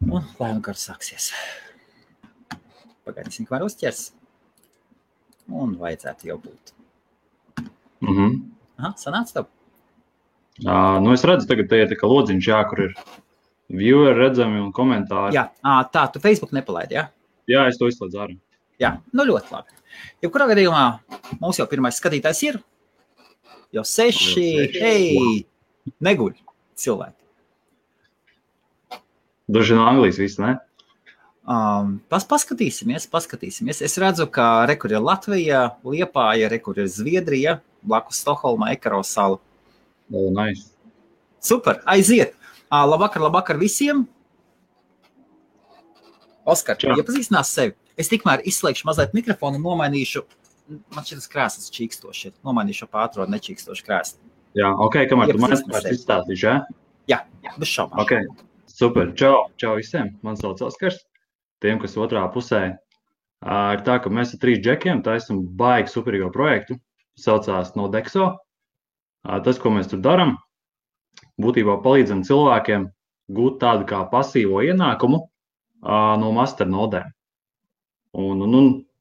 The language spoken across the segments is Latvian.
Un lai un kāds sāksies. Pagaidīsim, kamēr uzķers. Un vajadzētu jau būt. Aha, sanāca tev? Es redzu, tagad te ir tā kā lodziņš, kur ir vieweri redzami un komentāri. Jā, tā, tu Facebook nepalaidi, jā? Jā, es to izslēdzu ārā. Jā, ļoti labi. Jebkurā gadījumā mums jau pirmais skatītājs ir. Jau 6, hei, neguļ cilvēki. Daži no Anglijas viss, ne? Paskatīsimies. Es redzu, ka rekur ir Latvija, Liepāja, rekur ir Zviedrija, blakus Stokholma, Ekaro sala. Nice. Super, aiziet. Labvakar visiem. Oskar, iepazīstinās sevi. Es tikmēr izslēgšu mazliet mikrofonu un nomainīšu, man šitas krēslas čīkstoši, nomainīšu pātro nečīkstoši krēsli. Jā, kamēr tu man izstāstīšu, jā? Jā, bez šaubām. Okay. Super, čau visiem, man sauc Oskars. Tiem, kas otrā pusē, ir tā, ka mēs ar 3 džekiem taisam baigi superīgo projektu, saucās Nodexo. Tas, ko mēs tur daram, būtībā palīdzam cilvēkiem gūt tādu kā pasīvo ienākumu no masternodēm.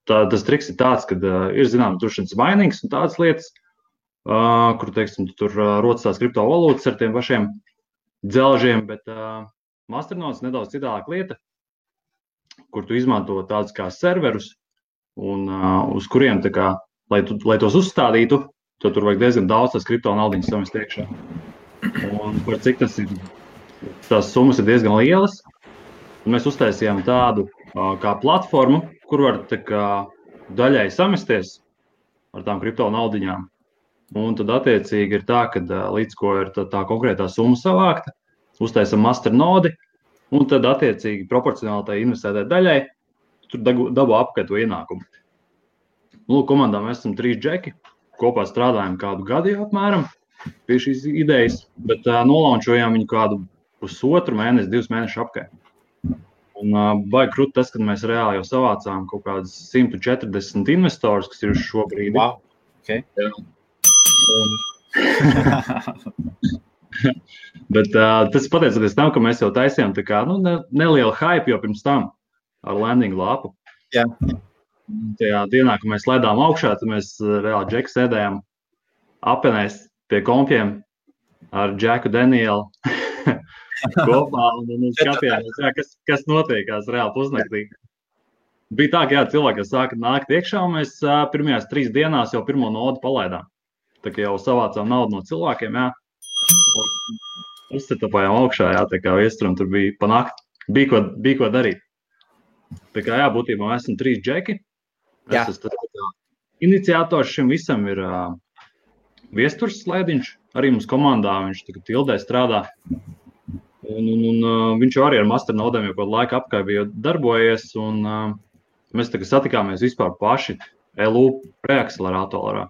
Tas triks ir tāds, kad ir zināms drošības mainīgs un tādas lietas, kur, teiksim, tur rodas tās kriptovalūtas ar tiem pašiem dzelžiem, bet masternodes nedaudz citādāk lieta, kur tu izmanto tādus kā serverus un uz kuriem, tā kā, lai tos uzstādītu, tad tur vajag diezgan daudz tās kriptonaudiņas samest iekšā. Un par cik tas ir, tās summas ir diezgan lielas, mēs uztaisījām tādu kā platformu, kur var tā kā daļai samesties ar tām kriptonaudiņām. Un tad attiecīgi ir tā, ka līdz ko ir tā konkrētā summa savākta, uztaisam masternodi, un tad attiecīgi proporcionāli tai investētai daļai tur dabū apkārt to ienākumu. Komandā mēs esam 3 džeki, kopā strādājam kādu gadu jau apmēram pie šīs idejas, bet nolaunčojām viņu kādu 1,5 mēnesi, 2 mēneši apkārt. Un baigi krūti tas, kad mēs reāli jau savācām kaut kādas 140 investors, kas ir uz šo brīdi. Wow, okay. Bet tas pateicoties tam, ka mēs jau taisījām tā kā nelielu hype jau pirms tam ar landing lapu. Jā. Tajā dienā, kad mēs ledām augšā, tad mēs reāli džeku sēdējām apenēs pie kompiem ar Džeku Danielu kopā un skatījāmies, kas notiekās reāli pusnaktī. Bija tā, ka cilvēki sāka nākt iekšā, un mēs pirmajās 3 dienās jau pirmo nodu palaidām. Tā kā jau savācām naudu no cilvēkiem, uzsetapājām augšā, tā kā viesturam tur bija panākt, bija ko darīt. Tā kā būtībā mēs esam 3 džeki. Es esmu iniciators šim visam ir Viesturs Slēdiņš, arī mums komandā, viņš tagad Tildē strādā. Un viņš arī ar masternodēm jau kādu laiku apkārt bija darbojies, un mēs tagad satikāmies vispār paši LU preakceleratorā.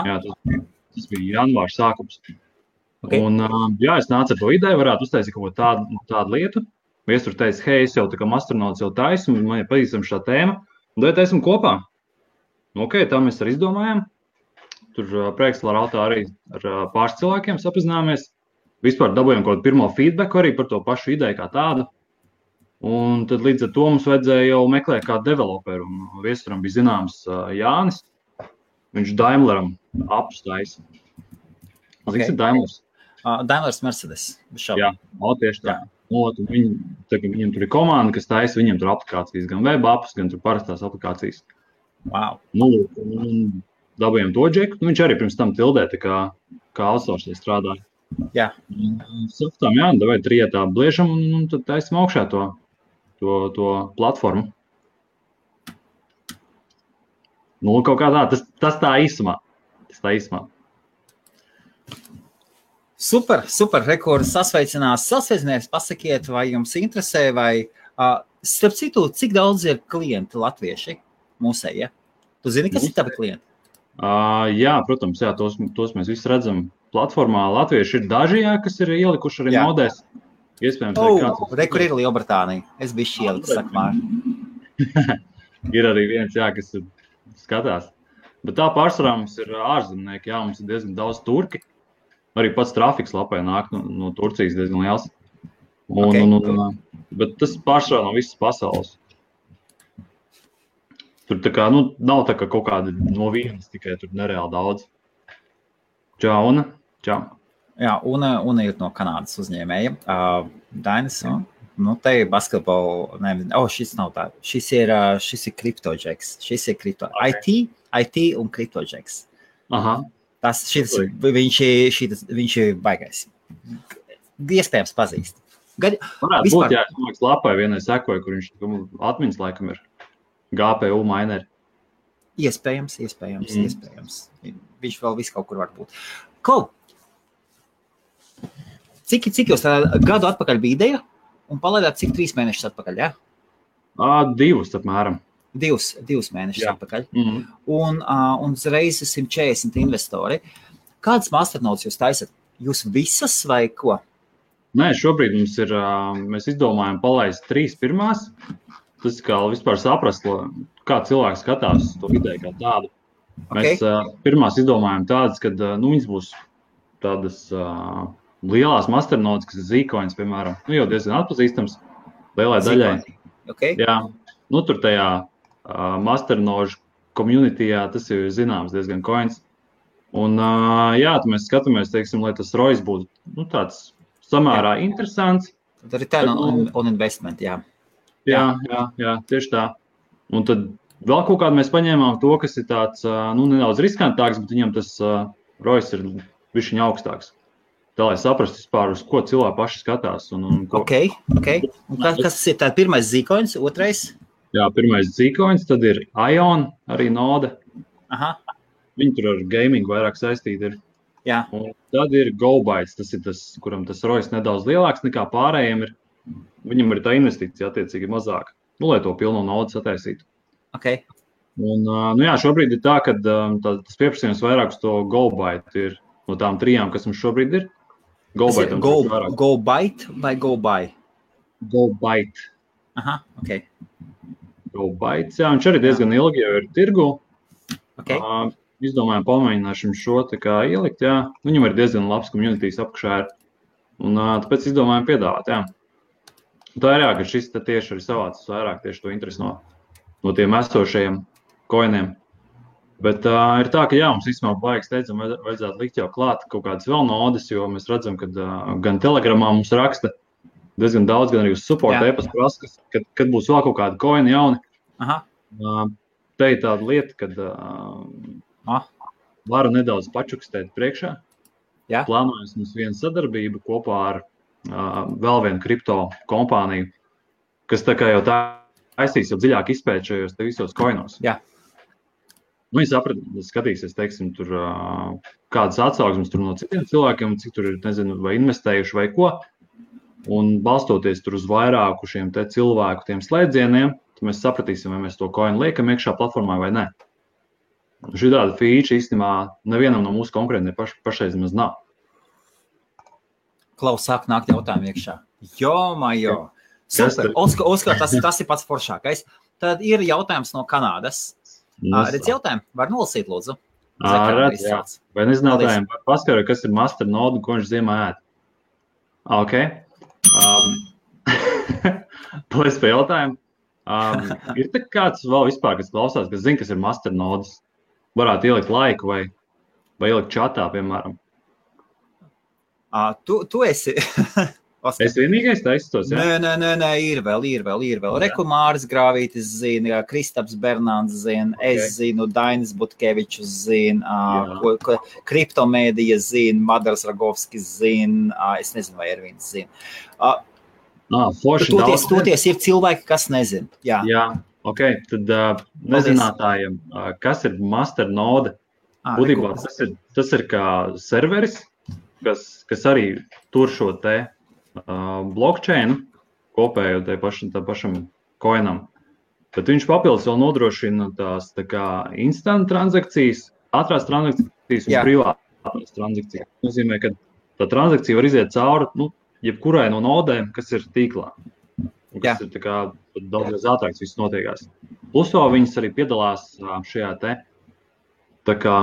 Jā, tas bija janvārs sākums. Okay. Un es nācu ar to ideju, varētu uztaisīt kaut ko tādu lietu. Viesturs teica, hei, es jau tā kā masternodes jau taisu, man ir pazīstam šā tēma, un tad taisim kopā. Tā mēs arī izdomājām. Tur preakceleratorā arī ar pāris cilvēkiem sapazināmies. Vispār dabūjām kaut kādu pirmo feedbacku arī par to pašu ideju kā tādu. Un tad līdz ar to mums vajadzēja jau meklēt kādu developeru. Un Viesturam bija zināms Jānis. Viņš Daimleram apus taisa. Cik ir Daimlers? Daimlers Mercedes. Jā, tieši tā. Viņam tur ir komanda, kas taisa, viņam tur aplikācijas, gan web apus, gan tur parastās aplikācijas. Wow. Un dabūjām to džeku. Viņš arī pirms tam Tildē kā outsourcē strādāja. Jā. Saptām, davai trietā bliežam un tad taisam augšā to platformu. Kaut kā tā, tas tā īsumā. Super, rekords sasveicināties, pasakiet, vai jums interesē, vai, starp citu, cik daudz ir klienti latvieši mūsēji, ja? Tu zini, kas ir tavi klienti? Jā, protams, tos mēs visi redzam platformā. Latvieši ir daži, kas ir ielikuši arī nodēs. Iespējams, kur ir Lielbritānija. Es biju ieliku, sakmār. Ir arī viens, kas skatās. Bet tā pārsvarā mums ir ārzemnieki, mums ir diezgan daudz turki. Arī pats trafiks lapē nāk no Turcijas diezgan liels. Bet tas pārsvarā no visas pasaules. Tur tā kā, nav tā kā kaut kāda no vienas, tikai tur nereāli daudz. Čau, Una. Čau. Jā, Una ir no Kanādas uzņēmēja. Dainis, te ir basketball, šis nav tā. Šis ir CryptoJacks. Šis ir IT un CryptoJacks. Aha. Viņš ir baigais. Iespējams pazīst. Varētu būt, jā, es māks lapai vienai sekoju, kur viņš atmiņas laikam ir GPU mineri. Iespējams. Viņš vēl visu kaut kur var būt. Klau! Cik jūs gadu atpakaļ bija ideja un palaidāt cik 3 mēnešus atpakaļ, jā? 2 apmēram. 2 mēnešus atpakaļ. Mm-hmm. Un uzreiz 140 investori. Kādas masternodes jūs taisat? Jūs visas vai ko? Nē, šobrīd mums ir, mēs izdomājam palaist 3 pirmās. Tas kā vispār saprast, kā cilvēks skatās to ideju kā tādu. Okay. Mēs pirmās izdomājam tādas, kad viņas būs tādas lielās masternodes, kas ir Zcoins, piemēram. Jau diezgan atpazīstams lielai daļai. Okay. Jā, tur tajā masternožu communityjā tas ir zināms diezgan coins. Un mēs skatāmies, teiksim, lai tas ROIs būtu tāds samērā interesants. Tad return on investment, jā. Jā, tieši tā. Un tad vēl kaut kādu mēs paņēmām to, kas ir tāds, nedaudz riskantāks, bet viņam tas ROIs ir bišķiņ augstāks. Tā, lai saprastu vispār, uz ko cilvēki paši skatās. Ok. Un kas ir tā pirmais Zcoins, otrais? Jā, pirmais Zcoins, tad ir Ion, arī node. Aha. Viņi tur ar gamingu vairāk saistīti ir. Jā. Un tad ir GoBytes, tas ir tas, kuram tas ROIs nedaudz lielāks nekā pārējiem ir. Viņam ir tā investīcija attiecīgi mazāka, lai to pilno naudu sataisītu. Ok. Un, šobrīd ir tā, ka tas pieprasījums vairāk uz to GoByte ir no tām 3, kas mums šobrīd ir. GoByte vai GoBuy? GoByte. Aha, ok. GoBytes, jā, viņš arī diezgan ilgi jau ir tirgu. Ok. Izdomājām pamēģināšam šo tā kā ielikt, jā. Viņam ir diezgan labs communities apakšā ir. Un tāpēc izdomājām piedāvāt, jā. Tā ir jā, ka šis tieši arī savācis vairāk tieši to interesi no tiem esošajiem coiniem. Bet ir tā, ka jā, mums īstenībā baigi steidzam vajadzētu likt jau klāt kaut kādas vēl nodes, jo mēs redzam, ka gan Telegramā mums raksta diezgan daudz, gan arī uz support e-pasta prasa, kad būs vēl kaut kādi coini jauni. Aha. Te ir tāda lieta, kad varu nedaudz pačukstēt priekšā. Jā. Plānojas mums viena sadarbība kopā ar vēl vienu kripto kompāniju, kas tā kā jau taisīs jau dziļāk izpēt šajos te visos coinos. Jā. Viņi skatīsies, teiksim, tur kādas atsauksmes tur no citiem cilvēkiem, cik tur ir, nezinu, vai investējuši vai ko. Un balstoties tur uz vairāku šiem te cilvēku tiem slēdzieniem, tad mēs sapratīsim, vai mēs to coinu liekam iekšā platformā vai ne. Šī tāda feature īstenībā nevienam no mūsu konkurentiem pašreiz maz nav. Klaus, sāk nākt jautājumu iekšā. Jo. Super. Oskar, tas ir pats foršākais. Tad ir jautājums no Kanādas. Redz jautājumu? Var nolasīt, lūdzu? Redz, jā. Vai nezinātājiem paskaru, kas ir masternode un ko viņš ziemā ēd? Ok. Paldies par jautājumu. Ir tā kāds vēl vispār, kas klausās, kas zina, kas ir masternodes? Varētu ielikt laiku vai ielikt čatā, piemēram. Tu esi... Es vienīgais taistos, jā? Nē, ir vēl. Rekumāris Grāvītis zina, Kristaps Bernāns zina, es zinu, Dainis Butkevičus zina, Kriptomēdija zina, Madars Ragovskis zina, es nezinu, vai Ervīns zina. Toties ir cilvēki, kas nezina. Jā, ok, tad nezinātājiem, kas ir masternode, būtībā tas ir kā serveris, kas arī tur šo te blockchain kopējo tā pašam coinam. Bet viņš papildus vēl nodrošina tās tā kā instant transakcijas, ātrās transakcijas un privātās transakcijas. Tas nozīmē, ka tā transakcija var iziet cauri jebkurai no nodēm, kas ir tīklā. Un kas ir tā kā daudz ātrāks viss notiekās. Plus vēl viņas arī piedalās šajā te tā kā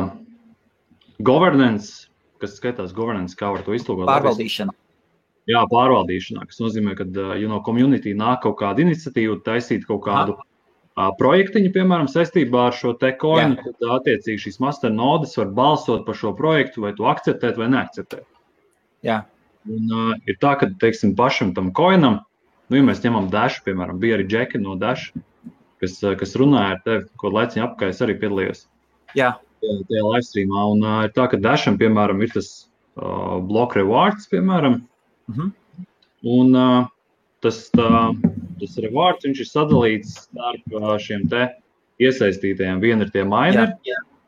governance, kas skaitās governance, kā var to izlūgot. Pārvaldīšana. Jā, pārvaldīšanā, kas nozīmē, ka community nāk kaut kāda iniciatīva, taisīt kaut kādu projektiņu, piemēram, saistībā ar šo te coinu, tad attiecīgi šīs masternodes var balsot par šo projektu, vai to akceptēt vai neakceptēt. Jā. Un ir tā, ka, teiksim, pašam tam coinam, ja mēs ņemam Dash, piemēram, bija arī Džeki no Dash, kas runāja ar tevi, ko laiciņu apkārt es arī piedalījos. Jā. Tajā livestreamā. Un ir tā, ka Dasham, piemēram, ir tas block rewards, piemēram, un tas rewards, viņš ir sadalīts starp šiem te iesaistītajiem. Viena ir tie mineri,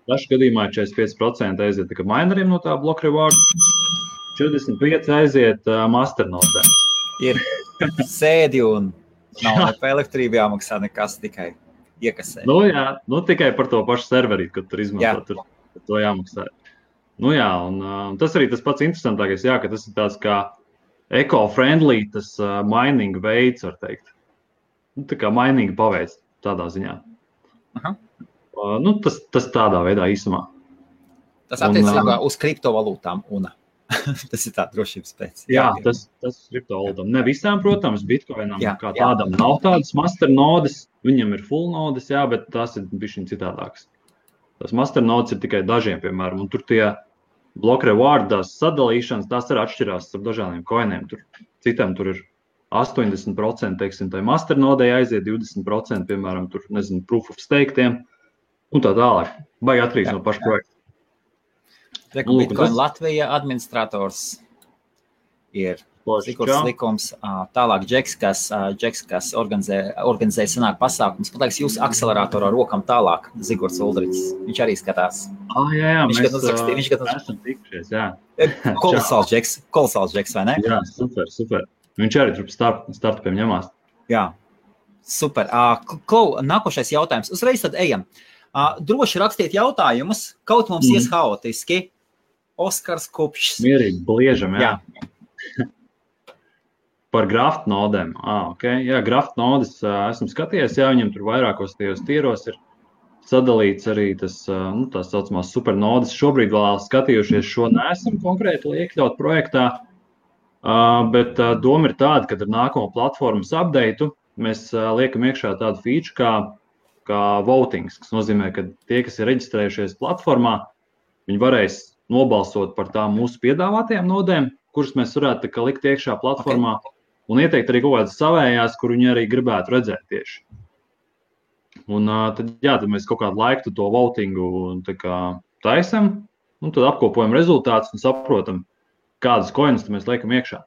Dash gadījumā 45% aiziet tikai mineriem no tā block reward, 45% aiziet masternodēm. Ir sēdi un nav pa elektrību jāmaksā nekas, tikai iekasē. Tikai par to pašu serverī, kad tur izmanto, tur to jāmaksā. Un tas arī tas pats interesantākais, ka tas ir tāds kā eco-friendly, tas mining veids, var teikt. Tā kā mining paveids tādā ziņā. Tas tādā veidā īsumā. Tas attiecībā uz kriptovalūtām un tas ir tā drošības pēc. Jā, tas kriptovalūtām. Ne visām, protams, Bitcoinam kā tādam nav tādas masternodes, viņam ir full nodes, bet tās ir bišķiņ citādākas. Tas masternodes ir tikai dažiem, piemēram, un tur tie block rewardās sadalīšanas, tās arī atšķirās ar dažādiem coiniem. Citam tur ir 80%, teiksim, tai masternodei aiziet, 20%, piemēram, tur, nezinu, proof of stake tiem, un tā tālāk. Baigi atkarīgs no paša projekta. Bitcoin Latvija administrators ir Sigurds Likums, tālāk Džeks, kas organizē sanāk pasākums. Man liekas, jūs akceleratorā rokam tālāk, Zigords Uldriķis. Viņš arī skatās. Jā, viņš esam tikušies, jā. Kolosāls Džeks, vai ne? Jā, super. Viņš arī tur startupiem ņemās. Jā, super. Nākošais jautājums. Uzreiz tad ejam. Droši rakstiet jautājumus, kaut mums ies haotiski. Oskars Kupšs. Mierīgi, bliežam, jā. Par graftu nodēm. Jā, graftu nodes esmu skatījies, viņam tur vairākos tajos tīros ir sadalīts arī tas, tās saucamās supernodes. Šobrīd vēl skatījušies šo neesam konkrēti iekļaut projektā, bet doma ir tāda, ka ar nākamo platformas updateu mēs liekam iekšā tādu feature kā votings, kas nozīmē, ka tie, kas ir reģistrējušies platformā, viņi varēs nobalsot par tām mūsu piedāvātajām nodēm, kuras mēs varētu likt iekšā platformā. Un ieteikt arī kaut kādas savējās, kur viņi arī gribētu redzēt tieši. Un tad mēs kaut kādu laiku to votingu taisam, un tad apkopojam rezultātus un saprotam, kādas coinus mēs liekam iekšā.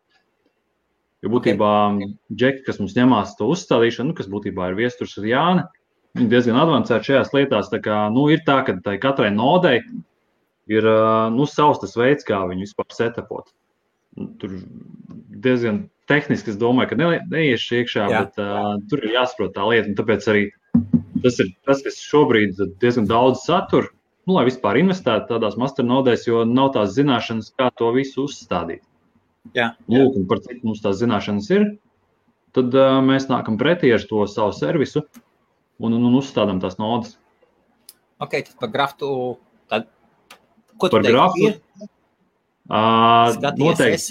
Jo būtībā Džeki, kas mums ņemās to uzstādīšanu, kas būtībā ir viesturs ar Jāni, viņi diezgan advancēti šajās lietās. Ir tā, ka katrai nodei ir savs tas veids, kā viņu vispār setupot. Tur diezgan tehniski, es domāju, ka neiešu iekšā, bet tur ir jāsaprot tā lieta. Un tāpēc arī tas ir tas, kas šobrīd diezgan daudz satur, lai vispār investētu tādās masternodēs, jo nav tās zināšanas, kā to visu uzstādīt. Lūk, un par cik mums tās zināšanas ir, tad mēs nākam pretī ar to savu servisu un uzstādām tās nodes. Ok, tad par graftu, ko tu teiksi?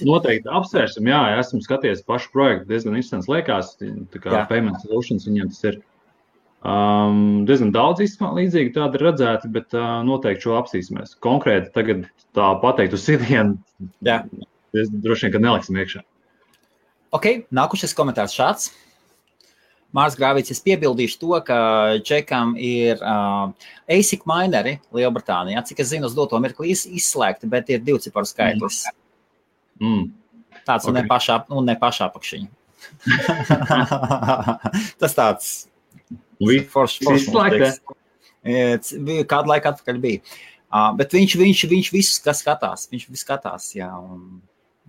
Noteikti apsvērsim, esmu skatījies pašu projektu, diezgan interesants liekas, tā kā Payment Solutions viņiem tas ir diezgan daudz līdzīgi tādi redzēti, bet noteikti šo apsīsimies. Konkrēti tagad tā pateikt uz sitienu, droši vien, ka neliksim iekšā. Ok, nākušais komentārs šāds. Mārs Grāvīts, es piebildīšu to, ka Džekam ir ASIC mineri Lielbritānijā. Cik es zinu, uz doto mirkli izslēgti, bet ir 2 ciparu skaitlis. Tāds un ne pašā apakšiņa. Tas tāds izslēgts. Kādu laiku atpakaļ bija. Bet viņš visus skatās. Viņš visu skatās, jā.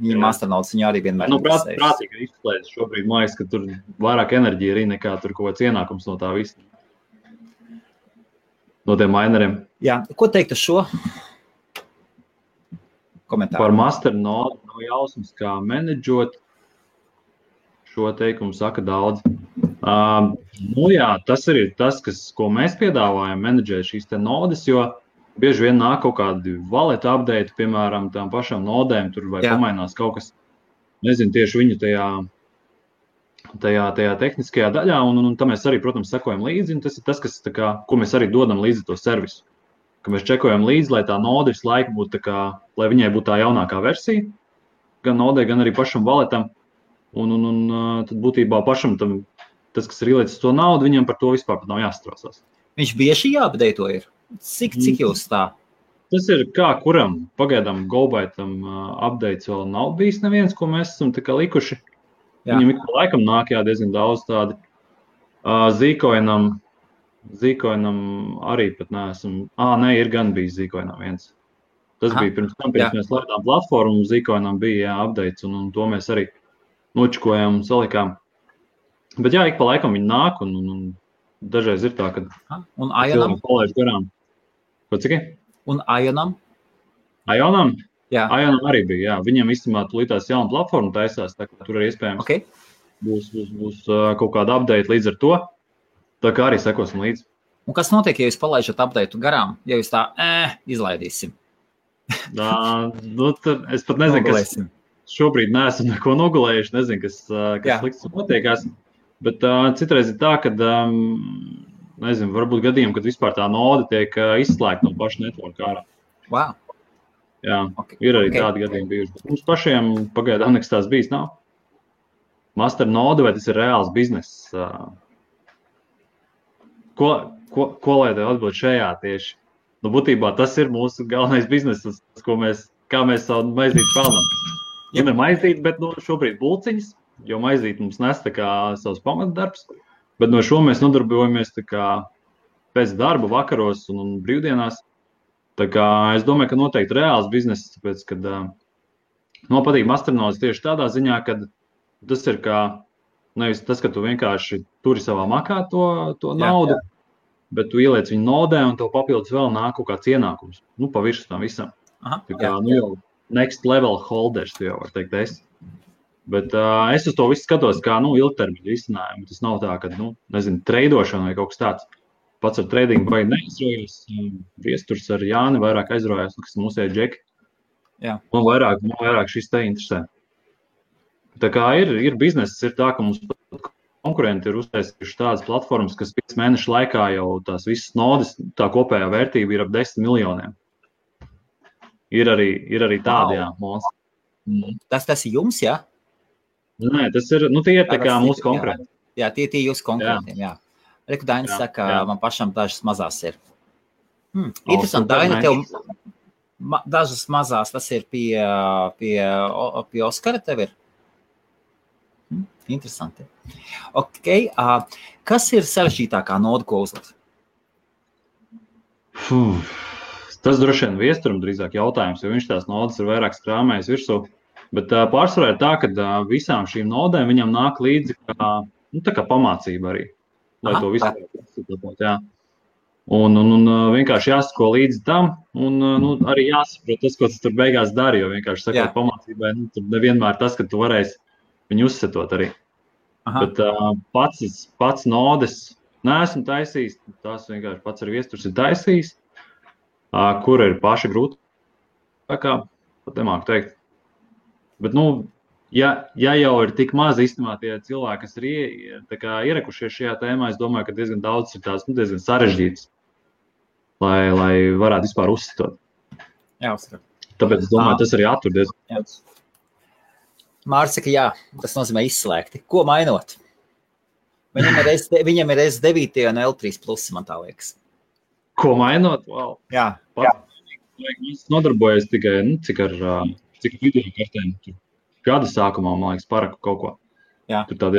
Viņa masternodes viņu arī vienmēr prātīgi izslēdz šobrīd, mājas, ka tur vairāk enerģija arī nekā tur kaut kāds ienākums no tā visa. No tiem mineriem. Jā, ko teikt uz šo komentāru? Par masternodu nav jausmas, kā menedžot. Šo teikumu saka daudz. Tas ir tas, ko mēs piedāvājam menedžēt šīs te nodes, jo bieži vien nāk kaut kādi wallet update, piemēram, tām pašām nodēm, tur vai pamainās kaut kas. nezinu, tieši viņu tajā tehniskajā daļā, un tam mēs arī, protams, sekojam līdzi, un tas ir tas, ko mēs arī dodam līdzi to servisu. Ka mēs čekojam līdzi, lai tā node visu laiku būtu lai viņai būtu tā jaunākā versija, gan nodei, gan arī pašam valetam, un tad būtībā pašam tas, kas ir ielicis to naudu, viņam par to vispār pat nav jāstrāsās. Viņš bieži jāapdeito ir? Cik jūs tā? Tas ir kā kuram. Pagaidām GoByteam updates vēl nav bijis neviens, ko mēs esam likuši. Jā. Viņam ik pa laikam nāk diezgan daudz tādi. Zcoinam arī pat neesam. Nē, ir gan bijis Zcoinam viens. Tas bija pirms mēs laidām platformu, Zcoinam bija updates, un to mēs arī nočikojām un salikām. Bet jā, ik pa laikam viņi nāk, un dažreiz ir tā, ka un Ionam? Palaiž garām. Ko cik? Un Ionam? Ionam? Jā. Ionam arī bija, jā. Viņam īstenībā tulītās jauna platforma taisās, tā kā tur arī iespējams būs kaut kāda update līdz ar to. Tā kā arī sekosim līdzi. Un kas notiek, ja jūs palaižat updateu garām? Ja jūs tā izlaidīsim? Es pat nezinu, kas šobrīd neesam neko nogulējuši, nezinu, kas slikts notiekās. Bet citreiz ir tā, ka, nezinu, varbūt gadījumi, kad vispār tā node tiek izslēgta no paša networka ārā. Wow. Jā, ir arī tādi gadījumi bijuši. Bet mums pašiem pagaidām nekas tās bijis nav. Master node, vai tas ir reāls bizness? Ko lai tev atbild šajā tieši? Būtībā tas ir mūsu galvenais bizness, kā mēs savu maizīti pelnam. Ja ne maizīti, bet šobrīd bulciņas, jo maizīti mums nes savs pamatdarbs, bet no šo mēs nodarbojamies pēc darba vakaros un brīvdienās. Tā kā es domāju, ka noteikti reāls bizness, tāpēc, kad patīk masternodes tieši tādā ziņā, ka tas ir nevis tas, ka tu vienkārši turi savā makā to naudu, bet tu ieliec viņu nodē un tev papildus vēl nāk kaut kāds ienākums. Pa virsmu tam visam. Tā kā jau next level holders, tu jau var teikt es. Bet es uz to visu skatos kā ilgtermiņu risinājumu. Tas nav tā, ka, treidošana vai kaut kas tāds. Pats ar tradingu vai neizrojos. Viesturs ar Jāni vairāk aizrojās, kas mūsēja džeki. Man vairāk šis te interesē. Tā kā ir bizness, ir tā, ka mums konkurenti ir uztaisījuši tādas platformas, kas 5 mēnešu laikā jau tās visas nodes, tā kopējā vērtība ir ap 10 miljoniem. Ir arī tādi, jā, monstri. Tas ir jums, jā? Nē, tas ir, tie ir tā kā mūsu konkurenti. Jā, tie jūsu konkurentiem, jā. Reku Dainis saka, man pašam dažas mazās ir. Interesanti, Daina, tev dažas mazās, tas ir pie Oskara tev ir? Interesanti. Ok, kas ir sarežģītākā noda, ko uzlikt? Tas droši vien Viesturam drīzāk jautājums, jo viņš tās nodas ir vairāk strāmējis virsū. Bet pārsvarā ir tā, ka visām šīm nodēm viņam nāk līdzi kā pamācība arī, lai to visu saprotot, jā. Un vienkārši jāsako līdzi tam, un arī jāsaprot tas, ko tas tur beigās dara, jo vienkārši sakot pamācībai, tur nevienmēr tas, ka tu varēsi viņu uzsetot arī. Bet pats nodes neesmu taisījis, tās vienkārši pats ar Viesturs ir taisījis, kur ir paši grūti, tā kā pat nemāku teikt. Bet, ja jau ir tik maz īstenībā tie cilvēki, kas ir ierekušies šajā tēmā, es domāju, ka diezgan daudz ir tās diezgan sarežģītas, lai varētu vispār uzsitot. Jā, uzsver. Tāpēc es domāju, tas arī attur diezgan daudz. Māris saka, jā, tas nozīmē izslēgti. Ko mainot? Viņam ir S9 un L3 plus, man tā liekas. Ko mainot? Wow. Jā. Es nodarbojos tikai, cik video kartēm. Gada sākumā, man liekas, paraku kaut ko. Jā. Tur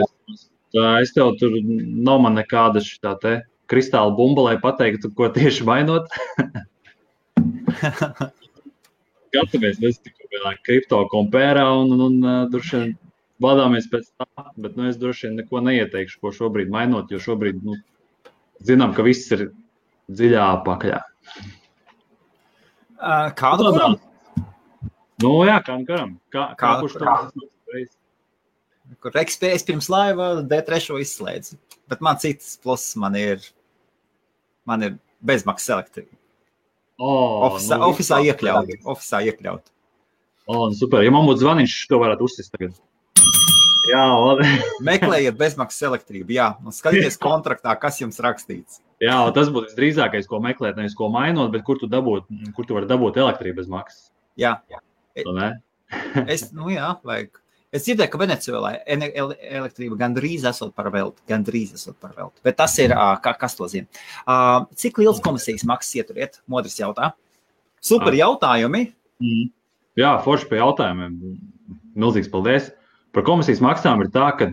es tev tur nav man nekāda šitā te kristāla bumba, lai pateiktu, ko tieši mainot. Gatavamies, mēs tikko kripto kompērā un droši vien vadāmies pēc tā, bet es droši vien neko neieteikšu, ko šobrīd mainot, jo šobrīd, zinām, ka viss ir dziļā pakaļā. Kādu kuram? Jā, kādu kuram. Kā kurš to reiz? Es pirms laiva D3 izslēdzu, bet man citas plus man ir bezmaksas elektrība. Ofisā iekļaut. Super, ja man būtu zvaniņš, to varētu uzsist tagad. Jā, Meklējiet bezmaksas elektrību, jā, un skatieties kontraktā, kas jums rakstīts. Jā, tas būtu visdrīzākais, ko meklēt, nevis ko mainot, bet kur tu vari dabūt elektrību bez maksas. Jā. Jā. Vajag. Es dzirdēju, ka Venecuēlā elektrība gandrīz esot par velti, bet tas ir, kas to zina. Cik liels komisijas maksas ieturiet? Modris jautā. Super jautājumi. Jā, forši pie jautājumiem. Milzīgs paldies. Par komisijas maksām ir tā, ka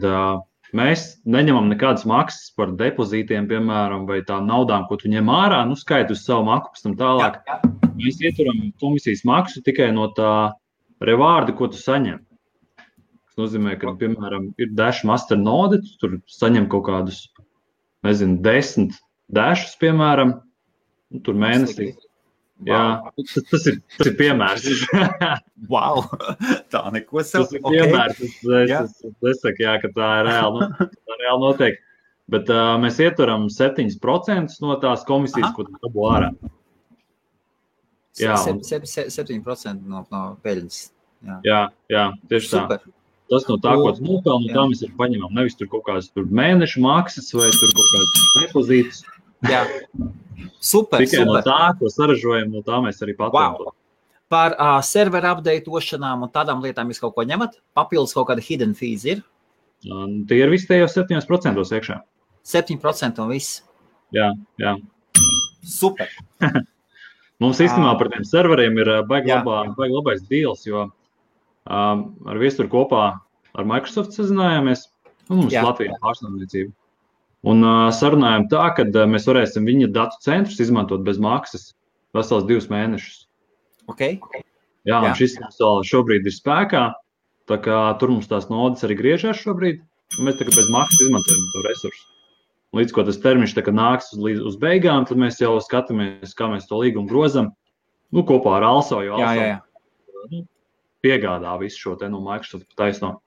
mēs neņemam nekādas maksas par depozītiem, piemēram, vai tām naudām, ko tu ņem ārā, skaitu uz savu maku, pēc tam tālāk. Jā. Mēs ieturam komisijas maksu tikai no tā rewārda, ko tu saņem. Tas nozīmē, ka, piemēram, ir Dash Master node, tu tur saņem kaut kādus, 10 dashus, piemēram, tur mēnesī. Jā, tas ir piemērs. Wow, tā neko sev. Tas ir piemērs. Es saku, jā, ka tā ir reāli notiek. Bet mēs ieturam 7% no tās komisijas, ko tu dabū ārā. Jā, 7% no peļņas. Jā, tieši tā. Super. Tas no tā, ko tu nopelni, tā mēs arī paņemam. Nevis tur kaut kādas mēnešu maksas vai tur kaut kādas depozītus. Jā. Super. Tikai no tā, ko saražojam, no tā mēs arī patērām. Wow. Par serveru updateošanām un tādām lietām jūs kaut ko ņemat? Papildus kaut kāda hidden fees ir? Tie ir visi tajos 7% iekšā. 7% un viss? Jā. Super. Mums īstenībā par tiem serveriem ir baigi labais deals, jo ar viesturu kopā ar Microsoft sazinājāmies. Mums Latvijā pārstāvniecība. Un sarunājām tā, ka mēs varēsim viņa datu centrus izmantot bez maksas vesels 2 mēnešus. Okay. Jā, un šis šobrīd ir spēkā, tā kā tur mums tās nodes arī griežās šobrīd, un mēs tagad bez maksas izmantojam to resursu. Līdz ko tas termiņš nāks uz beigām, tad mēs jau skatāmies, kā mēs to līgumu grozam, kopā ar Also, jo Also piegādā visu šo te no Microsoft taisno.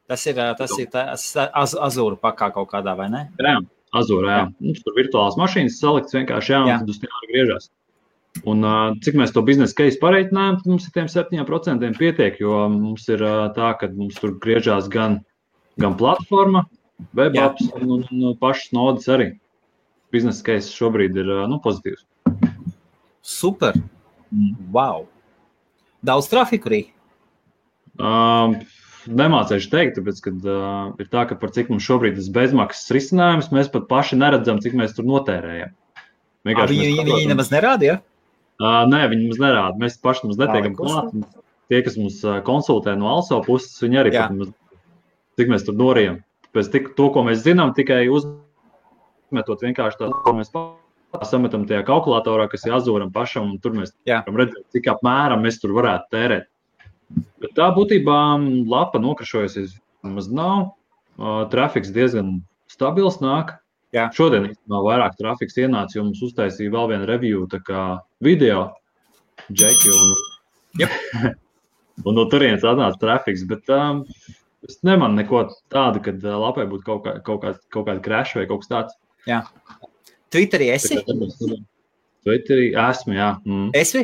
Tas ir Azure pakā kaut kādā, vai ne? Jā, Azure, jā. Mums tur virtuālās mašīnas salikts vienkārši, un tad uz tiem griežās. Un cik mēs to biznesa case pareiķinājām, tad mums ir tiem 7% pietiek, jo mums ir tā, ka mums tur griežās gan platforma, web apps un pašas nodes arī. Biznesa case šobrīd ir pozitīvs. Super. Wow. Daudz trafiku arī? Nemācēšu teikt, tāpēc, kad ir tā, ka par cik mums šobrīd ir bezmaksas risinājums, mēs pat paši neredzam, cik mēs tur notērējam. Viņi nemaz nerāda, ja? Nē, viņi mums nerāda. Mēs paši mums netiekam klāt. Tie, kas mums konsultē no Also puses, viņi arī pat mums, cik mēs tur norījam. Tāpēc to, ko mēs zinām, tikai uzmetot vienkārši tā, ko mēs sametam tajā kalkulatorā, kas ir Azuram pašam, un tur mēs varam redzēt, cik apmēram mēs tur varētu tērēt. Bet tā būtībā lapa nokrašojusies maz nav. Trafiks diezgan stabils nāk. Jā. Šodien īstenībā vairāk trafiks ienāca, jo mums uztaisīja vēl vienu review, tā kā video, Džeki, un no turienes atnāca trafiks, bet es nemanu neko tādu, kad lapai būtu kaut kāda crash vai kaut kas tāds. Jā. Twitterī esi? Twitterī esmu, jā. Esi?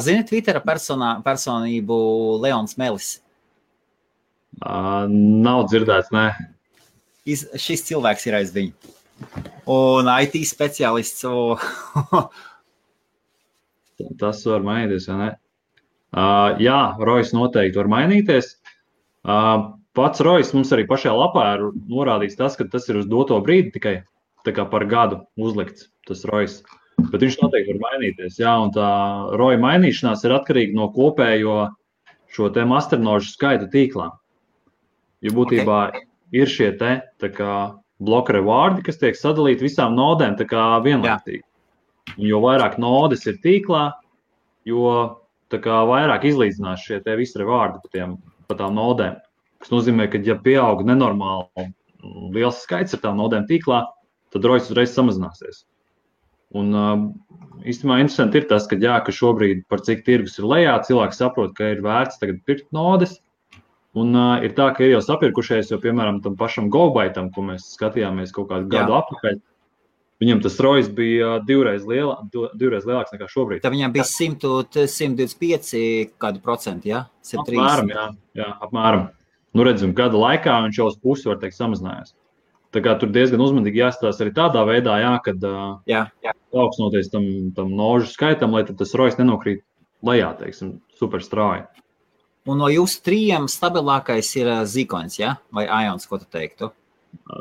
Zini Twittera personību Leons Melis? Nav dzirdēts, nē. Šis cilvēks ir aiz viņu. Un IT speciālists. Tas var mainīties, vai ne? Jā, Rojas noteikti var mainīties. Pats Rojas mums arī pašajā lapā ir norādīts tas, ka tas ir uz doto brīdi tikai tā kā par gadu uzlikts tas Rojas. Bet viņš noteikti var mainīties. Jā, un tā Roja mainīšanās ir atkarīga no kopējo šo te masternožu skaita tīklā. Jo būtībā ir šie te tā kā bloka rewārdi, kas tiek sadalīti visām nodēm tā kā vienlaicīgi. Un jo vairāk nodes ir tīklā, jo tā kā vairāk izlīdzinās šie te visi rewārdi pa tām nodēm. Kas nozīmē, ka ja pieaug nenormāli liels skaits ar tām nodēm tīklā, tad rojas uzreiz samazināsies. Un īstenībā interesanti ir tas, ka šobrīd par cik tirgus ir lejā, cilvēki saprot, ka ir vērts tagad pirkt nodes. Un ir tā, ka ir jau sapirkušies, jo, piemēram, tam pašam GoBaitam, ko mēs skatījāmies kaut kādu gadu apakaļ, viņam tas rojas bija divreiz lielāks nekā šobrīd. Tā viņam bija 125 kādu procentu, ja? 130. Apmēram, jā, apmēram. redzam, gada laikā viņš jau uz pusi, var teikt, samazinājās. Tā kā tur diezgan uzmanīgi jāstāsta arī tādā veidā, kad paaugstinoties tam nožu skaitam, lai tas rojas nenokrīt lejā, teiksim, super strauji. Un no jūsu 3 stabilākais ir Zikoins, ja? Vai Ions, ko tu teiktu?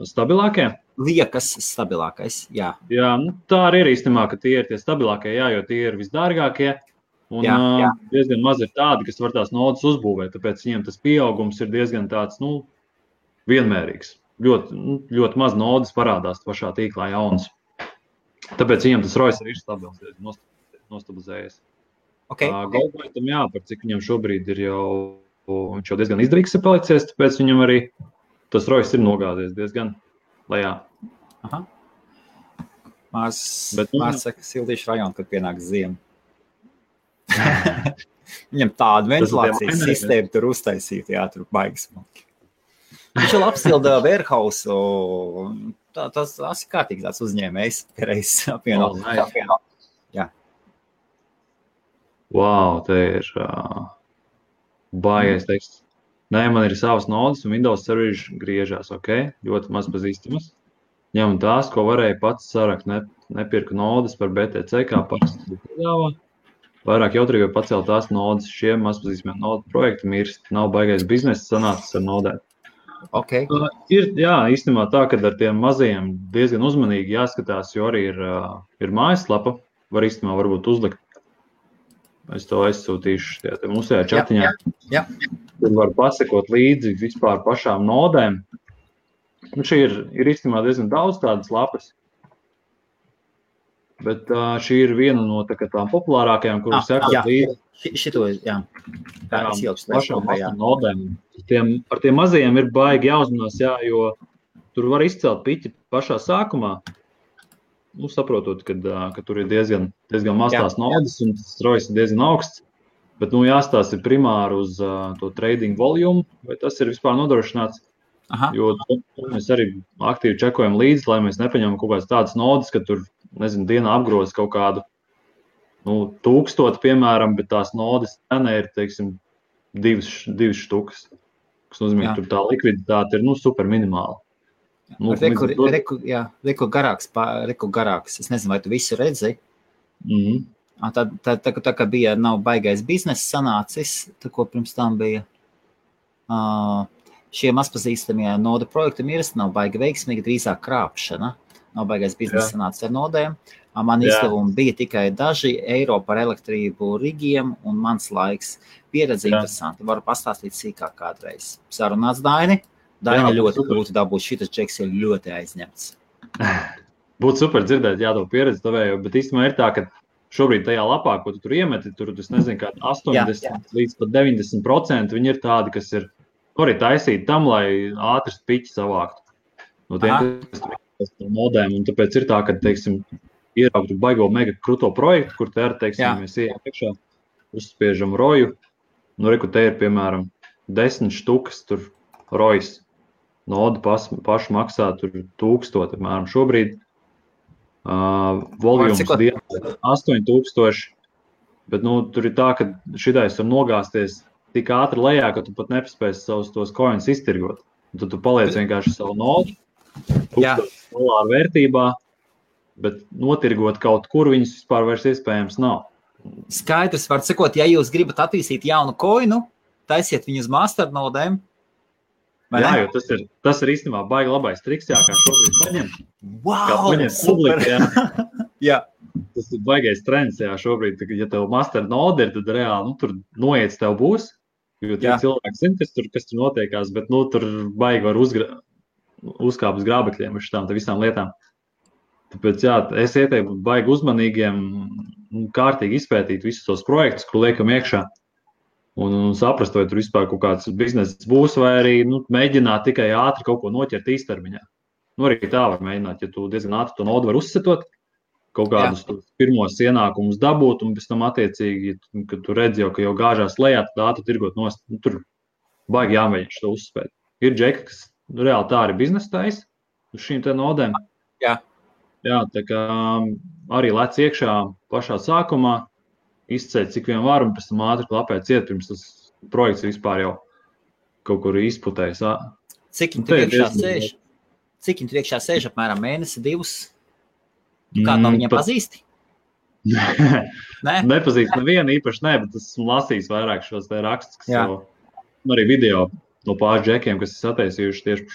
Stabilākie? Liekas stabilākais, jā. Jā, tā arī ir īstenībā, ka tie ir tie stabilākie, jo tie ir visdārgākie. Un diezgan maz ir tādi, kas var tās nodas uzbūvēt, tāpēc viņiem tas pieaugums ir diezgan tāds, vienmērīgs. Ļoti maz nodas parādās pašā tīklā jaunas. Tāpēc viņiem tas rojas arī ir stabils, nostabilizējies. Okay. Goldpointam, par cik viņam šobrīd ir viņš jau diezgan izdevīgs ir palicies, tāpēc viņam arī tas rojas ir nogāzies diezgan lejā. Aha. Mārs saka, sildīšu rajonu, kad pienāks ziema. Viņam tādu ventilācijas sistēmu tur uztaisīt, tur baigas smalki. Viņš jau apsilda Warehouse, tas ir kārtīgi tāds uzņēmējs, reizes apvieno. Jā. Wow, te ir baigais teksts. Nē, man ir savas nodas un Windows serveri griežās, ļoti maz pazīstamas. Ņem tās, ko varēja pats sarakt, nepirku nodas par BTC, kā parasti piedāvā. Vairāk jautrīgi pacelt tās nodas, šiem mazpazīstamiem nodu projektam nav baigais biznesa sanācis ar nodēm. Okay. Ir, īstenībā tā, ka ar tiem mazajiem diezgan uzmanīgi jāskatās, jo arī ir mājaslapa, var īstenībā varbūt uzlikt. Es to aizsūtīšu mūsējā čatiņā. Jā. Tur var pasekot līdzi vispār pašām nodēm. Un šī ir īstenībā diezgan daudz tādas lapas. Bet šī ir viena no tām populārākajām, kuras sekot līdzi. Šito, jā. Pašām nodēm. Ar tiem mazajiem ir baigi jāuzmanās, jo tur var izcelt piķi pašā sākumā. Saprotot, ka tur ir diezgan maz tās nodas un tas rojas ir diezgan augsts. Bet jāstāsta primāri uz to trading volumu, vai tas ir vispār nodrošināts. Aha. Jo mēs arī aktīvi čekojam līdzi, lai mēs nepaņemam kaut kādas tādas nodas, ka tur, dienā apgroz kaut kādu 1000, piemēram, bet tās nodas cena ir, teiksim, 2 štukas. Kas nozīmē, ka tur tā likviditāte ir super minimāla. Reku garāks. Es nezinu, vai tu visu redzi. Tā kā bija nav baigais biznesa sanācis, tā ko pirms tam bija šie mazpazīstamie nodu projekti mirst, nav baigi veiksmīgi, drīzāk krāpšana. Nav baigais biznesa sanācis ar nodēm. Man izdevumi bija tikai daži eiro par elektrību rigiem un mans laiks. Pieredze interesanti. Varu pastāstīt sīkāk kādreiz. Sarunāts Daini. Daini ļoti grūti dabūt. Šitas džeks ir ļoti aizņemts. Būtu super dzirdēt, to pieredzi tavējo, bet īstenībā ir tā, ka šobrīd tajā lapā, ko tu tur iemeti, tur, es nezinu, kā 80 līdz pat 90% viņi ir tādi, kas ir arī taisīti tam, lai ātri piķi savāktu. No tiem, kas tur nodēm, un tāpēc ir tā, ka, teiksim, ieraugtu baigo mega kruto projektu, kur te teiksim, mēs ejam iekšā, uzspiežam roju, reku te ir, piemēram, 10 štukas tur rojas. Noda paši maksā tur 1000, piemēram, šobrīd. Volums dienā 8000, bet tur ir tā, ka šitais var nogāzties tik ātri lejā, ka tu pat nepaspēsi savus tos coins iztirgot. Un tad tu paliec vienkārši savu nodu, $1000 vērtībā, bet notirgot kaut kur viņus vispār vairs iespējams nav. Skaidrs, var sakot, ja jūs gribat attīstīt jaunu coinu, taisiet viņu uz masternodēm. Jo tas ir īstenībā baigi labais triks, kā šobrīd paņemt. Wow, super! Tas ir baigais trends, šobrīd, ja tev master node ir, tad reāli, tur noiets tev būs, jo tie cilvēki zina, kas tur notiekās, bet, tur baigi var uzkāpt uz grābekļiem uz šitām visām lietām. Tāpēc, es ieteiktu baigi uzmanīgiem, kārtīgi izpētīt visus tos projektus, ko liekam iekšā. Un saprast, vai tur vispār kaut kāds bizness būs, vai arī mēģināt tikai ātri kaut ko noķert īstermiņā. Arī tā var mēģināt, ja tu diezgan ātri to nodu var uzsetot, kaut kādus pirmos ienākumus dabūt, un pēc tam attiecīgi, kad tu redzi ka jau gāžās lejā, tad ātri tirgot nost. Tur baigi jāmēģina šo uzspēt. Ir džeki, kas reāli tā arī biznesa taisa uz šīm te nodēm. Jā, tā kā arī lec iekšā pašā sākumā, izceļ cik vien var un pēc tam ātri klapēt ciet, pirms tas projekts vispār jau kaut kur izputējis. Cik viņi tur iekšā sēž? Cik viņi tur iekšā sēž? Apmēram mēnesi, 2? Kādu no viņiem pazīsti? Nepazīst nevienu īpaši, bet esmu lasījis vairāk šos te rakstus, kas jau arī video no pāris džekiem, kas ir sataisījuši tieši par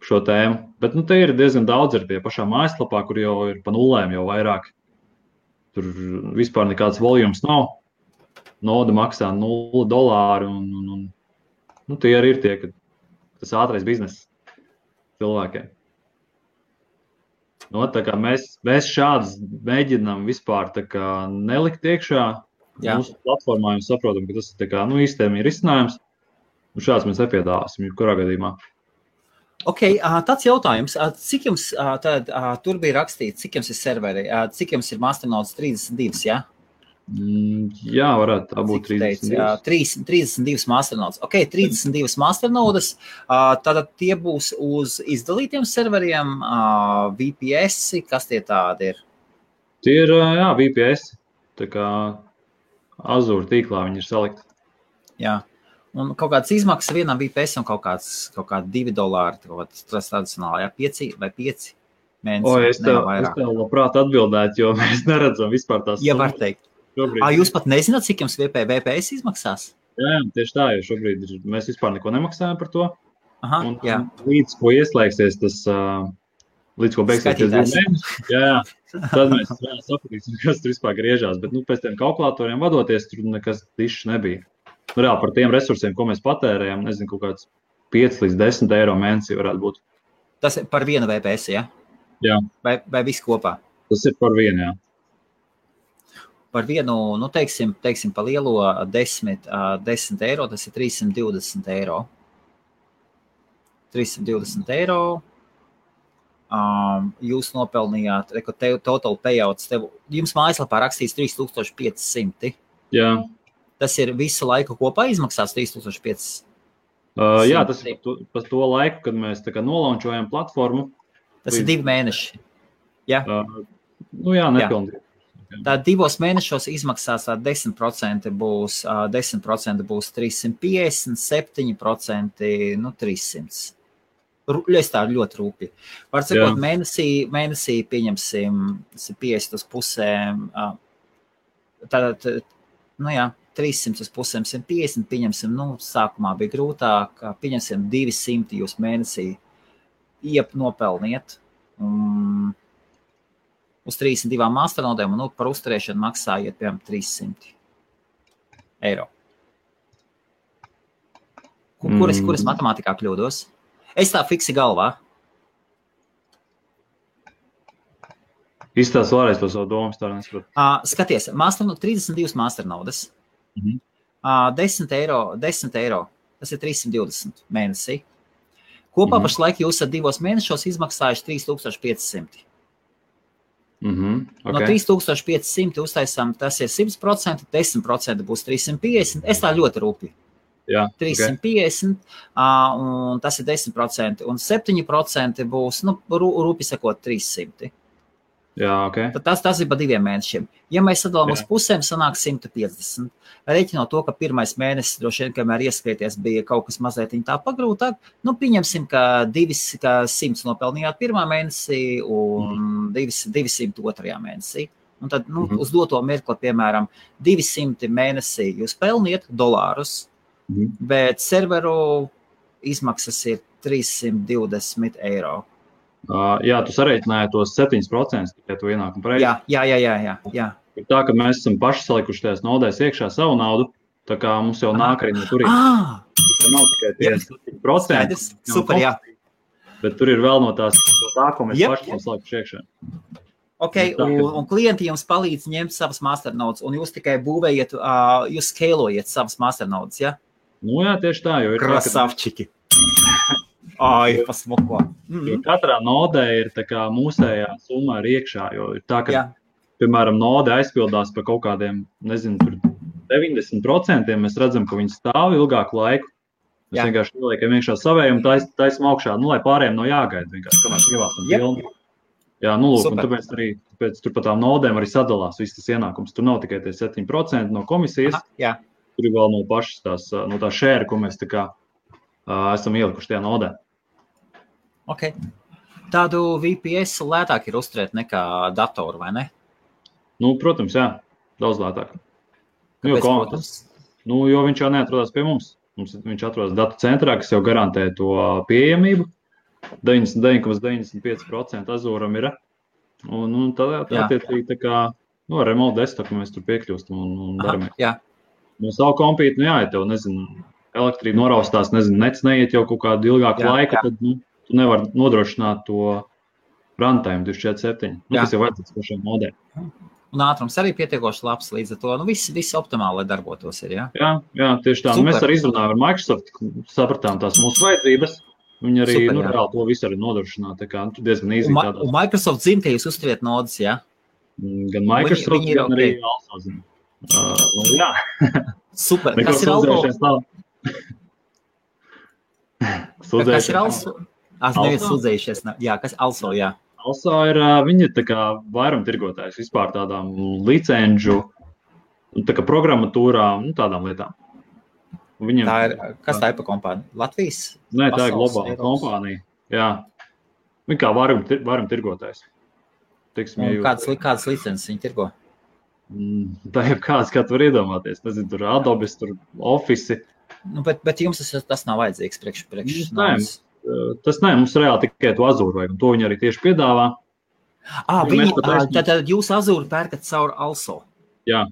šo tēmu. Bet te ir diezgan daudz ar tie pašā mājaslapā, kur jau ir pa nulēm jau vairāk. Tur vispār nekāds volums nav. Noda maksā $0 un tie arī ir tie, ka tas ātrais bizness cilvēkiem. Tā kā mēs šādas mēģinām vispār tā kā nelikt iekšā mūsu platformā, un saprotam, ka tas ir tā kā, īstēm ir risinājums, un šāds mēs nepiedāvāsim, kurā gadījumā. Tāds jautājums, cik jums tur bija rakstīts, cik jums ir serveri, cik jums ir Masternodes 32, ja? Jā, varētu tā būt 32. 32 Masternodes. 32 Masternodes, tātad tie būs uz izdalītiem serveriem, VPS, kas tie tādi ir? Tie ir, VPS, tā kā Azure tīklā viņi ir salikti. Jā. Un kaut kādas izmaksas vienam VPS un kaut kādi $2, tas tradicionāli, 5 vai 5 mēnesi. Es tev labprāt atbildētu, jo mēs neredzam vispār tās. Ja var teikt. Jūs pat nezināt, cik jums VPS izmaksās? Jā, tieši tā, jo šobrīd mēs vispār neko nemaksājam par to. Un līdz ko ieslēgsies tas, līdz ko beigsies tas mēnesis, tad mēs sapratīsim, kas tur vispār griežās. Bet pēc tiem kalkulatoriem vadoties, tur nekas dišs nebija. Reāli par tiem resursiem, ko mēs patērējam, nezinu, kaut kāds 5 līdz 10 eiro mēnesī varētu būt. Tas ir par vienu VPS, ja? Jā. Vai viss kopā? Tas ir par vienu, jā. Par vienu, teiksim, pa lielo 10 eiro, tas ir 320 eiro. 320 eiro. Jūs nopelnījāt, total payouts, jums mājaslapā rakstīts 3500. Jā. Tas ir visu laiku kopā izmaksās 3500? Jā, tas ir par to laiku, kad mēs tā kā nolaunčojam platformu. Tas ir 2 mēneši. Jā? Jā, nepilnīgi. Tā 2 mēnešos izmaksās 10% būs 350, 7% 300. Es tā ļoti rūpīgi. Var sakot, mēnesī pieņemsim 50 uz pusēm. Tātad, 300 uz pusēm 150, pieņemsim, sākumā bija grūtāk, pieņemsim 200 jūs mēnesī nopelniet. Uz 32 masternodēm un par uzturēšanu maksājiet, piemēram, 300 eiro. Kuras matemātikā kļūdos? Es tā fiksi galvā. Izstāst vēlreiz to savu domu, tā nesaprotu. Skaties, 32 masternodes. 10 eiro, tas ir 320 mēnesī. Kopā pašlaik jūs 2 mēnešos izmaksājuši 3500. No 3500 uztaisām, tas ir 100%, 10% būs 350. Es tā ļoti rūpīgi. 350, un tas ir 10%, un 7% būs, rūpīgi sakot, 300. Tas ir pa 2 mēnešiem. Ja mēs sadalām uz pusēm, sanāk 150. Reiķinot to, ka pirmais mēnesis, droši vien, kamēr ieskrieties, bija kaut kas mazliet tā pagrūtāk, pieņemsim, ka 100 nopelnījāt pirmā mēnesī un 200 otrajā mēnesī. Un tad, uz doto mirkli, piemēram, 200 mēnesī jūs pelniet $, bet serveru izmaksas ir 320 eiro. Jā, tu sareiķināji tos 7% tikai to ienākumu pareizi. Jā. Ir tā, ka mēs esam paši salikuši tajās naudēs iekšā savu naudu, tā kā mums jau nāk arī no turien. Tā nav tikai tie 7%. Super, jā. Bet tur ir vēl no tā, ko mēs paši esam salikuši iekšā. Un klienti jums palīdz ņemt savas masternodes, un jūs tikai būvējat, jūs skalojat savas masternodes, ja? Jā, tieši tā, jo ir Krasavčiki. Pasmuko. Jo katrā nodē ir tā kā mūsējā summa ir iekšā, jo ir tā, ka, piemēram, node aizpildās par kaut kādiem, nezinu, tur 90%, mēs redzam, ka viņi stāv ilgāku laiku. Mēs vienkārši ieliekam iekšā savēju un taisam augšā, lai pārējiem nav jāgaida vienkārši, kamēr ievāstam pilnu. Jā, lūk, un tāpēc tur pa tām nodēm arī sadalās viss tas ienākums. Tur nav tikai tie 7% no komisijas, tur ir vēl no pašas no tā šēra, ko mēs tā kā esam ielikuši tajā nodē. Ok. Tādu VPS lētāk ir uzturēt nekā datoru, vai ne? Nu, protams, jā, daudz lētāk. Kāpēc, protams? Jo viņš jau neatrodās pie mums. Viņš atrodas datu centrā, kas jau garantē to pieejamību. 99,95% Azūram ir. Un tad attiecīgi tā kā remote desktop mēs tur piekļūstam un daramies. Jā. No savu kompīti, ja tev, elektrība noraustās, nets neiet jau kaut kādu ilgāku laiku, tad tu nevar nodrošināt to runtime 24/7. Tas jau vajadzīgs pašiem modēm. Un ātrums arī pietiekoši labs līdz ar to. Viss optimāli, lai darbotos ir, jā? Jā, tieši tā. Mēs arī izrunājām ar Microsoft, sapratām tās mūsu vajadzības. Viņi arī reāli to visu arī nodrošināt. Tā kā diezgan īzīgi tādās. Un Microsoft zina, ka jūs uzturiet nodas, jā? Gan Microsoft, gan arī Also zina. Jā. Super. Kas ir Also? Kas ir Also? Neviens sūdzējušies. Jā, kas Also, jā. Also ir, viņi tā kā vairumtirgotājs vispār tādām licenžu, tā kā programmatūrām, tādām lietām. Kas tā ir pa kompānija? Latvijas? Nē, tā ir globāla kompānija. Jā. Viņi kā vairumtirgotājs. Kādas licences viņi tirgo? Tā ir kāds, kā tu var iedomāties. Nezinu, tur Adobe, tur Office. Bet jums tas nav vajadzīgs priekš. Tas nē, mums reāli tikai to Azūru vajag, un to viņi arī tieši piedāvā. Tad jūs Azūru pērkat caur Also? Jā.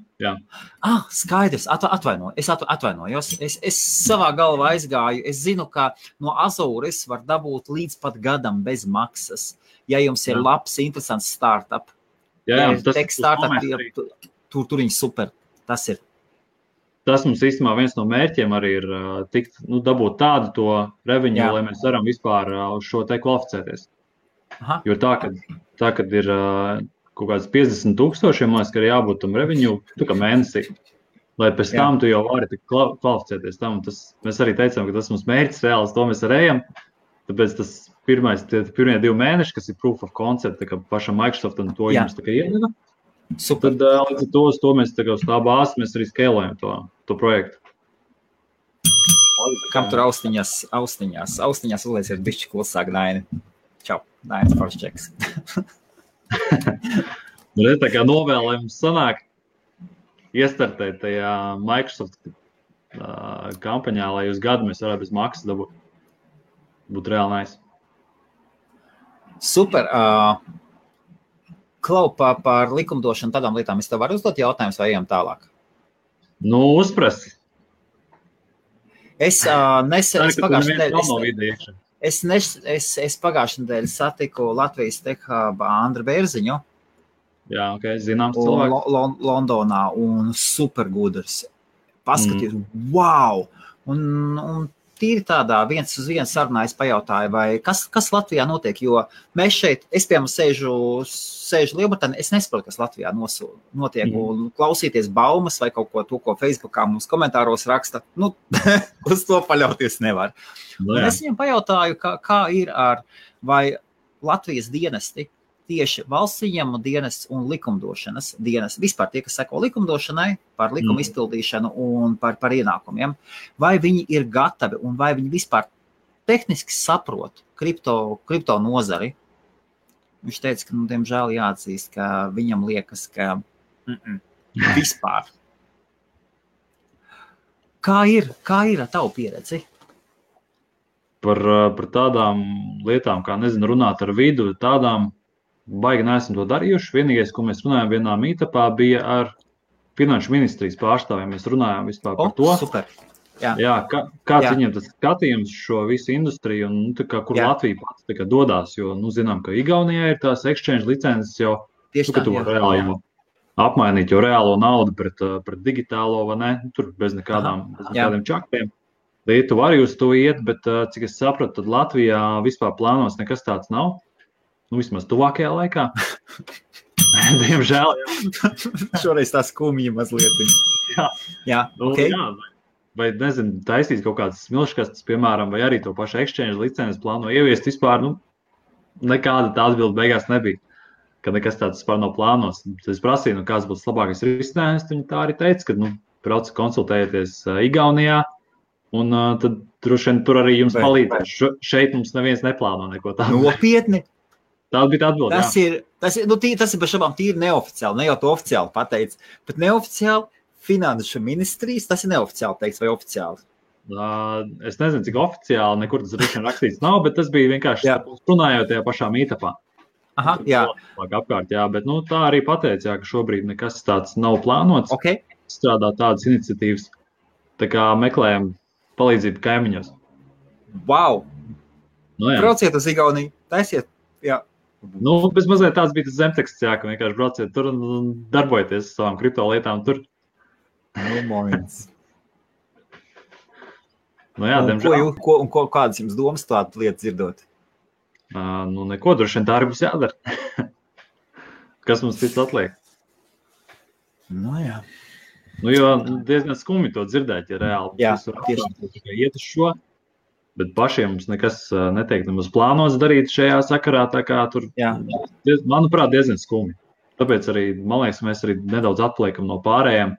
Skaidrs, atvainojos. Es savā galvā aizgāju. Es zinu, ka no Azūras var dabūt līdz pat gadam bez maksas, ja jums ir labs, interesants startup. Jā, tur viņi super. Tas ir. Tas mums īstenībā viens no mērķiem arī ir dabūt tādu to revenue, lai mēs varam vispār uz šo te kvalificēties. Jo tā, kad ir kaut kāds 50,000, man liekas, ka ir jābūt tam revenue, kā mēnesī, lai pēc tam tu jau vari kvalificēties tam. Mēs arī teicām, ka tas mums mērķis reāls, to mēs arī ejam. Tāpēc tas pirmie 2 mēneši, kas ir proof of concept, tā kā pašam Microsoftam to jums tā kā iedeva. Super. Tad līdz ar to mēs tā kā uz tā bāzes mēs arī skalējam to projektu. Kam tur austiņās uzlies ir bišķi klusāk, Daini. Čau, Dainis Forščeks. Tā kā novēlējums sanāk iestartēt tajā Microsoft kampaņā, lai uz gadu mēs varētu bez maksas dabūt. Būtu reāli nice. Super. Klau, par likumdošanu tādām lietām es tev varu uzdot jautājumus vai ejam tālāk? Uzprasi. Es pagājušajā nedēļā satiku Latvijas Tech Hub Andru Bērziņu. Jā, zināms cilvēks. Londonā un supergudrs. Paskaties, wow! Un tīri tādā viens uz viens sarunā es pajautāju, vai kas Latvijā notiek, jo mēs šeit, es piemēram sēžu Lielbritānijā, es nesaprotu, kas Latvijā notiek, un klausīties baumas vai kaut ko to, ko Facebookā mums komentāros raksta, uz to paļauties nevar. Un es viņam pajautāju, kā ir vai Latvijas dienesti, tieši valsts ieņēmumu dienests un likumdošanas dienests, vispār tie, kas seko likumdošanai, par likumu izpildīšanu un par ienākumiem, vai viņi ir gatavi un vai viņi vispār tehniski saprot kripto nozari. Viņš teica, ka, diemžēl jāatzīst, ka viņam liekas, ka vispār. Kā ir ar tavu pieredzi? Par tādām lietām, kā runāt ar vidu, tādām baigi neesam to darījuši. Vienīgais, ko mēs runājām vienā meetupā, bija ar Finanšu ministrijas pārstāvjiem. Mēs runājām vispār par to. Super. Jā, kāds viņiem tas skatījums šo visu industriju un kur Latvija pats dodās, jo zinām, ka Igaunijā ir tās exchange licences jau, ka tu reāli jau apmainīt jau reālo naudu pret digitālo, vai ne? Tur bez nekādiem čaktiem. Lietuva arī uz to iet, bet cik es sapratu, tad Latvijā vispār plānos nekas tāds nav. Vismaz tuvākajā laikā. Diemžēl. Šoreiz tā skumja mazliet. Jā. Vai taisīt kaut kādas smilškastes, piemēram, vai arī to pašu exchange licences plāno ieviest vispār, nekāda tā atbilde beigās nebija, ka nekas tāds vispār nav plānos. Es prasīju, kāds būs labākais risinājums, viņi tā arī teica, ka brauc konsultējieties Igaunijā, un tad droši vien tur arī jums palīdzēs. Šeit mums neviens neplāno neko tādu. Nopietni? Tā bija atbilde, tas ir bez šabām tīri neoficiāli, ne jau to oficiāli pateic, bet neoficiāli finanšu ministrijas, tas ir neoficiāli teikts vai oficiāli? Es nezinu, cik oficiāli, nekur tas droši vien rakstīts nav, bet tas bija vienkārši runājot tajā pašā mītapā. Aha, jā. Apkārt, jā, bet tā arī pateica, ka šobrīd nekas tāds nav plānots. Okay. Strādā tādas iniciatīvas, tā kā meklējam palīdzību kaimiņos. Wow! Brauciet uz Igauniju, taisiet, jā. Bez mazliet tāds bija tas zemteksts, jā, ka vienkārši brauciet tur un darbojieties savām kripto lietām tur. Moments. Jā, diemžēl. Kādas jums domas tādu lietu dzirdot? Neko, droši vien tā arī būs jādara. Kas mums cits atliek? Jā. Jo diezgan skumji to dzirdēt, ja reāli. Jā, tieši. Iet uz šo. Bet pašiem mums nekas netiek nemaz plānots darīt šajā sakarā, tā kā tur, manuprāt, diezgan skumji. Tāpēc arī, man liekas, mēs arī nedaudz atpaliekam no pārējām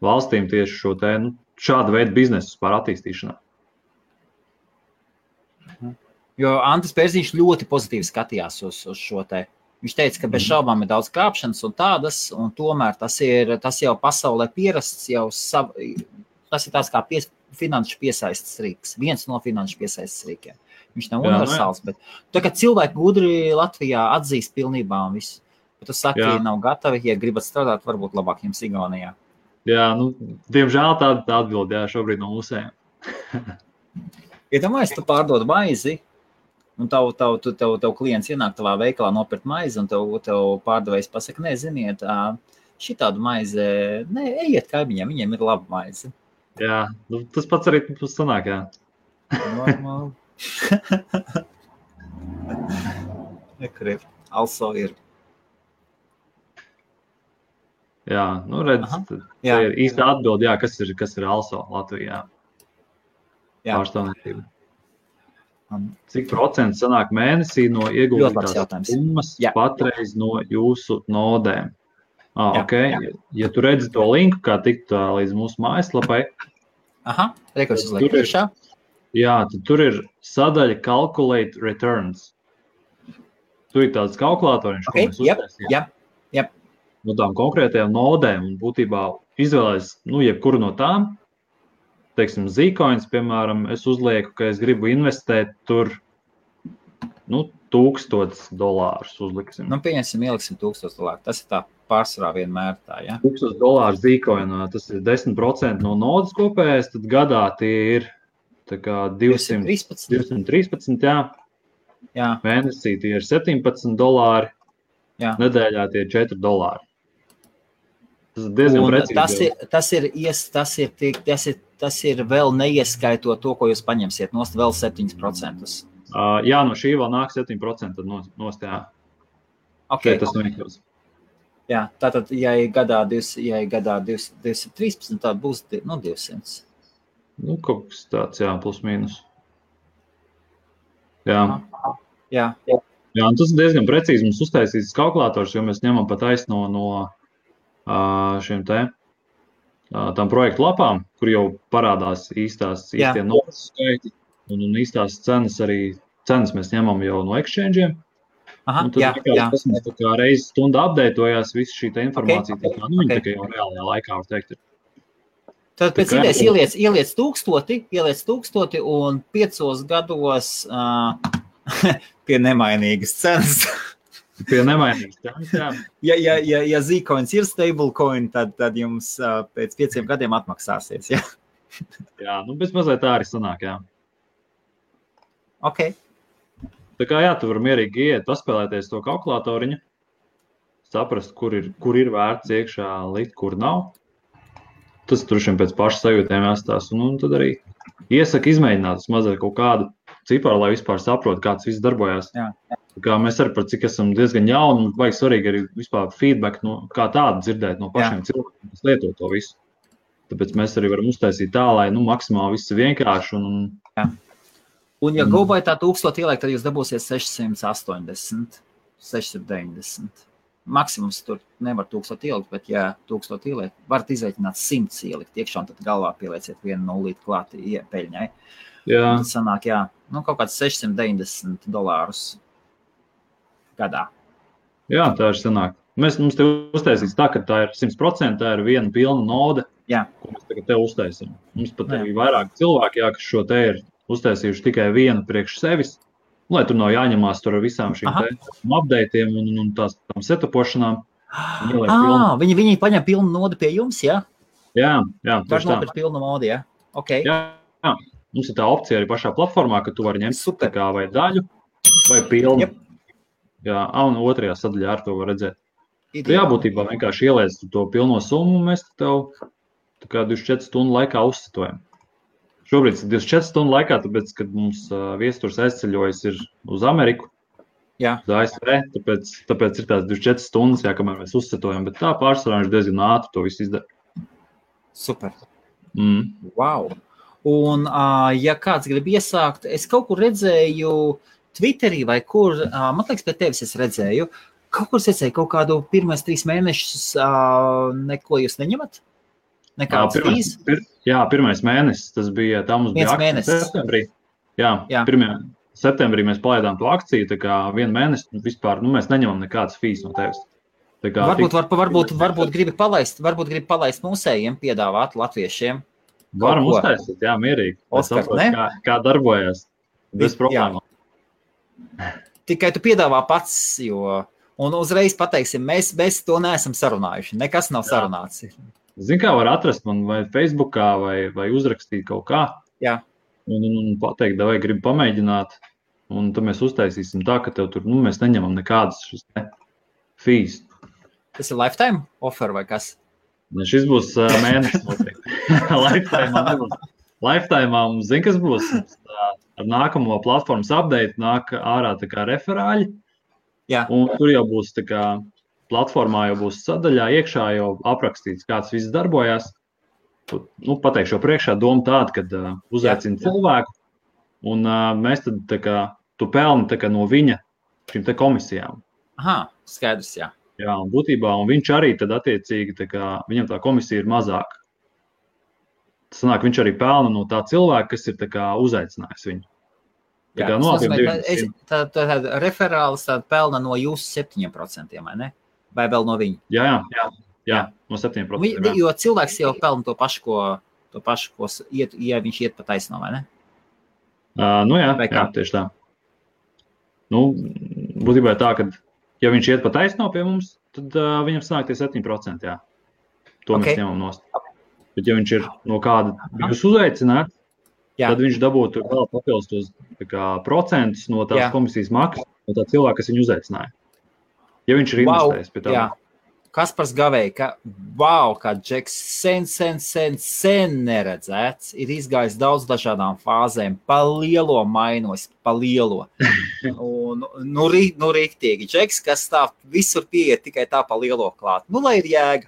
valstīm tieši šo šādu veidu biznesu pār attīstīšanā. Jo Antis Pērziņš ļoti pozitīvi skatījās uz šo te. Viņš teica, ka bez šaubām ir daudz krāpšanas un tādas, un tomēr tas jau pasaulē pierasts, tas ir tāds kā finanšu piesaistes rīks. Viens no finanšu piesaistes rīkiem. Viņš nav universāls, bet tā kā cilvēki gudri Latvijā atzīst pilnībā un visu. Bet tu saki, ja nav gatavi, ja gribat strādāt, varbūt labāk jums Igaunijā. Jā, diemžēl tāda atbilde, šobrīd no mūsējiem. Iedomājies, tu pārdod maizi, un tev klients ienāk tavā veikalā nopirkt maizi, un tev pārdevējs pasaka, ziniet, šitādu maizi, ejiet kaimiņiem, viņiem ir laba maize. Jā, tas pats arī mums sanāk, jā. Normāli. Also ir. Jā, redz, tā ir īsta atbilde, kas ir also Latvijā. Pārstāvniecība. Cik procents sanāk mēnesī no ieguldītās summas patreiz no jūsu nodēm? Ja tu redzi to linku, kā tikt līdz mūsu mājaslapai, rekursus liek priekšā. Jā, tad tur ir sadaļa Calculate Returns. Tu ir tāds kalkulatoriņš, ko mēs uztaisījām. No tām konkrētajām nodēm, un būtībā izvēlēs, jebkuru no tām, teiksim, Zcoins, piemēram, es uzlieku, ka es gribu investēt tur, $1000 uzliksim. Pieņemsim, ieliksim $1000. Tas ir tā pārsvarā vienmēr tā, ja? $1000 Zcoinā, tas ir 10% no nodas kopējais, tad gadā tie ir tā kā 213, jā. Mēnesī tie ir $17, nedēļā tie ir $4. Tas ir diezgan precīzi. Tas ir vēl neieskaitot to, ko jūs paņemsiet, nost vēl 7%. Jā, no šī vēl nāk 7% nost, jā. Šeit tas noiekļaus. Jā, tātad, ja ir gadā 213, tad būs 200. Kaut kas tāds, jā, plus mīnus. Jā. Jā, un tas ir diezgan precīzi mums uztaisīts kalkulators, jo mēs ņemam pat taisno no šiem tām projektu lapām, kur jau parādās īstie nodas skaiti un īstās cenas mēs ņemam jau no exchange'iem. Tad tas mums tā kā reizi stundā updateojās visu šī informācija, tā kā tā kā jau reālajā laikā var teikt. Tad pēc idejas ieliec 1000 un 5 gados pie nemainīgas cenas. Pie nemainīgas cenas, jā. Ja Zcoins ir stablecoin, tad jums pēc 5 gadiem atmaksāsies, jā. Jā, bez mazliet tā arī sanāk, jā. Ok. Tā kā tu vari mierīgi iet, paspēlēties to kalkulatoriņu, saprast, kur ir vērts iekšā likt, kur nav. Tas tur šiem pēc paša sajūtēm jāstās, un tad arī iesaka izmēģināt mazliet kaut kādu ciparu, lai vispār saprot, kāds viss darbojās. Jā. Tā kā mēs arī par cik esam diezgan jauni, un vajag svarīgi arī vispār feedback, kā tādu dzirdēt no pašiem cilvēkiem, kas lieto to visu. Tāpēc mēs arī varam uztaisīt tā, lai maksimāli viss ir vienkārši. Jā. Un ja GoBuy tā 1000 ieliek, tad jūs dabūsiet 680, 690. Maksimums tur nevar 1000 ielikt, bet ja 1000 ieliek, varat izreikināt 100 ielikt iekšā, un tad galvā pielieciet vienu nulīti klāt peļņai. Jā. Tad sanāk, jā, kaut kāds $690 gadā. Jā, tā ir sanāk. Mums te uztaisīs tā, ka tā ir 100%, tā ir viena pilna node, ko mēs tagad te uztaisam. Mums pat ir vairāk cilvēki, kas šo te ir uztaisījuši tikai vienu priekš sevis, lai tur nav jāņemās tur ar visām šīm updateiem un tām setupošanām. Viņi paņem pilnu nodu pie jums, jā? Jā, var nopirkt pilnu nodu, jā? Okay. Jā, mums ir tā opcija arī pašā platformā, ka tu vari ņemt kā vai daļu, vai pilnu. Yep. Jā, un otrajā sadaļā ar to var redzēt. Tu jābūtībā vienkārši ieliec to pilno summu, un mēs tev tā kā 24 stundu laikā uzsatojam. Šobrīd ir 24 stundu laikā, tāpēc, kad mums viesturs aizceļojas ir uz Ameriku, uz ASV, tāpēc ir tās 24 stundas, kamēr mēs uzsatojam, bet tā pārsvarā viņš diezgan ātri to visu izdara. Super. Wow. Un, ja kāds grib iesākt, es kaut kur redzēju Twitterī vai kur, man liekas, pie tevis es redzēju, kaut kur es redzēju kaut kādu pirmais 3 mēnešus, neko jūs neņemat? Nekāds fīs? Jā, pirmais mēnesis, tas bija, tā mums bija akcija septembrī. Jā. 1. septembrī mēs palaidām to akciju, tā kā 1 mēnesi vispār, mēs neņemam nekādas fīs no tevis. Varbūt gribi palaist mūsējiem, piedāvāt latviešiem. Varam uztaisīt, jā, mierīgi. Oskar, ne? Kā darbojas, bez problēmām. Tikai tu piedāvā pats, un uzreiz pateiksim, mēs to neesam sarunājuši, nekas nav sarunāts. Zini, kā var atrast man vai Facebookā, vai uzrakstīt kaut kā. Jā. Un pateikt, vai gribi pamēģināt, un tad mēs uztaisīsim tā, ka tev tur, mēs neņemam nekādas šis fees. Tas ir lifetime offer vai kas? Šis būs mēnesis noteikti. Lifetime nebūs. Lifetime mums, zini, kas būs? Ar nākamo platformas update nāk ārā tā kā referāļi. Jā. Un tur jau būs tā kā platformā jau būs sadaļā iekšā jau aprakstīts, kāds viss darbojās. Pateikšu priekšā doma tāda, kad uzaicina cilvēku, un mēs tad tā kā, tu pelni tā kā no viņa šīm te komisijām. Aha, skaidrs, jā. Jā, un būtībā, un viņš arī tad attiecīgi, tā kā, viņam tā komisija ir mazāka. Tas sanāk, viņš arī pelna no tā cilvēka, kas ir tā kā uzaicinājis viņu. Tā kā tā referālis pelna no jūsu 7%, vai ne? Vai vēl no viņa? Jā, no 7%. Jo cilvēks jau pelna to pašu, ko ja viņš iet pa taisno, vai ne? Jā, tieši tā. Būtībā tā, ka ja viņš iet pa taisno pie mums, tad viņam sanāk tie 7%, jā. To mēs ņemam nost. Bet ja viņš ir no kāda jūs uzaicināt, tad viņš dabūtu vēl papildus tos procentus no tās komisijas maksas, no tā cilvēka, kas viņu uzaicināja. Ja viņš ir investējis pie tā. Jā. Kaspars Gavēja, kā Džeks sen neredzēts, ir izgājis daudz dažādām fāzēm, pa lielo mainos, pa lielo. Un, riktīgi, Džeks, kas tā visur pieiet tikai tā pa lielo klāt. Lai ir jēga.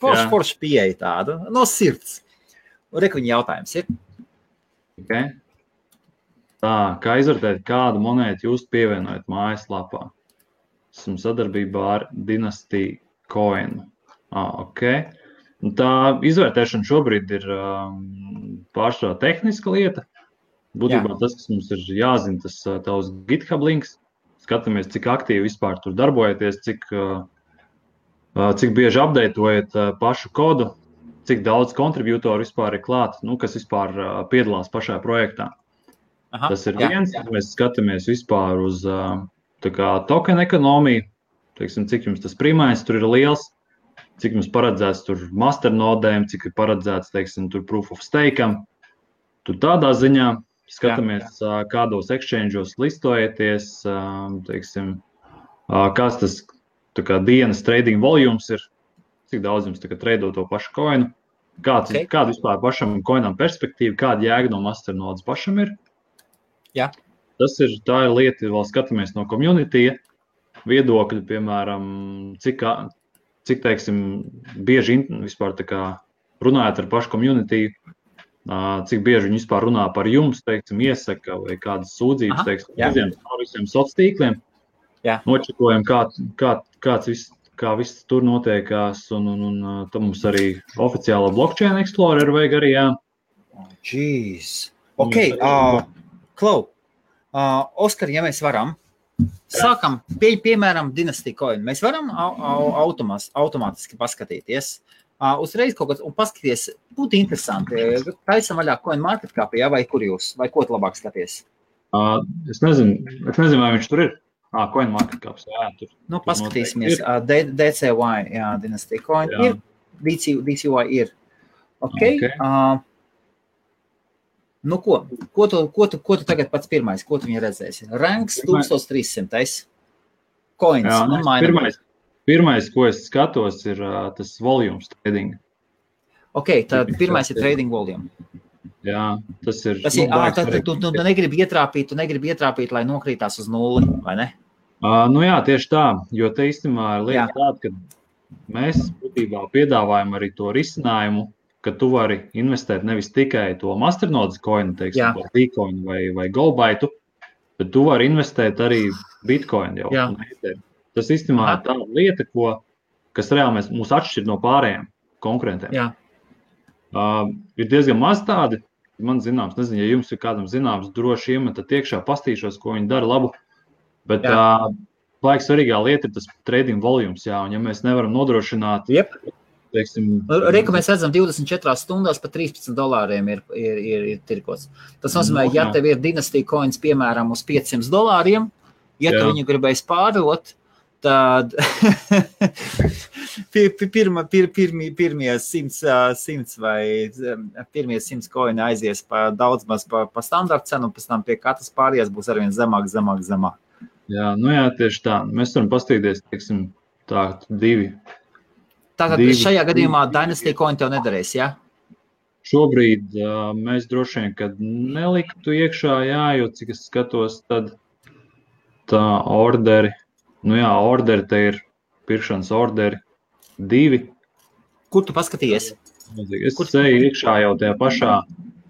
Forši pieeja tāda, no sirds. Rekuņa jautājums ir. Okay. Tā, kā izvērtēt, kādu monētu jūs pievienojat mājaslapā? Esmu sadarbībā ar Dynasty Coin. Okay. Tā izvērtēšana šobrīd ir pārsvarā tehniska lieta. Būtībā tas, kas mums ir jāzina, tas tavs GitHub links. Skatāmies, cik aktīvi vispār tur darbojaties, cik bieži updateojat pašu kodu, cik daudz kontributoru vispār ir klāt, kas vispār piedalās pašā projektā. Tas ir viens, mēs skatāmies vispār uz token ekonomiju, teiksim, cik jums tas primais tur ir liels, cik jums paredzēts tur masternodēm, cik ir paredzēts, teiksim, tur proof of stake'am. Tur tādā ziņā skatāmies, kādos exchange'os listojaties, teiksim, kāds tas dienas trading volumes ir, cik daudz jums trado to pašu coinu, kāda vispār pašam coinam perspektīva, kāda jēga no masternodes pašam ir. Jā. Tā ir lieta, vēl skatāmies no community viedokļa, piemēram, cik teiksim, bieži vispār runājat ar pašu community, cik bieži viņi vispār runā par jums, teiksim, iesaka vai kādas sūdzības, teiksim, par visiem sociāliem tīkliem. Nočekojam, kā viss tur notiekās, un tad mums arī oficiāla blockchain explorer vajag arī, jā. Jeez. Ok, Klau, Oskar, ja mēs varam, sākam, piemēram, Dynasty Coin. Mēs varam automātiski paskatīties. Uzreiz kaut kāds, un paskaties, būtu interesanti. Taisam vaļā CoinMarketCap, ja, vai kur jūs, vai ko tu labāk skaties? Es nezinu, vai viņš tur ir. CoinMarketCap, jā, tur. Nu, paskatīsimies. DCY, jā, Dynasty Coin ir, DCY ir. Ok. Nu, ko tu tagad pats pirmais, ko tu viņa redzēsi? Ranks 1300. Coins. Jā, pirmais, ko es skatos, ir tas volumes trading. Ok, tad pirmais ir trading volume. Jā, tas ir. Tu negribi ietrāpīt, lai nokrītās uz nulli, vai ne? Nu jā, tieši tā, jo te īstenībā ir lieta tāda, ka mēs būtībā piedāvājam arī to risinājumu, ka tu vari investēt nevis tikai to masternodes coinu, teiksim, Bitcoin vai Goldbyte, bet tu vari investēt arī Bitcoin jau. Tas īstenībā ir tāda lieta, kas reāli mūs atšķir no pārējiem konkurentiem. Jā. Ir diezgan maz tādi, man zināms, nezinu, ja jums ir kādam zināms, droši iemetat iekšā, pastīšos, ko viņi dara labu, bet baigi svarīgā lieta ir tas trading volumes, jā, un ja mēs nevaram nodrošināt, Reku mēs redzam 24 stundās pa $13 ir tirkots. Tas nozīmē, ja tev ir Dynasty Coins, piemēram, uz $500, ja tu viņu gribēs pārdot, tad pirmie 100 vai pirmie 100 coini aizies daudz maz pa standarta cenu, un pēc tam pie katras pārējās būs arvien zemāk. Jā, nu jā, tieši tā. Mēs varam pastīties, teiksim, tā, divi. Tātad šajā gadījumā Dynasty Coin tev nedarēs, jā? Šobrīd mēs droši vien, kad neliktu iekšā, jā, jo cik es skatos, tad tā orderi, orderi te ir pirkšanas orderi 2. Kur tu paskatījies? Es ceju iekšā jau tajā pašā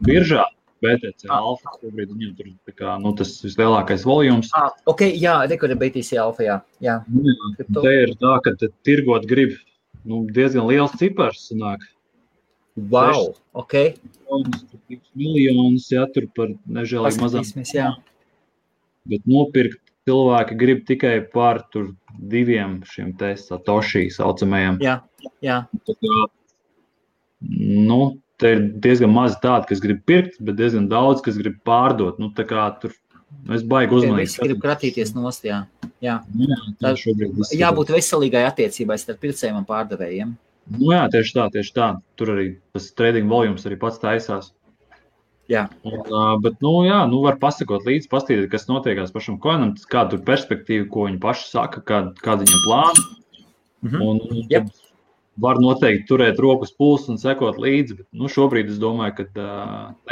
biržā, BTC Alpha, šobrīd viņam tur tā kā, tas vislielākais volums. Ok, jā, rekur ir BTC Alpha, jā. Te ir tā, ka tirgot grib diezgan liels cipars sanāk. Wow, ok. Miljonus, jā, tur par nežēlīgi mazām. Jā. Bet nopirkt cilvēki grib tikai par tur 2 šiem te satoshi saucamajiem. Jā. Tā kā, te ir diezgan maz tādi, kas grib pirkt, bet diezgan daudz, kas grib pārdot. Tā kā tur es baigi uzmanīgi. Visi grib kratīties nost, jā. Šobrīd jābūt veselīgai attiecībai starp pircējiem un pārdevējiem. Jā, tieši tā. Tur arī tas trading volumes arī pats taisās. Jā. Bet, var pasakot līdzi, pastīties, kas notiekās pašam coinam, kāda tur perspektīva, ko viņi paši saka, kāda viņam plāna. Un var noteikti turēt rokas pulsu un sekot līdzi, bet šobrīd es domāju, ka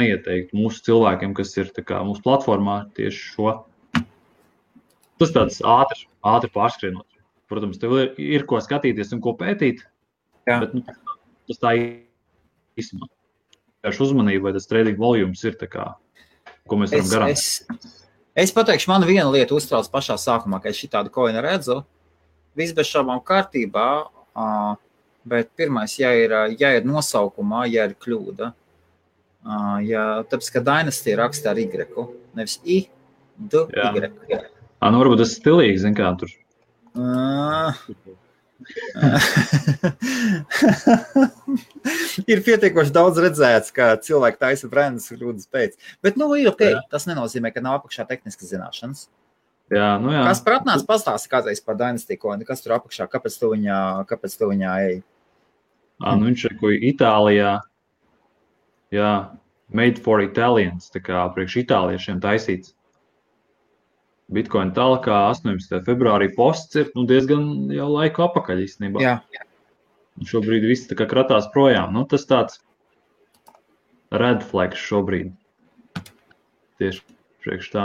neieteiktu mūsu cilvēkiem, kas ir tā kā mūsu platformā tieši šo. Tas tāds ātri pārskrienot. Protams, tev ir ko skatīties un ko pētīt, bet tas tā īstenībā. Tieši uzmanība, vai tas trading volumes ir tā kā, ko mēs varam garantēt. Es pateikšu, man viena lieta uztrauc pašā sākumā, ka es šitādu coinu redzu, viss bez šaubām kārtībā, bet pirmais, ja ir nosaukumā, ja ir kļūda, tāpēc, ka Dynasty raksta ar Y, nevis I, D, Y. Varbūt tas stilīgi, zin kā tur. Ir pietiekoši daudz redzēts, ka cilvēki taisa brandus kļūdas pēc. Bet, ir ok, tas nenozīmē, ka nav apakšā tehniskas zināšanas. Jā. Kas par atnāc pastāsti kādreiz par Dynasty Coin, kas tur apakšā, kāpēc tu viņā ej? Viņš ir ko Itālijā, made for Italians, tā kā priekš itāliešiem taisīts. Bitcoin talkā 18. februārī posts ir diezgan jau laiku apakaļ īstenībā. Jā. Šobrīd viss tā kā kratās projām. Tas tāds red flags šobrīd. Tieši priekš tā.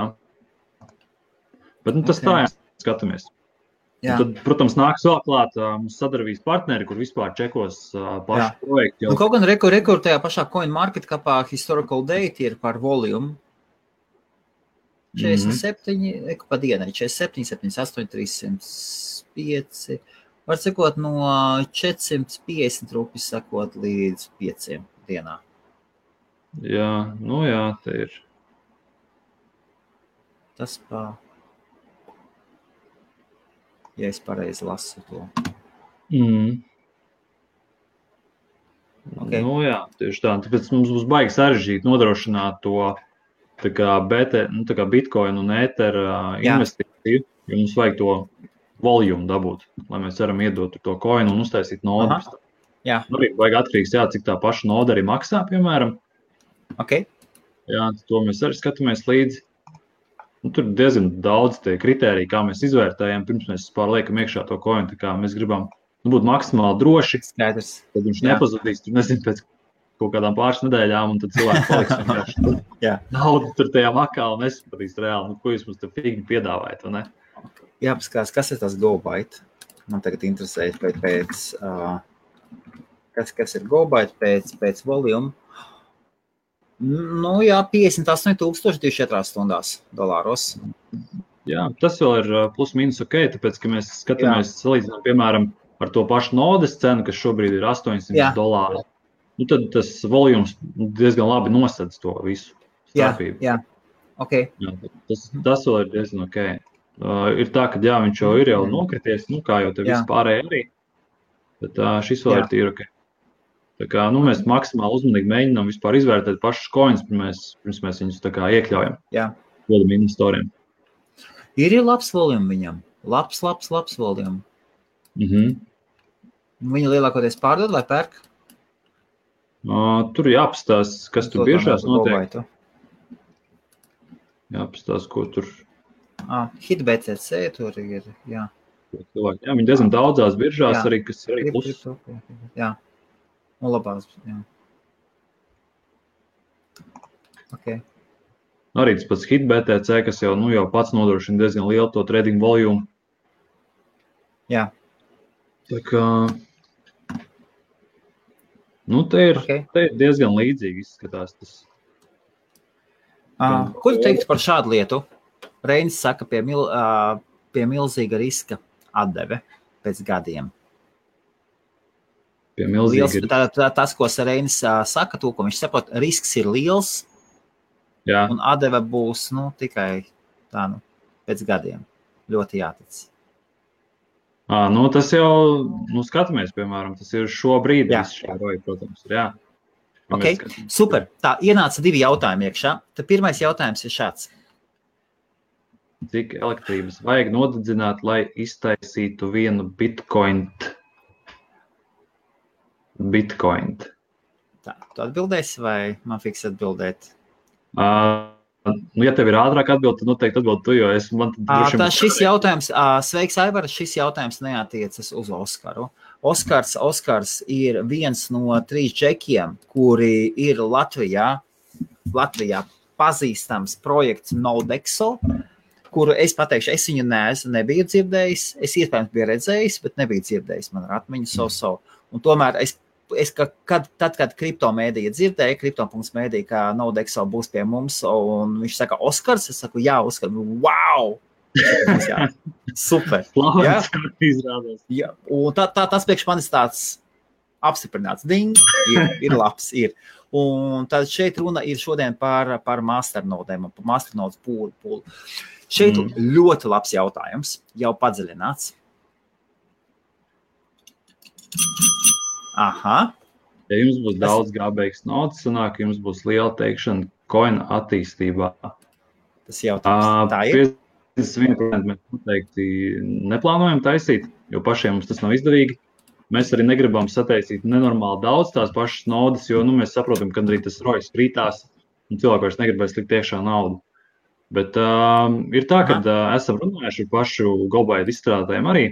Bet tas tā, skatāmies. Tad, protams, nāks vēl klāt mums sadarbības partneri, kur vispār čekos pašu projektu. Kaut gan rekur tajā pašā CoinMarketCapā historical date ir par volume. 47, pa dienai, 47, 78, 305, var sakot no 450 rupjas sakot līdz 5 dienā. Jā, te ir. Tas ja es pareizi lasu to. Okay. Tieši tā. Tāpēc mums būs baigi sarežģīt nodrošināt to tā kā Bitcoin un Ether investīciju, jo mums vajag to volumu dabūt, lai mēs varam iedot to coinu un uztaisīt nodu. Jā. Arī vajag atkarīgs, cik tā paša noda arī maksā, piemēram. Okay. Jā, to mēs arī skatāmies līdzi. Tur diezgan daudz tie kritēriji, kā mēs izvērtējam, pirms mēs liekam iekšā to coinu, tā kā mēs gribam būt maksimāli droši. Skaidrs. Tad viņš nepazudīs, tur nezinu, pēc kaut kādām pāris nedēļām, un tad cilvēki paliks vienkārši naudu tur tajā makā un nesapratīs reāli, ko jūs mums te figni piedāvājat, vai ne? Jāpaskatās, kas ir tas GoByte? Man tagad interesē kas ir GoByte pēc volume. 58,000 24 stundās dolāros. Jā, tas vēl ir plus mīnus ok, tāpēc, ka mēs skatāmies, salīdzinām, piemēram, ar to pašu nodes cenu, kas šobrīd ir $800. Tad tas volums diezgan labi nosedz to visu starpību. Jā. Okay. Jā, tas vēl ir diezgan ok. Ir tā, ka viņš jau ir nokrities, kā jau te vispārēji arī, bet šis vēl ir tīri ok. Tā kā, mēs maksimāli uzmanīgi mēģinām vispār izvērtēt pašus coins, pirms mēs viņus tā kā iekļaujam. Jā. Dodam investoriem. Ir labs volume viņam. Labs volume. Viņa lielākoties pārdod vai pērk? Tur jāpastās, kas tur biržās notiek. Jāpastās, ko tur. HitBCC tur ir, jā. Viņi diezgan daudzās biržās arī, kas ir arī plus. Jā. Un labās, jā. Okay. Arī tas pats HitBTC, kas jau pats nodrošina diezgan lielu to trading volumu. Jā. Tā kā, te ir diezgan līdzīgi izskatās tas. Ko tu teiktu par šādu lietu? Reinis saka, pie milzīga riska atdeve pēc gadiem. Tas, ko Reinis saka, to, ko viņš saprot, risks ir liels, un atdeve būs tikai tā, pēc gadiem. Ļoti jātic. Tas jau, skatāmies, piemēram, tas ir šobrīd, protams, jā. Ok, super. Tā, ienāca 2 jautājumi iekšā. Tad pirmais jautājums ir šāds. Cik elektrības vajag nodedzināt, lai iztaisītu vienu Bitcoin? Tā, tu atbildēsi vai man fiks atbildēt? Ja tev ir ātrāk atbild, tad noteikti atbild tu, jo šis jautājums, sveiks, Aivar, šis jautājums neatiecas uz Oskaru. Oskars ir viens no 3 džekiem, kuri ir Latvijā pazīstams projekts Nodexo, kuru es pateikšu, es viņu nebiju dzirdējis, es iespējams biju redzējis, bet nebiju dzirdējis, man ar atmiņu so. Un tomēr kad kriptomēdija dzirdēja, kripto.mēdija, ka Nodexo būs pie mums, un viņš saka, Oskars, es saku, jā, Oskars, wow! Jā, super! Jā? Jā, un tas priekš manis tāds apstiprināts. Ding! Ir labs, ir. Un tad šeit runa ir šodien par masternodēm, par masternodes pūlu. Šeit ļoti labs jautājums, jau padziļināts. Aha. Ja jums būs daudz gābeigas nodas, sanāk, jums būs liela teikšana coina attīstībā. Tas jautājums tā ir? 51% mēs noteikti neplānojam taisīt, jo pašiem mums tas nav izdevīgi. Mēs arī negribam sataisīt nenormāli daudz tās pašas nodas, jo mēs saprotam, ka arī tas rojas krītās un cilvēki vairs negribēs likt iekšā naudu. Bet ir tā, ka esam runājuši ar pašu GoByte izstrādātājiem arī.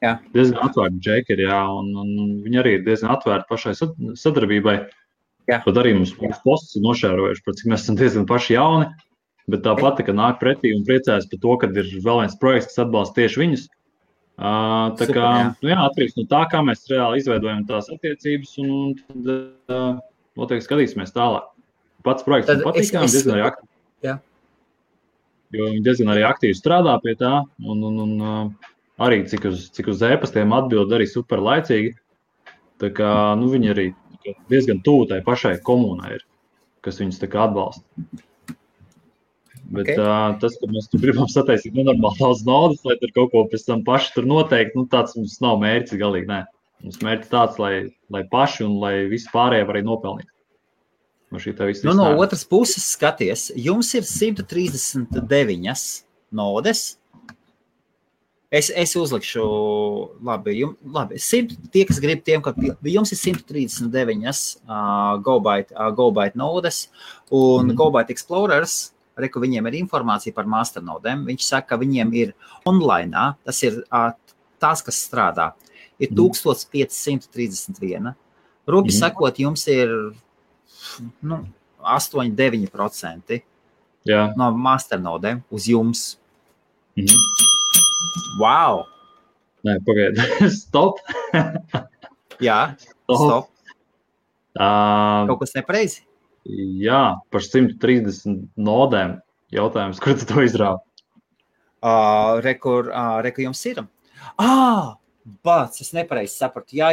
Jā. Diezgan atvērti džekeri, un viņi arī ir diezgan atvērti pašai sadarbībai. Jā. Pat arī mums posts ir nošērojuši, cik mēs esam diezgan paši jauni, bet tāpat, ka nāk pretī un priecājas par to, ka ir vēl viens projekts, kas atbalsta tieši viņus. Tā kā, atkarīgs no tā, kā mēs reāli izveidojam tās attiecības, un tad noteikti skatīsimies tālāk. Pats projekts man patīkām, diezgan arī aktīvi. Jā. Jo viņi diezgan arī aktīvi strādā pie tā, un arī cik uz e-pastiem atbild arī super laicīgi. Tā kā, viņi arī diezgan tuvu tai pašai komunai ir. kas viņus tā kā atbalsta. Bet tas, ka mēs tur gribam sataisīt nenormāli daudz naudas, lai tur kaut ko pēc tam paši tur noteikti, tāds mums nav mērķis galīgi, nē. Mums mērķis tāds, lai paši un lai visi pārējie var arī nopelnīt. No otras puses skaties, jums ir 139 nodes. Es uzlikšu, labi, tie, kas grib tiem, ka jums ir 139 GoByte nodes, un GoByte Explorers, reku viņiem ir informācija par masternodēm, viņš saka, ka viņiem ir online, tas ir tās, kas strādā, ir 1531. Rupi sakot, jums ir 8-9% no masternodēm uz jums. Wow! Nē, pagaidi. Stop! Jā, stop. Kaut kas nepareizi? Jā, par 130 nodēm jautājums, kur tu to izrāvi? Reku jums ir. Bāc, es nepareizi sapratu. Jā.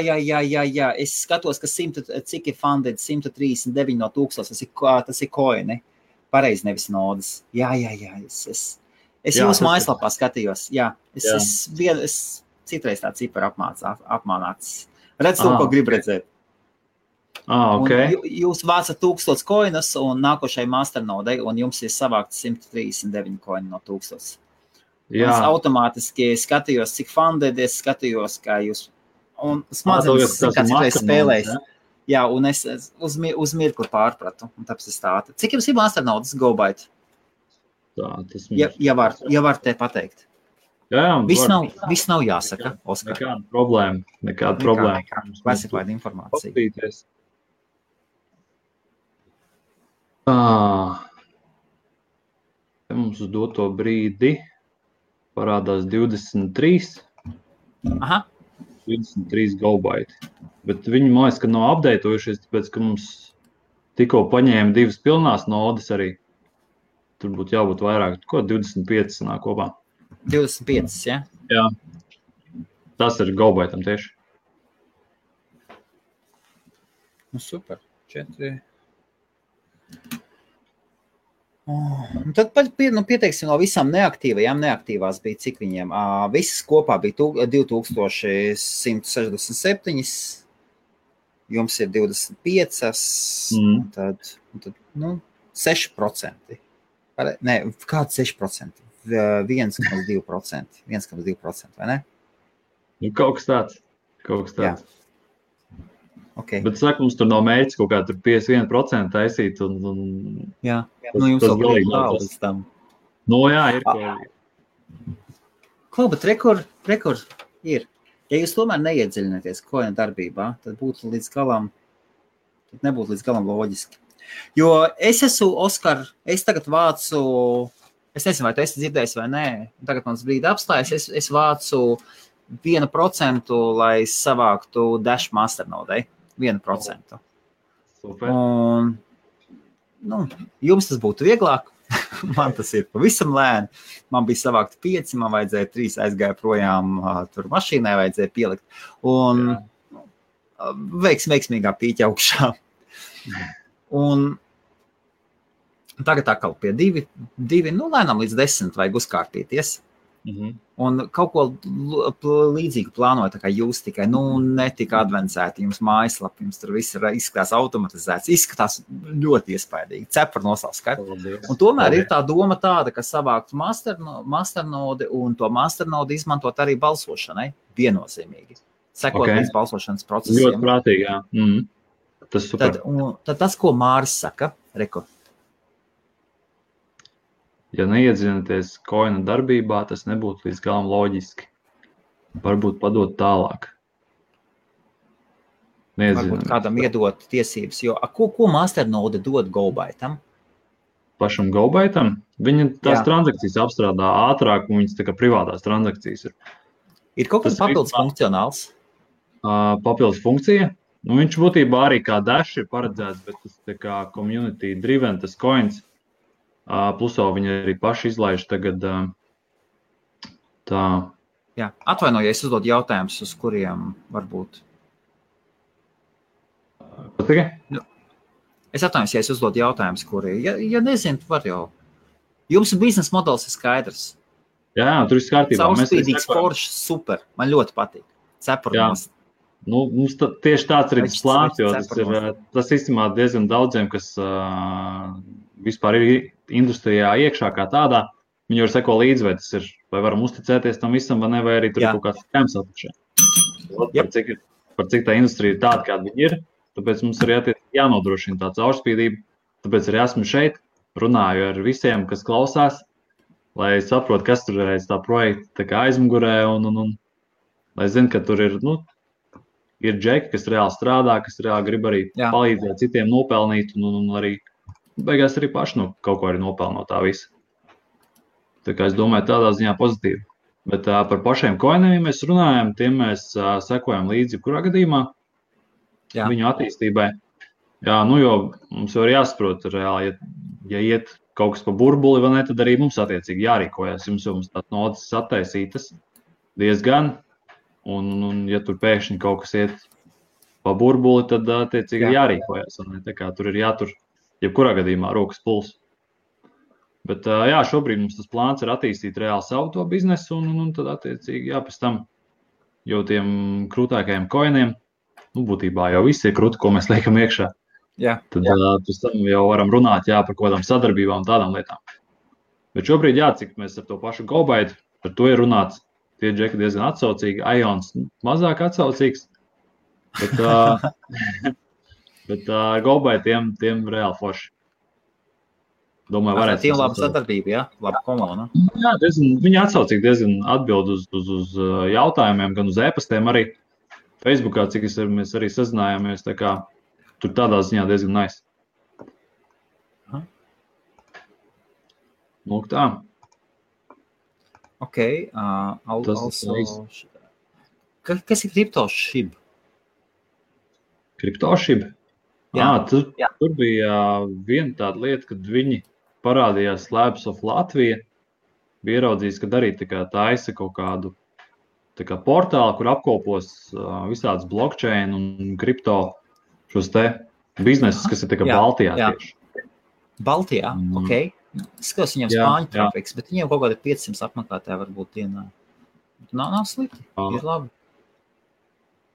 Es skatos, ka cik ir funded 139 no 1000, tas ir koini. Pareizi nevis nodas. Jā. Es jūsu mājaslapā skatījos. Jā, es citreiz tā cipara apmānāts. Redz to, ko grib redzēt. Okay. Jūs vācat 1000 koinus un nākošai masternodei, un jums ir savākt 139 koini no 1000. Es automātiski skatījos, cik funded, es skatījos, kā jūs, un smadzenes citreiz spēlējis. Jā, un es uz mirkli pārpratu, un tāpēc es tātad. Cik jums ir masternodes GoByte? Ja var te pateikt. Jā, viss nav jāsaka, Oskar. Nekāda problēma. Classified informācija. Paskatīties. Mums uz doto brīdi parādās 23. 23 GoByte. Bet viņi mājas, ka nav updatējušies, tāpēc, ka mums tikko paņēma 2 pilnās nodes arī. Tur būtu jābūt vairāk. Ko 25 sanāk kopā? 25, ja? Jā. Tas ir GoByteam tieši. Super. 4. Tad pieteiksim no visām neaktīvās bija, cik viņiem. Visas kopā bija 2167, jums ir 25, un tad 6%. Nē, kāds 6%? 1,2%. 1,2%, vai ne? Kaut kas tāds. Jā. Okay. Bet saka, mums tur nav mērķis kaut kā tur 51% taisīt. Jā, jums jau galīgi līdz tam. Jā, ir kaut. Bet rekord ir. Ja jūs tomēr neiedziļināties koina darbībā, tad nebūtu līdz galam loģiski. Jo es esmu, Oskar, es tagad vācu, es nezinu, vai tu esi dzirdējis vai nē, tagad mans brīdi apstājas, es vācu 1%, lai savāktu Dash masternodei. 1%. Super. Un, jums tas būtu vieglāk. Man tas ir pavisam lēni. Man bija savākt 5, man vajadzēja 3, aizgāja projām, tur mašīnai vajadzēja pielikt. Un veiksmīgā pīķa augšā. Un tagad atkal pie 2, lēnām līdz 10 vajag uzkārtīties. Un kaut ko līdzīgu plānoju, tā kā jūs tikai, netika advancēti, jums mājaslapi, jums tur viss izskatās automatizēts, izskatās ļoti iespaidīgi, cepar nosauskart. Un tomēr ir tā doma tāda, ka savākt masternodi un to masternodi izmantot arī balsošanai viennozīmīgi. Sekot līdz balsošanas procesiem. Ļoti prātīgi, jā. Tas super. Tad tas, ko Māris saka, reko. Ja neiedziļināties koina darbībā, tas nebūtu līdz galam loģiski. Varbūt padot tālāk. Varbūt kādam iedot tiesības, jo ko masternode dod GoByteam? Pašam GoByteam? Viņa tās transakcijas apstrādā ātrāk, un viņas tā kā privātās transakcijas ir. Ir kaut kas papildus funkcionāls? Papildus funkcija. Viņš būtībā arī kā Dash ir paredzēts, bet tas tā kā community driven, tas coins. Plusā viņi arī paši izlaiž tagad tā. Jā, atvainojies, uzdod jautājumus, uz kuriem varbūt. Patikai? Es atvainojos, ja es uzdodu jautājumus, kuri, ja nezinu, var jau. Jums biznesa modelis ir skaidrs. Jā, tur viss kārtībā. Caurspīdīgs, foršs, super. Man ļoti patīk. Cepurnos. Nu, mums tieši tāds ir tas plāns, jo tas īstenībā diezgan daudziem, kas vispār ir industrijā iekšā kā tādā, viņi var seko līdzi, vai tas ir, vai varam uzticēties tam visam, vai ne, vai arī tur ir kaut kāds skēms apakšā. Par cik tā industrija ir tāda, kāda viņi ir, tāpēc mums arī jānodrošina tā caurspīdība, tāpēc arī esmu šeit, runāju ar visiem, kas klausās, lai saprot, kas tur ir aiz tā projekta aizmugurē, un lai zinu, ka tur ir, ir džeki, kas reāli strādā, kas reāli grib arī palīdzēt citiem nopelnīt, un arī beigās arī paši kaut ko arī nopelno tā visa. Tā kā es domāju, tādā ziņā pozitīvi. Bet par pašiem koiniem, ja mēs runājam, tiem mēs sekojam līdzi kurā gadījumā viņu attīstībai. Jā, jo mums jau ir jāsaprot reāli, ja iet kaut kas pa burbuli, vai ne, tad arī mums attiecīgi jārīkojas. Jums jau tās nodas attaisītas diezgan, un ja tur pēkšņi kaut kas iet pa burbuli, tad attiecīgi jārīkojas. Tā kā tur ir jātur, jebkurā gadījumā, rokas pulss. Bet šobrīd mums tas plāns ir attīstīt reāli savu to biznesu, un tad attiecīgi, pēc tam jau tiem krūtākajiem koiniem, būtībā jau viss ir krūti, ko mēs liekam iekšā. Tad pēc tam jau varam runāt par kaut kādām sadarbībām un tādām lietām. Bet šobrīd, cik mēs ar to pašu GoByte, par to ir runāts, tie džeki diezgan atsaucīgi, Ions mazāk atsaucīgs, bet GoByte tiem reāli forši. Domāju, varētu. Tiem laba sadarbība, laba komanda. Jā, viņi atsaucīgi diezgan atbild uz jautājumiem, gan uz e-pastiem arī. Facebookā, cik mēs arī sazinājāmies, tā kā tur tādā ziņā diezgan nice. Lūk tā. Ok. Kas ir CryptoShib? CryptoShib? Tur bija viena tāda lieta, kad viņi parādījās Labs of Latvija, bija ieraudzījis, kad arī taisa kaut kādu portālu, kur apkopos visādas blockchain un kripto šos te biznesus, kas ir Baltijā tieši. Baltijā, ok. Skatos viņam spāņu trafiks, bet viņiem kaut kādi 500 apmeklētāji varbūt dienā. Nav slikti, ir labi.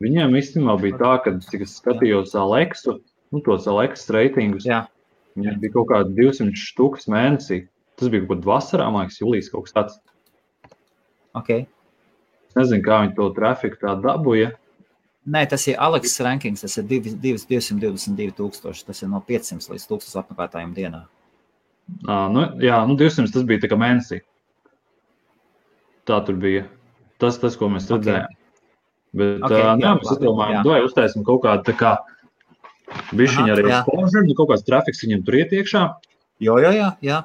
Viņiem īstenībā bija tā, ka, cik es skatījos Alexu, tos Alex reitingus, viņiem bija kaut kādi 200 štukas mēnesī. Tas bija kaut kādā vasarā, man liekas, jūlijas kaut kas tāds. Ok. Es nezinu, kā viņi to trafiku tā dabūja. Nē, tas ir Alex rankings, tas ir 222 tūkstoši, tas ir no 500 līdz 1000 apmeklētājiem dienā. 200 tas bija tā kā mēnesī. Tā tur bija. Tas, ko mēs redzējām. Bet, mēs atdomājam, vai uztaisim kaut kādu tā kā bišķiņu arī exposure, kaut kāds trafiks viņam tur iet iekšā. Jā.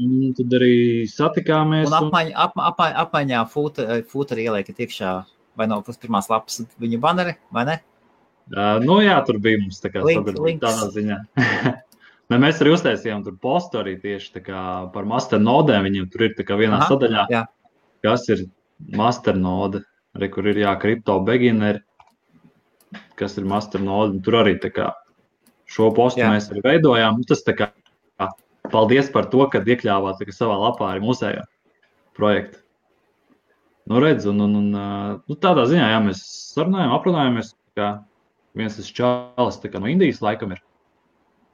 Un tad arī satikāmies. Un apmaiņā fūteri ieliekat iekšā, vai no pirmās lapas viņa baneri, vai ne? Tur bija mums tā kā tādā ziņā. Mēs arī uztaisījām tur postu arī tieši tā kā par masternodēm. Viņiem tur ir tā kā vienā sadaļā, kas ir masternode, kur ir kripto beginner, kas ir masternode. Tur arī tā kā šo postu mēs arī veidojām. Tas tā kā paldies par to, kad iekļāvāt savā lapā arī mūsējo projektu. Redz, tādā ziņā, mēs sarunājām, aprunājāmies, kā viens tas čalis no Indijas laikam ir.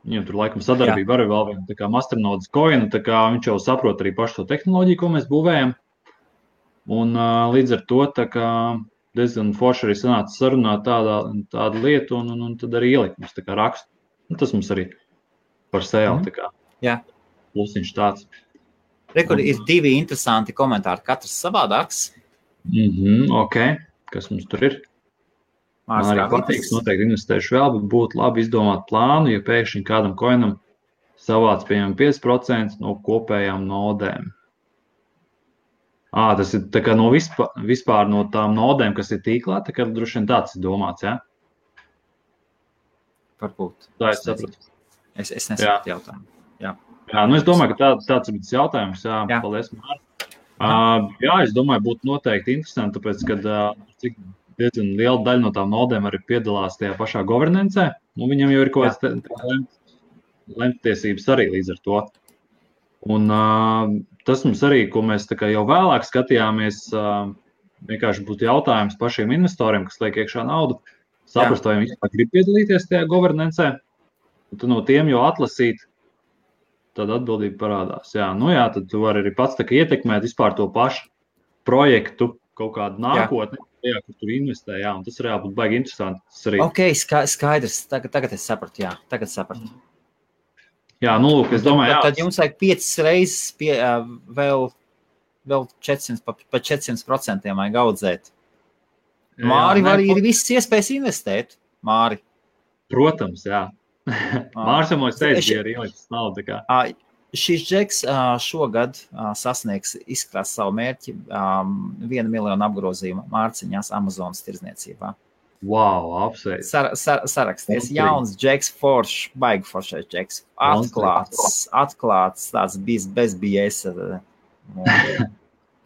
Viņam tur laikam sadarbība arī vēl viena, tā kā masternodes coin, tā kā viņš jau saprot arī pašu to tehnoloģiju, ko mēs būvējam. Un līdz ar to tā kā diezgan forši arī sanāca sarunāt tādu lietu, un tad arī ielikt mums tā kā rakstu. Tas mums arī par sēlu tā kā. Jā. Plusiņš tāds. Rekur ir 2 interesanti komentāri, katrs savādāks. Ok, kas mums tur ir? Man arī patīks, noteikti investēšu vēl, bet būtu labi izdomāt plānu, ja pēkšņi kādam koinam savāc pieņem 5% no kopējām nodēm. Tas ir tā kā no vispār no tām nodēm, kas ir tīklā, tā kā droši vien tāds ir domāts, jā? Varbūt. Tā es sapratu. Es nesapratu jautājumu. Jā, es domāju, ka tāds ir bijis jautājums. Jā. Paldies, Māri. Es domāju, būtu noteikti interesanti, tāpēc, ka diezgan liela daļa no tām nodēm arī piedalās tajā pašā governancē. Viņam jau ir kaut kāds lemtiesības arī līdz ar to. Un tas mums arī, ko mēs tā kā jau vēlāk skatījāmies, vienkārši būtu jautājums pašiem investoriem, kas liek iekšā naudu, saprast, vai viņi vispār grib piedalīties tajā governancē, un tu no tiem jau atlasīt, tad atbildība parādās. Jā, tad tu vari arī pats tā kā ietekmēt vispār to pašu projektu, kaut kādu nākotni, kur tur investē, un tas reāli būtu baigi interesanti. Ok, skaidrs, tagad es sapratu, tagad sapratu. Jā, lūk, es domāju, tad jums vajag 5 reizes vēl 400, pa 400% vajag audzēt. Māri var ir visas iespējas investēt, Māri. Protams, jā. Mārs jau mums teica, bija arī ielicis naudu. Šis džeks šogad sasniegs izkrās savu mērķi 1 miljonu apgrozījumu Mārciņās Amazonas tirdzniecībā. Wow, apsveic. Saraksties. Jauns džeks, baigi foršais džeks. Atklāts, tāds bez biesa.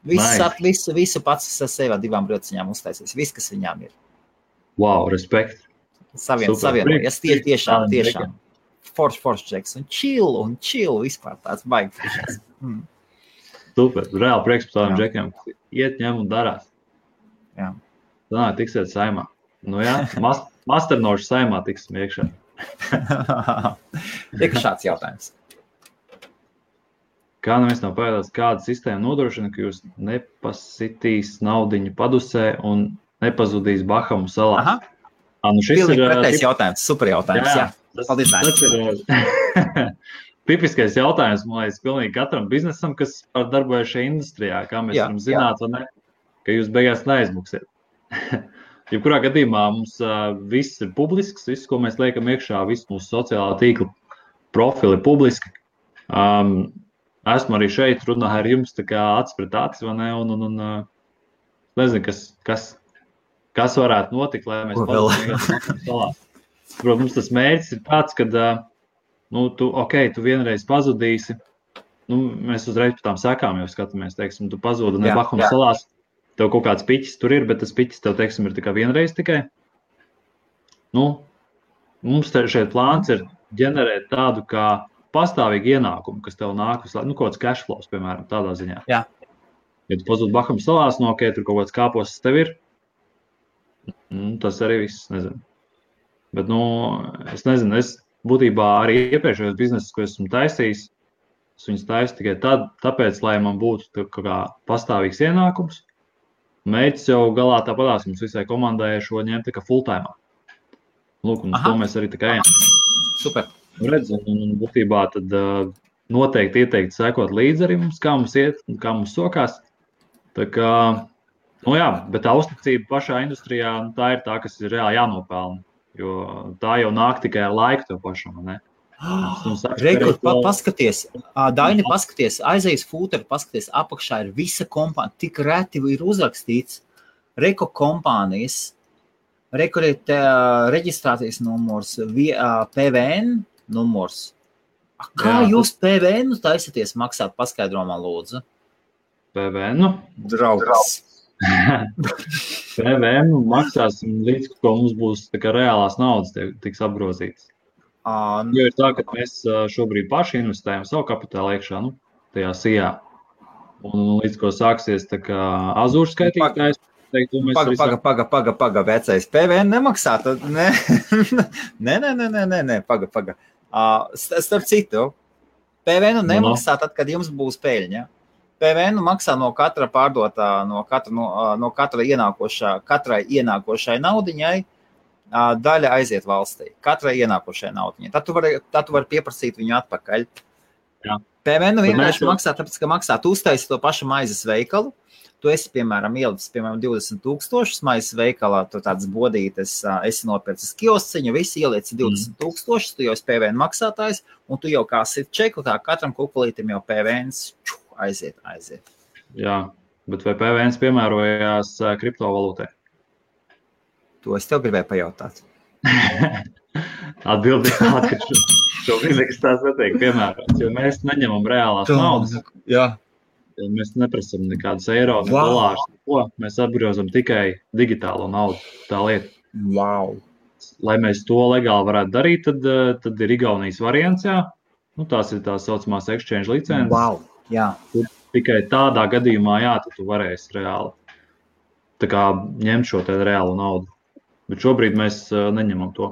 Visu pats ar sevi 2 brociņām uztaisīs. Viss, kas viņām ir. Wow, respekt. Savienojies. Tiešām. Forš džeks. Un chill vispār tāds baigi foršais. Super. Reāli prieks par tādiem džekiem. Iet, ņem un darās. Jā. Tā tiksiet saimā. Masternošu saimā tiksim iekšā. Tiek šāds jautājums. Kā neviens nav pēdās, kāda sistēma nodrošina, ka jūs nepasitīs naudiņu padusē un nepazudīs Bahamu salās? Šis ir pretējs jautājums, super jautājums. Jā. Paldies, tas ir tipiskais jautājums, man liekas, pilnīgi katram biznesam, kas darbojas šajā industrijā, kā mēs varam zināt, vai ne, ka jūs beigās neaizmuksiet. Jebkurā gadījumā mums viss ir publisks, viss, ko mēs liekam iekšā, viss mūsu sociālā tīkla profili publiski. Esmu arī šeit, runāju ar jums tā kā acis pret acis, vai ne, un nezinu, kas varētu notikt, lai mēs pazudīsim salās. Protams, tas mērķis ir tāds, ka tu vienreiz pazudīsi, mēs uzreiz par tām sekām jau skatāmies, teiksim, tu pazūdi Bahamu salās, tev kaut kāds piķis tur ir, bet tas piķis tev, teiksim, ir tikai vienreiz tikai. Mums šeit plāns ir ģenerēt tādu kā pastāvīgu ienākumu, kas tev nāk, kaut kāds cash flows, piemēram, tādā ziņā. Jā. Ja tu pazūdi Bahamu salās, tur kaut kāds kāpos tev ir, tas arī viss, nezinu. Bet, es nezinu, es būtībā arī iepriekšējos biznesus, ko esmu taisījis, es viņus taisu tikai tāpēc, lai man būtu kā pastāvīgs ienākums. Mērķis jau galā tāpatās mums visai komandai šo ņemt tā kā full-time. Lūk, un to mēs arī tā kā ejam. Super. Redz, un būtībā tad noteikti ieteikti sekot līdzi arī mums, kā mums iet un kā mums sokās. Tā kā, bet tā uzticība pašā industrijā, tā ir tā, kas ir reāli jānopelna. Jo tā jau nāk tikai ar laiku tev pašam, ne? Rekord, paskaties, Daini, paskaties, aizies fūteri, paskaties, apakšā ir visa kompānija, tik reti ir uzrakstīts Reko kompānijas, Reko ir reģistrācijas numurs, PVN numurs. Kā jūs PVN taisaties maksāt, paskaidro man lūdzu? PVN? Draugs. PVN maksāsim līdz, ko mums būs tā kā reālās naudas tiks apgrozītas. Jo ir tā, ka mēs šobrīd paši investējam savu kapitālu iekšā, tajā sijā. Un līdz, ko sāksies tā kā Azure skaitītājs, teiktu, mēs Paga, vecais. PVN nemaksā, tad nē, paga. Starp citu, PVN nemaksā tad, kad jums būs peļņa. PVN maksā no katra pārdotā, no katra katrai ienākošai naudiņai, daļa aiziet valstī. Katrai ienākošai naudiņai. Tad tu vari pieprasīt viņu atpakaļ. Jā. PVN vienkārši maksā, tāpēc, ka maksā. Tu uztaisi to pašu maizes veikalu. Tu esi, piemēram, ielicis, 20,000 maizes veikalā, tu tādas bodītes, esi nopircis kiosciņu, visi ielieci 20,000, tu jau esi PVN maksātājs, un tu jau kā sit čeku, tā katram kukulītim jau PVNs aiziet. Jā, bet vai PVNs piemērojās kriptovalūtē? To es tev gribēju pajautāt. Atbildi tāda, ka šobrīd nekas tās netiek piemērots, jo mēs neņemam reālās naudas. Jā. Mēs neprasam nekādus eiro, ne dolārus, neko. Mēs apgrozam tikai digitālo naudu, tā lieta. Wow. lai mēs to legāli varētu darīt, tad ir Igaunijas variants, jā. Nu, tās ir tās saucamās exchange licences. Wow, jā. Tikai tādā gadījumā, jā, tad tu varēsi reāli tā kā ņemt šo te reālu naudu. Bet šobrīd mēs neņemam to.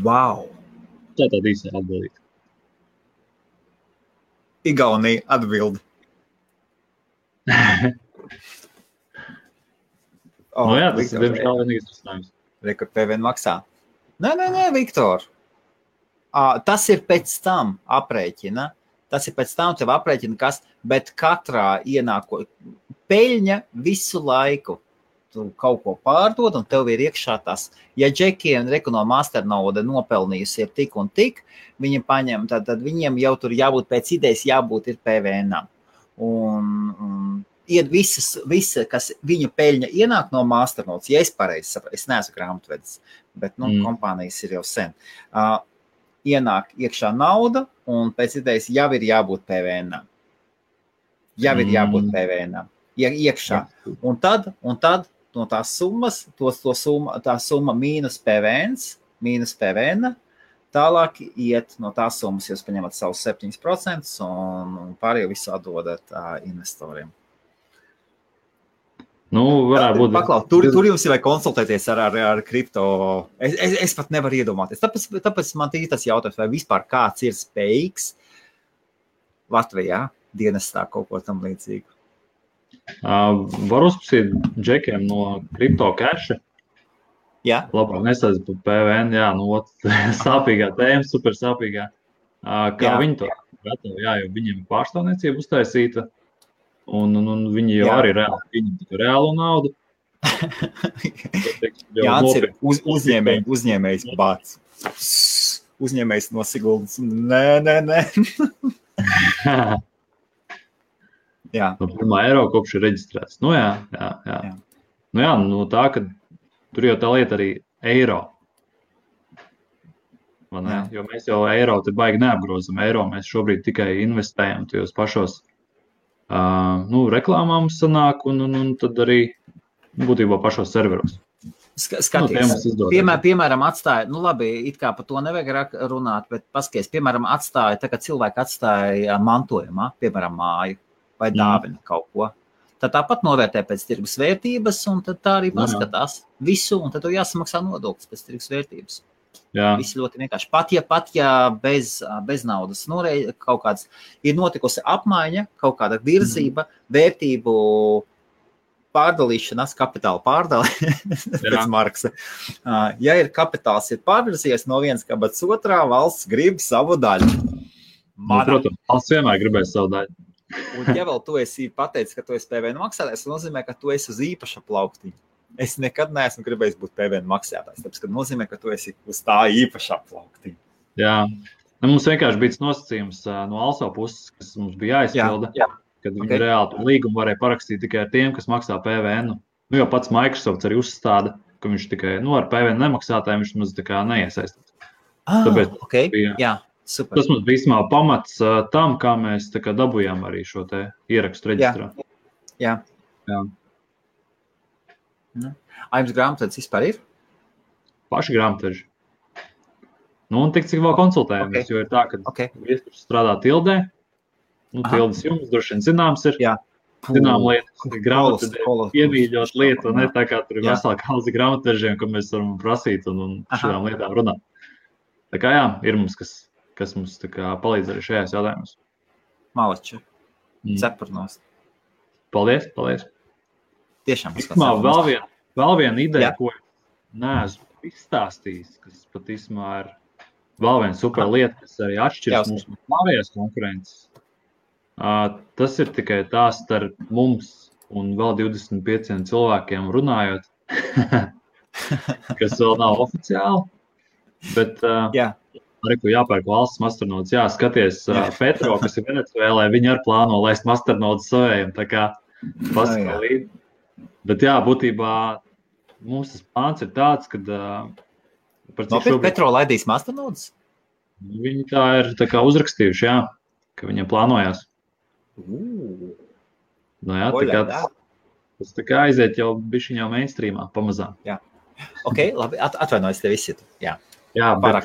Wow. Tā tāda īsā atbildība. Igaunija atbildi. Nu jā, tas ir diemžēl vienīgais risinājums. Rekord PVN maksā. Nē, Viktor. Tas ir pēc tam aprēķina. Tas ir pēc tam tev aprēķina, kas, bet katrā ienāko peļņa visu laiku. Tu kaut ko pārdod un tev ir iekšā tas. Ja džekiem no masternauda nopelnījusi ir tik un tik, viņi paņem, tad viņiem jau tur jābūt pēc idejas, jābūt ir PVN-am. Un visa, kas viņa peļņa ienāk no masternaudas, ja es pareizi saprotu, es neesmu grāmatvedis, bet kompānijas ir jau sen. Ienāk iekšā nauda un pēc idejas jau ir jābūt PVN-am. Jau ir jābūt PVN-am. Iekšā. Un tad no tās summas, tā summa mīnus PVN, tālāk iet no tās summas, jūs paņemat savus 7% un pārējo visu atdodat investoriem. Nu, varētu būt. Paklaus, tur jums ir vai konsultēties ar kripto. Es pat nevaru iedomāties. Tāpēc man tas jautājums, vai vispār kāds ir spējīgs Latvijā dienestā kaut ko tam līdzīgu. Var uzprasīt džekiem no kripto keša. Jā. Labāk nesāc par PVN, jā, sāpīgā tēma, super sāpīgā. Kā viņi to gatavi, jā, jo viņiem pārstāvniecība uztaisīta. Un viņi jau arī viņam reālu naudu. Jānis ir uzņēmējs bāc. Uzņēmējs no Siguldas. Nē. Jā. No 1. eiro kopš ir reģistrēts. Nu jā. Nu jā, no tā, ka tur jau tā lieta arī eiro. Jo mēs jau eiro te baigi neapgrozam. Eiro mēs šobrīd tikai investējam tajos pašos reklāmām sanāk un tad arī būtībā pašos serveros. Skaties, piemēram, atstāja, labi, it kā par to nevajag runāt, bet paskaties, piemēram, atstāja, tā kā cilvēki atstāja mantojumā, piemēram, māju vai dāvina kaut ko. Tad tāpat novērtē pēc tirgus vērtības un tad tā arī paskatās visu un tad to jāsamaksā nodoklis pēc tirgus vērtības. Jā. Viss ļoti vienkārši. Pat ja bez naudas kaut kāds ir notikusi apmaiņa, kaut kāda virzība, vērtību pārdalīšanās, kapitāla pārdali pēc Marksa. Ja ir kapitāls ir pārvirzies no vienas kabatas otrā, valsts grib savu daļu. Protams, valsts vienmēr gribēs savu daļu. Un ja vēl tu esi pateicis, ka tu esi PVN maksātājs, tas nozīmē, ka tu esi uz īpaša plauktiņa. Es nekad neesmu gribējis būt PVN maksātājs, tāpēc, ka nozīmē, ka tu esi uz tā īpašā plauktiņa. Jā, mums vienkārši bija nosacījums no ALSO puses, kas mums bija jāizpilda, kad viņi reāli līgumu varēja parakstīt tikai ar tiem, kas maksā PVN. Jo pats Microsoft arī uzstāda, ka viņš tikai ar PVN nemaksātājiem viņš mums tā kā neiesaistās. Tāpēc jā. Super. Tas mums bija īstenībā pamats tam, kā mēs tā kā dabujām arī šo te ierakstu reģistrā. Jā. Jums grāmatvedis vispār ir? Paši grāmatveži. Un tik cik vēl konsultējamies, jo ir tā, ka viesturs strādā Tildē. Tildes jums droši vien zināms ir. Jā. Zinām lietas, grāmatvedē iemīļot lietu, un ne tā kā tur ir vesela kalzi grāmatvežiem, ko mēs varam prasīt un šādām lietām runāt. Tā kā jā, ir mums, kas mums tā kā palīdz arī šajās jautājumos. Malači. Cepurnos. Paldies. Tiešām. Vēl viena ideja, ko neesmu izstāstījis, kas pat īstumā ir vēl viena super lieta, kas arī atšķiras mums no pārējās konkurences. Tas ir tikai tā starp mums un vēl 25 cilvēkiem runājot, kas vēl nav oficiāli, bet arī, ko jāpērk valsts masternodes, skaties Petro, kas ir Venecuēlē, viņi arī plāno laist masternodes savējiem, tā kā paskalīt. Bet būtībā mums tas plāns ir tāds, kad... Petro laidīs masternodes? Viņi tā ir tā kā uzrakstījuši, ka viņiem plānojās. Tā kā tas tā kā aiziet jau bišķiņ jau mainstreamā pamazām. Jā. Ok, labi, atvainojos tev izsitu. Jā, bet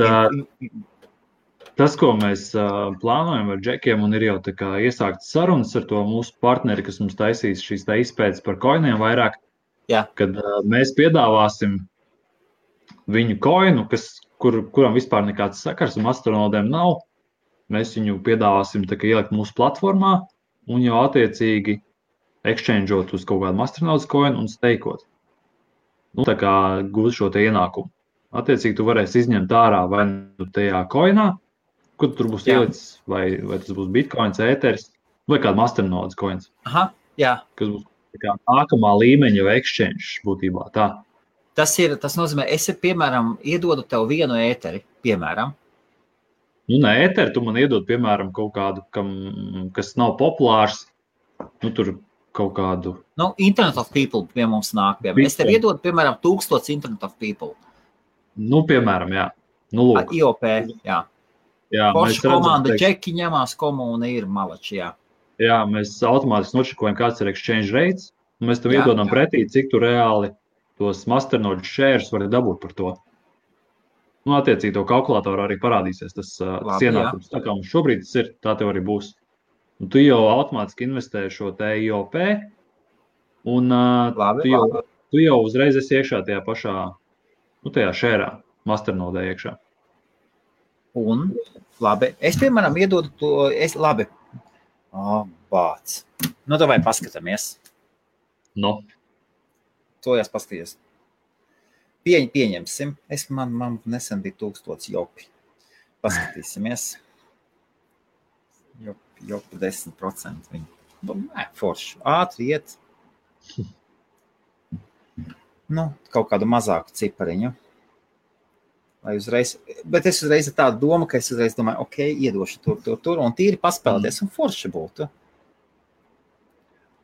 tas, ko mēs plānojam ar džekiem, un ir jau tā kā iesāktas sarunas ar to mūsu partneri, kas mums taisīs šīs tā izpētes par koiniem vairāk, kad mēs piedāvāsim viņu koinu, kuram vispār nekāds sakars un astronodiem nav, mēs viņu piedāvāsim tā kā ielikt mūsu platformā un jau attiecīgi exchangeot uz kaut kādu astronauts koinu un steikot. Nu, tā kā gūt šo te ienākumu. Attiecīgi tu varēsi izņemt ārā vai nu tajā koinā, kur tur būs ielicis, vai tas būs bitcoins, ēteris, vai kāda astronauts koins. Aha, jā. Kas būs tā kā nākamā līmeņa jau exchange būtībā tā. Tas nozīmē, es, piemēram, iedodu tev vienu ēteri, piemēram. Nu, ne ēteri, tu man iedod, piemēram, kaut kādu, kas nav populārs, nu, tur kaut kādu... Nu, Internet of People pie mums nāk, piemēram. Es tev iedodu, piemēram, 1000 Internet of People. Nu, piemēram, jā. Nu, lūk. IOP, jā. Jā, Forša komanda, džeki ņemās, komūna ir malači, jā. Jā, mēs automātiski nočekojam, kāds ir exchange rates, un mēs tev iedodam pretī, cik tu reāli tos masternode shares vari dabūt par to. Nu, attiecīgi, to kalkulātoru arī parādīsies tas ienākums. Tā kā mums šobrīd tas ir, tā tev arī būs. Un tu jau automātiski investē šo te IOP, un tu jau uzreiz esi iekšā tajā pašā, nu, tajā share masternodē iekšā. Un, labi, es, piemēram, iedodu to, labi, bāc. Nu, davai paskatāmies. No. To jās paskaties. Pieņemsim. Man nesen bija 1000 jopi. Paskatīsimies. Jopi 10% viņi. Forši. Ātri iet. Nu, kaut kādu mazāku cipariņu. Bet es uzreiz ar tādu domu, ka es uzreiz domāju, ok, iedošu tur, un tīri paspēlēties, un forši būtu.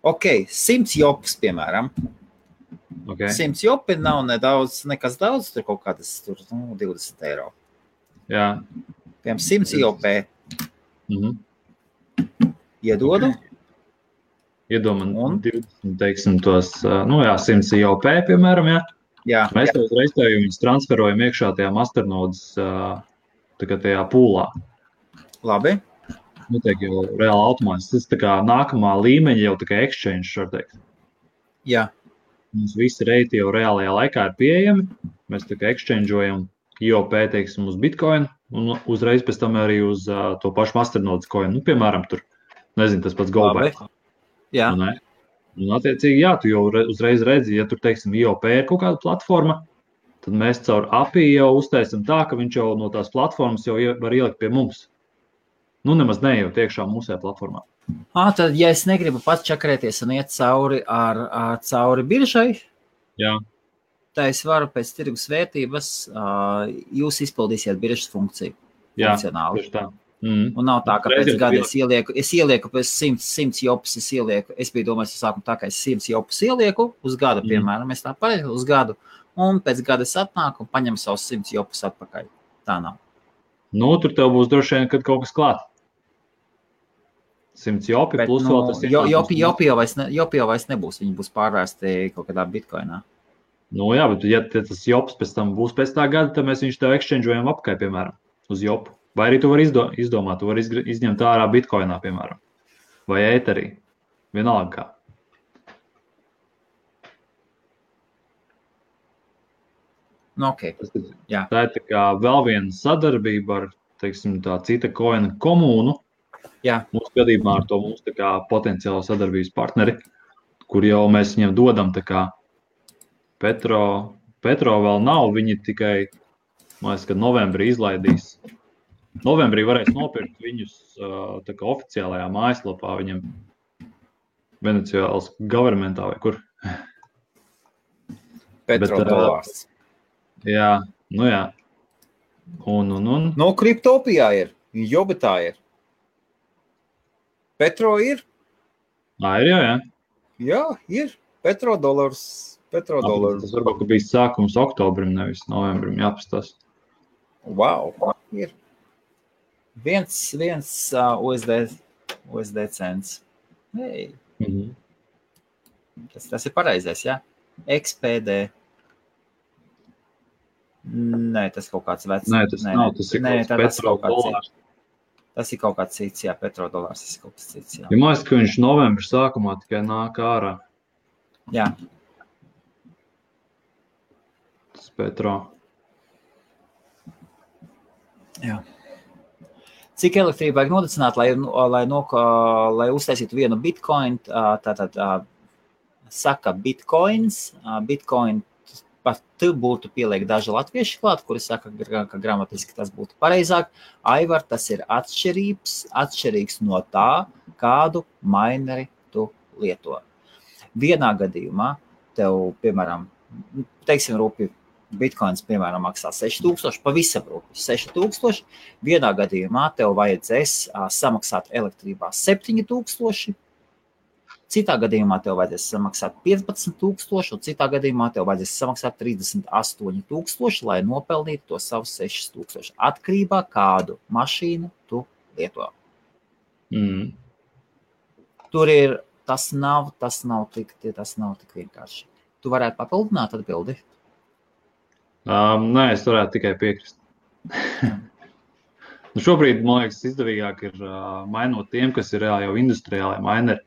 Ok, 100 jopus, piemēram. Okay. 100 jopi nav nekas daudz, tur kaut kādas 20 eiro. Jā. Piemēram, 100 jopē. Iedodu. Iedomam, 20, teiksim, tos, 100 jopē, piemēram, jā. Jā. Mēs jau uzreiz viņus transferojam iekšā tajā masternodes tajā pūlā. Labi. Notiek jau reāli automātiski. Tas tā kā nākamā līmeņa jau tā kā exchange, var teikt. Jā. Mums visi reiti jau reālajā laikā ir pieejami. Mēs tā kā exchangeojam IOP, teiksim, uz Bitcoin un uzreiz pēc tam arī uz to pašu masternodes coin. Nu, piemēram, tur, nezinu, tas pats GoBack. Jā. Un attiecīgi, jā, tu jau uzreiz redzi, ja tur, teiksim, IOP ir kaut kāda platforma, tad mēs caur API jau uztaisam tā, ka viņš jau no tās platformas jau var ielikt pie mums. Nu, nemaz nejūt iekšā mūsē platformā. Tad, ja es negribu pats čakarēties un iet cauri biržai, tā es varu pēc tirgus vērtības, jūs izpildīsiet biržas funkciju. Jā, funkcionāli. Tieši tā. Un nav tā, ka pēc gada es ielieku pēc 100 jopus, es biju domājis, sākumu tā, ka es 100 jopus ielieku uz gadu, piemēram, es tā pareizi uz gadu, un pēc gada es atnāku un paņemu savus 100 jopus atpakaļ. Tā nav. Nu, tur tev būs droši vien, kad kaut kas klāt. 100 jopi plus vēl tas jopi jau vairs nebūs, viņi būs pārvērsti kaut kādā bitcoinā. Nu jā, bet ja tas jops pēc tam būs pēc tā gada, tad mēs viņš tev exchangeojam apkai, piemēram, uz jopu. Vai arī tu vari izdomāt, tu vari izņemt ārā bitcoinā, piemēram, vai ēterī, vienalga kā. Nu, ok. Jā. Tā ir tā kā vēl viena sadarbība ar, teiksim, tā cita koina komūnu. Jā. Mūsu gadījumā ar to mūsu tā kā potenciālo sadarbības partneri, kur jau mēs viņiem dodam tā kā Petro vēl nav, viņi tikai, man liekas, kad novembrī izlaidīs. Novembrī varēs nopirkt viņus tā kā oficiālajā mājaslapā viņam Venecuēlas governmentā vai kur. Petrodolārs. Jā, nu jā. Un. No Kriptopijā ir, Jobitā ir. Petro ir? Ir, jā. Jā, ir. Petrodolārs. Tas varbūt, ka bija sākums oktobrim, nevis novembrim, jāpastās. Wow, ir. Viens USD cents. Hey. Tas ir pareizais, jā? XPD. Nē, tas kaut kāds vecs. Nē, tas nav, tas ir petrodolārs. Tas ir kaut kāds cits, jā, petrodolārs, tas ir kaut kāds cits, jā. Ja mājas, ka viņš novembra sākumā tikai nāk ārā. Jā. Tas petro. Jā. Cik elektrību vajag nodecināt, lai uztaisītu vienu bitcoin, tātad saka bitcoins, bitcoin par tu būtu pieliek daži latvieši klāt, kuri saka, ka gramatiski tas būtu pareizāk. Aivar, tas ir atšķirīgs no tā, kādu maineri tu lieto. Vienā gadījumā tev, piemēram, teiksim rūpi, bitcoins, piemēram, maksā 6000, pavisam rūpi 6000. Vienā gadījumā tev vajadzēs samaksāt elektrībā 7000. Citā gadījumā tev vajadzēs samaksāt 15000, un citā gadījumā tev vajadzēs samaksāt 38000, lai nopelnītu to savu 6000. Atkarībā kādu mašīnu tu lieto. Tur ir, tas nav tik vienkārši. Tu varētu papildināt atbildi? Nē, es varētu tikai piekrist. Šobrīd, man liekas, izdevīgāk ir mainot tiem, kas ir reāli jau industriālai maineri.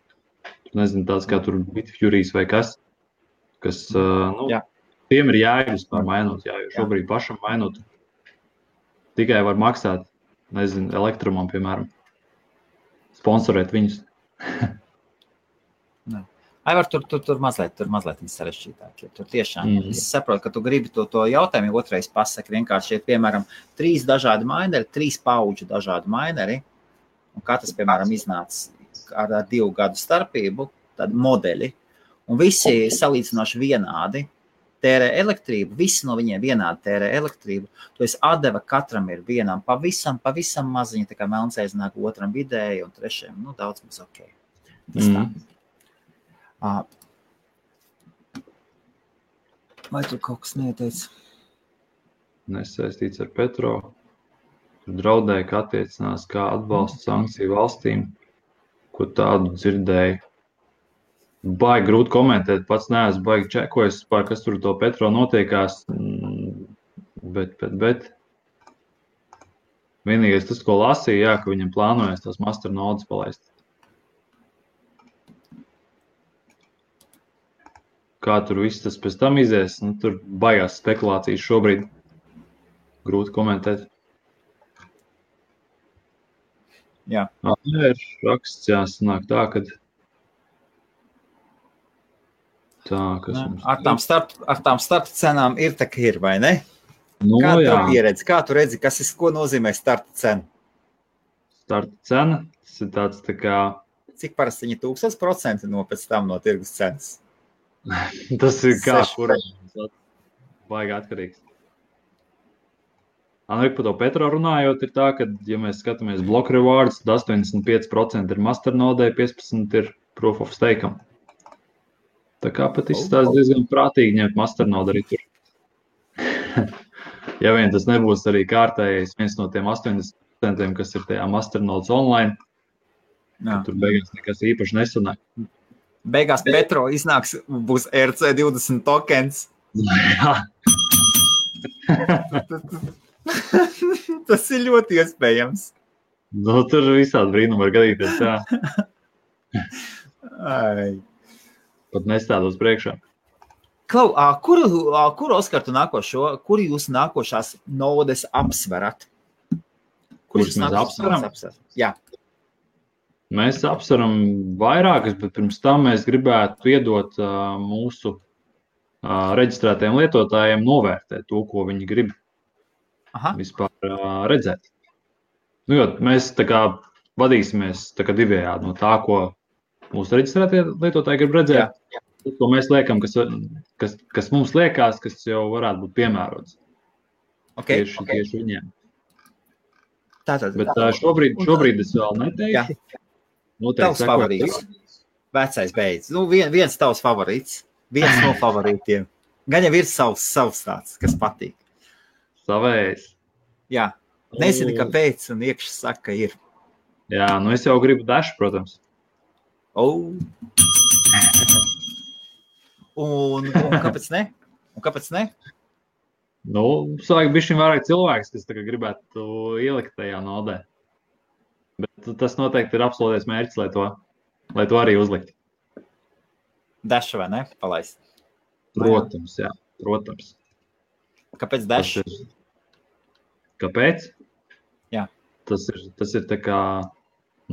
Nezinu, tāds kā tur Bitfuries vai kas tiem ir jēgas par mainot, jo šobrīd pašam mainot tikai var maksāt, nezinu, elektrumam, piemēram, sponsorēt viņus. Aivar, tur mazliet sarežģītāk. Tur tiešām, es saprotu, ka tu gribi to jautājumu otrais pasaki, vienkārši ir, piemēram, 3 dažādi maineri, 3 pauģu dažādi maineri, un katrs, piemēram, iznāca ar 2 gadu starpību, tādi modeļi, un visi salīdzinoši vienādi tērē elektrību, visi no viņiem vienādi tērē elektrību, to es atdeva katram ir vienam pavisam maziņa, tā kā melncēzināk otram vidēji un trešajam, daudz mums ok. Tas tā. Vai tu kaut kas neteici? Nesaistīts ar petro, tur draudēja, ka attiecinās kā atbalsta sankciju valstīm. Ko tādu dzirdēju. Baigi grūti komentēt, pats neesmu baigi čekojis, kas tur to petro notiekās, bet vienīgais tas, ko lasīju, ka viņam plānojas tās masternodes palaist. Kā tur viss tas pēc tam izies, tur baigās spekulācijas šobrīd. Grūti komentēt. Jā. Ir raksts, sanāk tā, kad ar tām starta cenām ir tā, ka ir, vai ne? Kā tu pieredzi? Kā tu redzi, ko nozīmē starta cena? Starta cena, tas ir tāds tā kā... Cik parasti viņi 1000% pēc tam no tirgus cenas? Tas ir kā, kur baigi atkarīgs. Par to petro runājot, ir tā, ka, ja mēs skatāmies block rewards, tad 85% ir masternodē, 15% ir proof of stake'am. Tā kā pat izstās diezgan prātīgi ņemt masternodu arī tur. Ja vien tas nebūs arī kārtējais viens no tiem 80%, kas ir tajā masternodes online, tur beigās nekas īpaši nesanāk. Beigās petro iznāks, būs RC20 tokens. Jā. Tas ir ļoti iespējams. Tur visādi brīnumi var gadīties, jā. Pat nestādos priekšā. Klau, kuru Oskar tu nākošo, kuru jūs nākošās nodes apsverat? Kurš mēs apsveram? Jā. Mēs apsveram vairākas, bet pirms tam mēs gribētu iedot mūsu reģistrētajiem lietotājiem novērtēt to, ko viņi grib. Vispār redzēt. Jo mēs tā kā vadīsimies tā kā divējādi no tā, ko mūsu reģistrētie lietotāji grib redzēt, ko mēs liekam, kas mums liekas, kas jau varētu būt piemērots. Tieši viņiem. Bet šobrīd es vēl neteikšu. Tavs favorīts. Vecais beidz. Viens tavs favorīts. Viens no favorītiem. Gan jau ir savs tāds, kas patīk. Savējs. Jā. Nezinu, kāpēc, un iekšā saka, ir. Jā, es jau gribu dašu, protams. Un kāpēc ne? Sāk bišķiņ vairāk cilvēks, kas tagad gribētu ielikt tajā nodē. Bet tas noteikti ir absolūtais mērķis, lai to arī uzlikt. Dash vai ne? Palaist. Protams, jā. Protams. Kāpēc Dash? Kāpēc? Jā. Tas ir tā kā...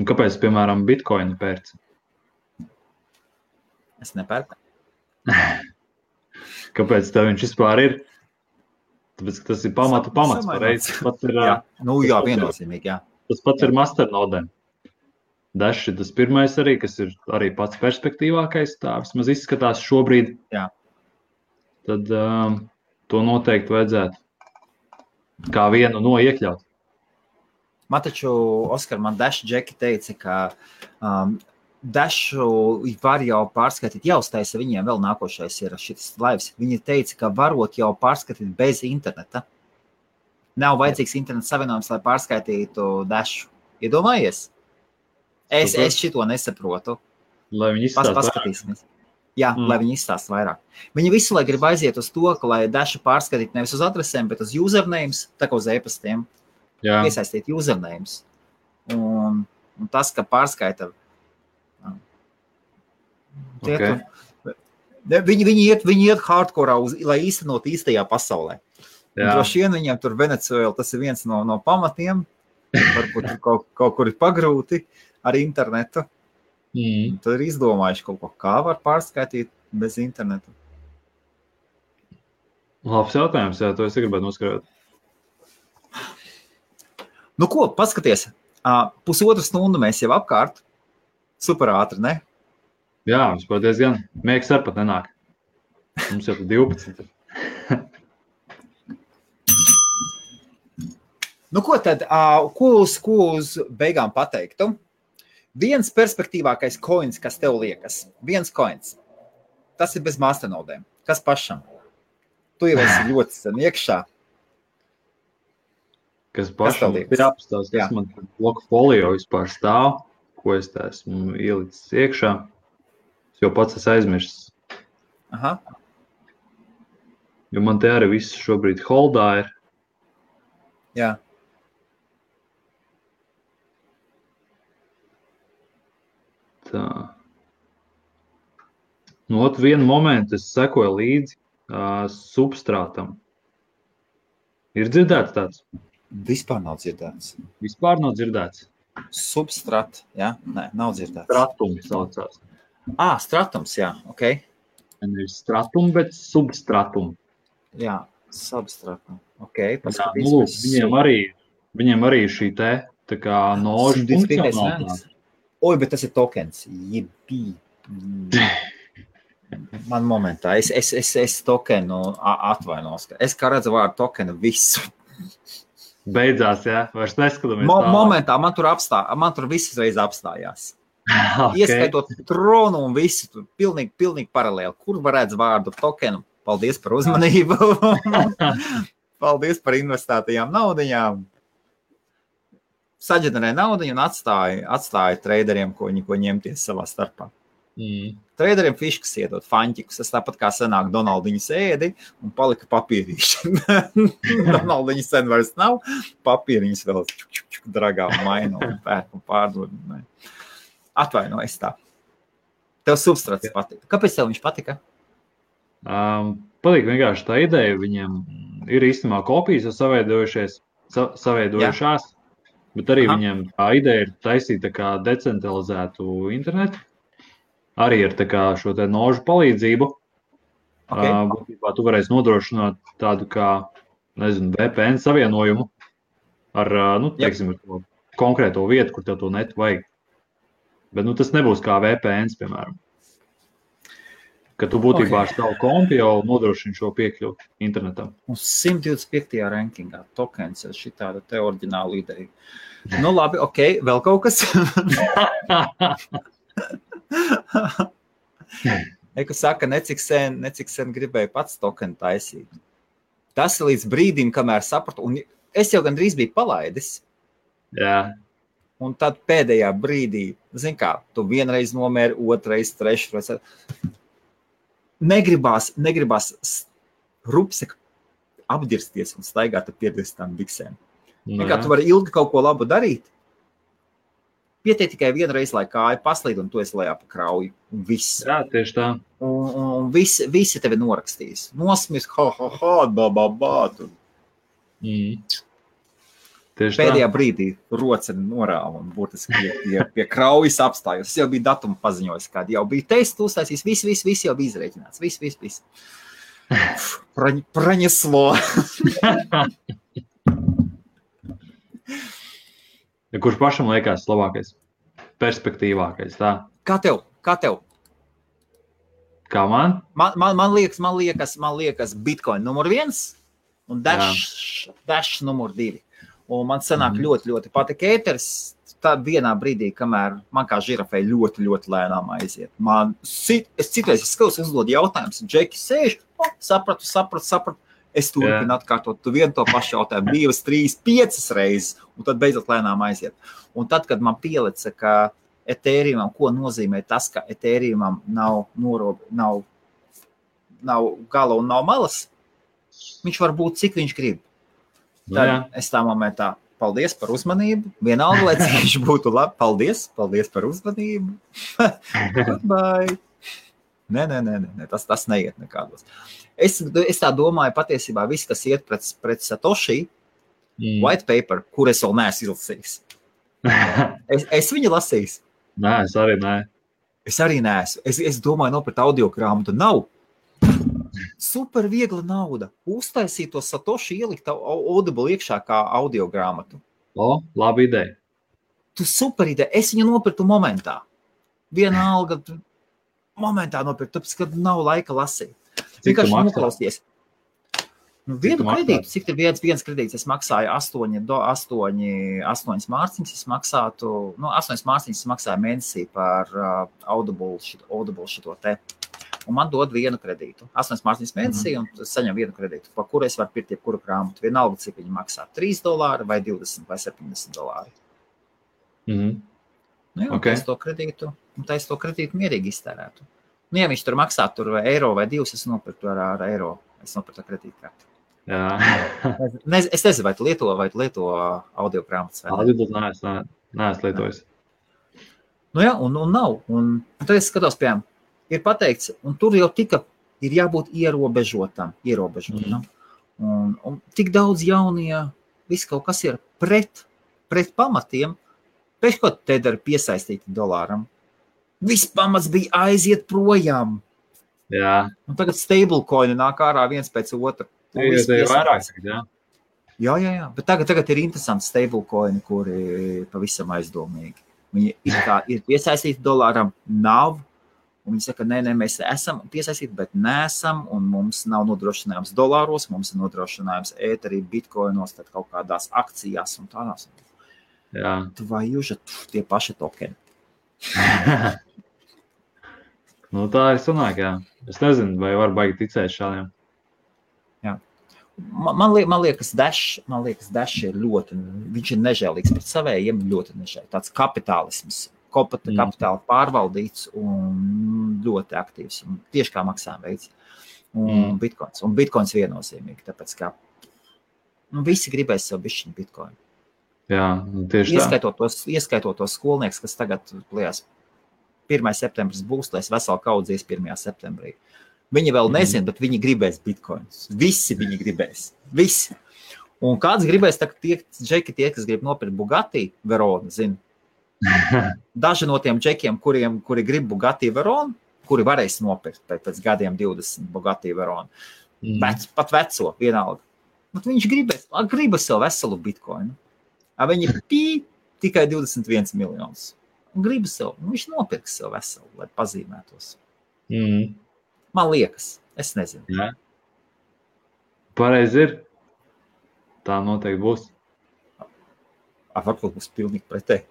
Kāpēc, piemēram, Bitcoinu pērci? Es nepērku. Kāpēc tev viņš vispār ir? Tāpēc, ka tas ir pamats pareiz. Jā, viennozīmīgi, jā. Tas pats ir masternodēm. Dash ir tas pirmais arī, kas ir arī pats perspektīvākais, tā vismaz izskatās šobrīd. Jā. Tad to noteikti vajadzētu kā vienu no iekļaut. Man taču, Oskar, Dash Džeki teica, ka Dashu var jau pārskatīt, jau uztaisa viņiem vēl nākošais ir šis laivs. Viņi teica, ka varot jau pārskatīt bez interneta. Nav vajadzīgs interneta savienojums, lai pārskaitītu Dashu. Iedomājies? Es šito nesaprotu. Lai viņi izstāst paskatīsimies. Jā, lai viņi izstāst vairāk. Viņi visu lai grib aiziet uz to, ka lai Dashu pārskatītu nevis uz adresēm, bet uz usernames, tā kā uz e-pastiem. Iesaistīt usernames. Un tas, ka pārskaita... Viņi iet hardcore, lai īstenot īstajā pasaulē. Droši vien viņiem tur Venecuēla, tas ir viens no pamatiem. Varbūt kaut kur ir pagrūti ar internetu. Tad ir izdomājuši kaut ko, kā var pārskaitīt bez internetu. Labs jautājums, jā, to es gribētu noskarot. Nu ko, paskaties, 1,5 stundu mēs jau apkārt. Super ātri, ne? Jā, vispār diezgan. Miegs ar pat nenāk. Mums jau 12. Nu ko tad, ko uz beigām pateiktu? Viens perspektīvākais coins, kas tev liekas. Viens coins. Tas ir bez masternodēm. Kas pašam? Tu jau esi ļoti sen iekšā. Kas pašam ir apstāsts, kas man bloku folio vispār stāv, ko es tā esmu ielicis iekšā. Es jau pats esmu aizmirsis. Aha. Jo man te arī viss šobrīd holdā ir. Jā. Tā. Nu, vienu momentu es sekoju līdzi substrātam. Ir dzirdēts tāds? Vispār nav dzirdēts. Vispār nav dzirdēts? Substrat, jā? Nē, nav dzirdēts. Stratums saucās. Stratums, jā, ok. Nevis stratum, bet substratum. Jā, substratum. Ok, paskatīsimies. Viņiem arī šī te, tā kā nožu funkcionālās. Oi, bet tas ir tokens. Jebī. Man momentā. Es tokenu atvainos. Es kā redzu vārdu tokenu visu. Beidzās, jā? Vairs neskatāmies momentā man tur viss reiz apstājās. Okay. Ieskaitot tronu un visu, tur pilnīgi paralēli. Kur varētu vārdu tokenu? Paldies par uzmanību. Paldies par investētajām naudiņām. Saģenerē naudiņu un atstāja traderiem, ko ņemties savā starpā. Traderiem fiškas iedot, faņķikus. Tas tāpat kā senāk Donaldiņas ēdi un palika papīrīši. Donaldiņas sen vairs nav, papīriņas vēl dragā un maina un pērk un pārdod. Atvainojas tā. Tev substrats patika. Kāpēc tev viņš patika? Patīk vienkārši tā ideja. Viņiem ir īstenībā kopijas saveidojušās, bet arī viņiem tā ideja ir taisīt tā kā decentralizētu internetu. Arī ar tā kā šo te nožu palīdzību. Būtībā tu varēsi nodrošināt tādu kā, nezinu, VPN savienojumu ar, teiksim, ar to konkrēto vietu, kur tev to netu vajag. Bet, tas nebūs kā VPNs, piemēram. Ka tu būtībā ar savu kompi jau nodrošini šo piekļuvu internetam. Un 125. rankingā tokens ir šī tāda te oriģināla ideja. Nu labi, ok, vēl kaut kas? Eku saka, necik sen gribēju pats tokenu taisīt. Tas ir līdz brīdim, kamēr sapratu, un es jau gandrīz biju palaidis. Jā. Un tad pēdējā brīdī, zin kā, tu vienreiz nomēri, otrreiz, trešreiz. Negribās rupsek apdirsties un staigāt ar pierdzistām biksēm. Kā tu vari ilgi kaut ko labu darīt, pietiek tikai vienreiz, lai kāja paslīd, un tu esi lejā pa krauju. Un viss. Jā, tieši tā. Un visi tevi norakstīs. Nosmies, tu. Pēdējā brīdī roceni norāva un būtiski pie kraujas apstājos. Es jau biju datumu paziņojis, kādi jau bija testu uztaisījis. Viss jau bija izrēķināts. Viss. Praņeslo. Kurš pašam liekas labākais? Perspektīvākais, tā? Kā tev? Kā man? Man liekas Bitcoin numur 1 un Dash numur 2. Un man sanāk ļoti patika ēteris. Tad vienā brīdī, kamēr man kā žirafei ļoti lēnām aiziet. Es citreiz skatos, uzdod jautājumus, Džeki sēž, sapratu. Es turpinu atkārtot vienu to pašu jautājumu 2, 3, 5 reizes, un tad beidzot lēnām aiziet. Un tad, kad man pielica, ka Ethereumam, ko nozīmē tas, ka Ethereumam nav gala un nav malas, viņš var būt, cik viņš grib. Tad es tā momentā, paldies par uzmanību, vienalga, lai cik viņš būtu labi, paldies par uzmanību, goodbye. Nē, tas neiet nekādos. Es tā domāju, patiesībā viss, kas iet pret Satoshi, white paper, kur es vēl neesmu izlasījis. Es viņu lasījis. Nē, es arī nē. Es arī neesmu. Es domāju, nopret audiogrāmatu nav. Super viegla nauda. Uztaisīt to Satoshi, ielikt Audible iekšā kā audiogrāmatu. Labi ideja. Tu super ideja. Es viņu nopirtu momentā. Vienalga momentā nopirkt, tāpēc, kad nav laika lasīt. Vienkārši noklausties. Vienu kredītu, cik ir viens kredīts, es maksāju 8 mārciņas, es maksātu, 8 mārciņas es maksāju mēnesī par Audible šito te. Un man dod vienu kredītu. 8 mārciņas mēnesī, un saņem vienu kredītu, pa kuru es varu pirkt jebkuru grāmatu. Vienalga, cik viņi maksā, $3 vai 20 vai $70. Es to kredītu mierīgi iztērētu. Ja viņš tur maksā eiro vai 2, es nopirktu ar eiro. Es nopirktu ar kredītkarti. Es nezinu, vai tu lieto audiogrāmatas vai ne? Audible neesmu lietojis. Un nav. Un tad es skatos, piemēram, ir pateikts, un tur jau ir jābūt ierobežotam. Un tik daudz jaunie, viss kaut kas ir pret pamatiem, pēc ko te dara piesaistīti dolāram. Viss pamats bija aiziet projām. Jā. Un tagad stablecoini nāk ārā viens pēc otra. Ir vairāk, jā. Jā. Bet tagad ir interesanti stablecoini, kuri pavisam aizdomīgi. Viņi ir piesaistīti dolāram, nav. Un viņi saka, nē, mēs esam piesaistīti, bet neesam. Un mums nav nodrošinājums dolāros, mums ir nodrošinājums ēterī, bitcoinos, tad kaut kādās akcijās un tādās. Jā. Vai jūs tie paši tokeni? Tā ir sanāk, jā. Es nezinu, vai var baigi ticēt šādiem. Jā. Man liekas, Dash ir ļoti, viņš ir nežēlīgs pret savējiem, ļoti nežēlīgs. Tāds kapitālisms, kapitāla pārvaldīts un ļoti aktīvs. Un tieši kā maksājuma veids. Un Bitcoins. Un Bitcoins viennozīmīgi, tāpēc kā visi gribēs sev bišķiņu Bitcoin. Jā, tieši ieskaitot tos skolnieks, kas tagad lielās 1. septembris būs, lai es veselu kaudzies 1. septembrī. Viņi vēl nezina, bet viņi gribēs bitcoins. Visi viņi gribēs. Visi. Un kāds gribēs, tie, kas grib nopirkt Bugatti Veronu, zina. Daži no tiem džekiem, kuri grib Bugatti Veronu, kuri varēs nopirkt pēc gadiem 20 Bugatti Veronu. Pat veco, vienalga. Bet viņš gribas sev veselu bitcoinu. Viņi tikai 21 miljonus. Un gribas sev, viņš nopirks sev veselu, lai pazīmētos. Man liekas, es nezinu. Jā. Pareizi ir. Tā noteikti būs. Varbūt būs pilnīgi pretēji.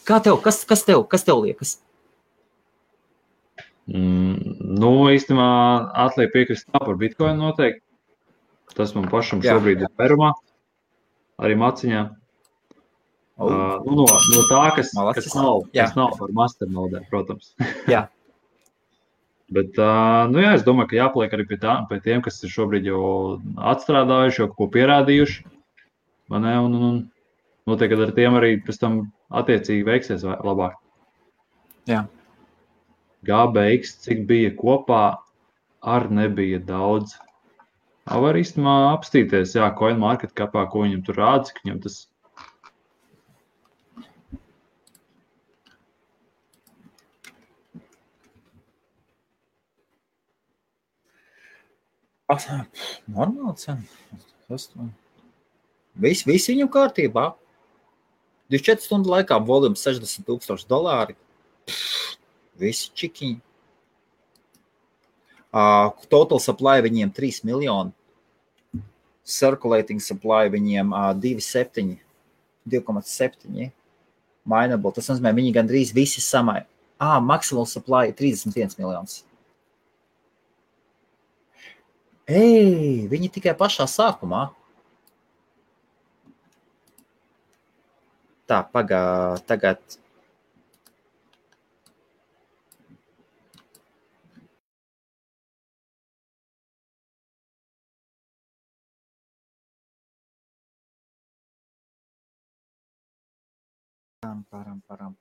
Kā tev? Kas tev liekas? Īstenībā atliek piekrist par Bitcoin noteikti. Tas man pašam šobrīd ir perumā. Arī maciņā. No tā, kas nav par masternodē, protams. Jā. Bet, nu jā, es domāju, ka jāpaliek arī pie tiem, kas ir šobrīd jau atstrādājuši, jau ko pierādījuši. Man ne, un notiek, ka ar tiem arī pēc tam attiecīgi veiksies labāk. Jā. GBX, cik bija kopā, ar nebija daudz. Var īstenībā apstīties, jā, CoinMarketCapā, ko viņam tur rāda, cik viņam tas. Normāli cena. Viss viņam kārtībā. 24 stundu laikā volums $60,000. Visi čikiņi. Total supply viņiem 3 miljoni. Circulating supply viņiem 2,7. Mineable. Tas nozīmē, viņi gandrīz visi samai. Maximal supply 31 miljonus. Viņi tikai pašā sākumā. Tā, tagad.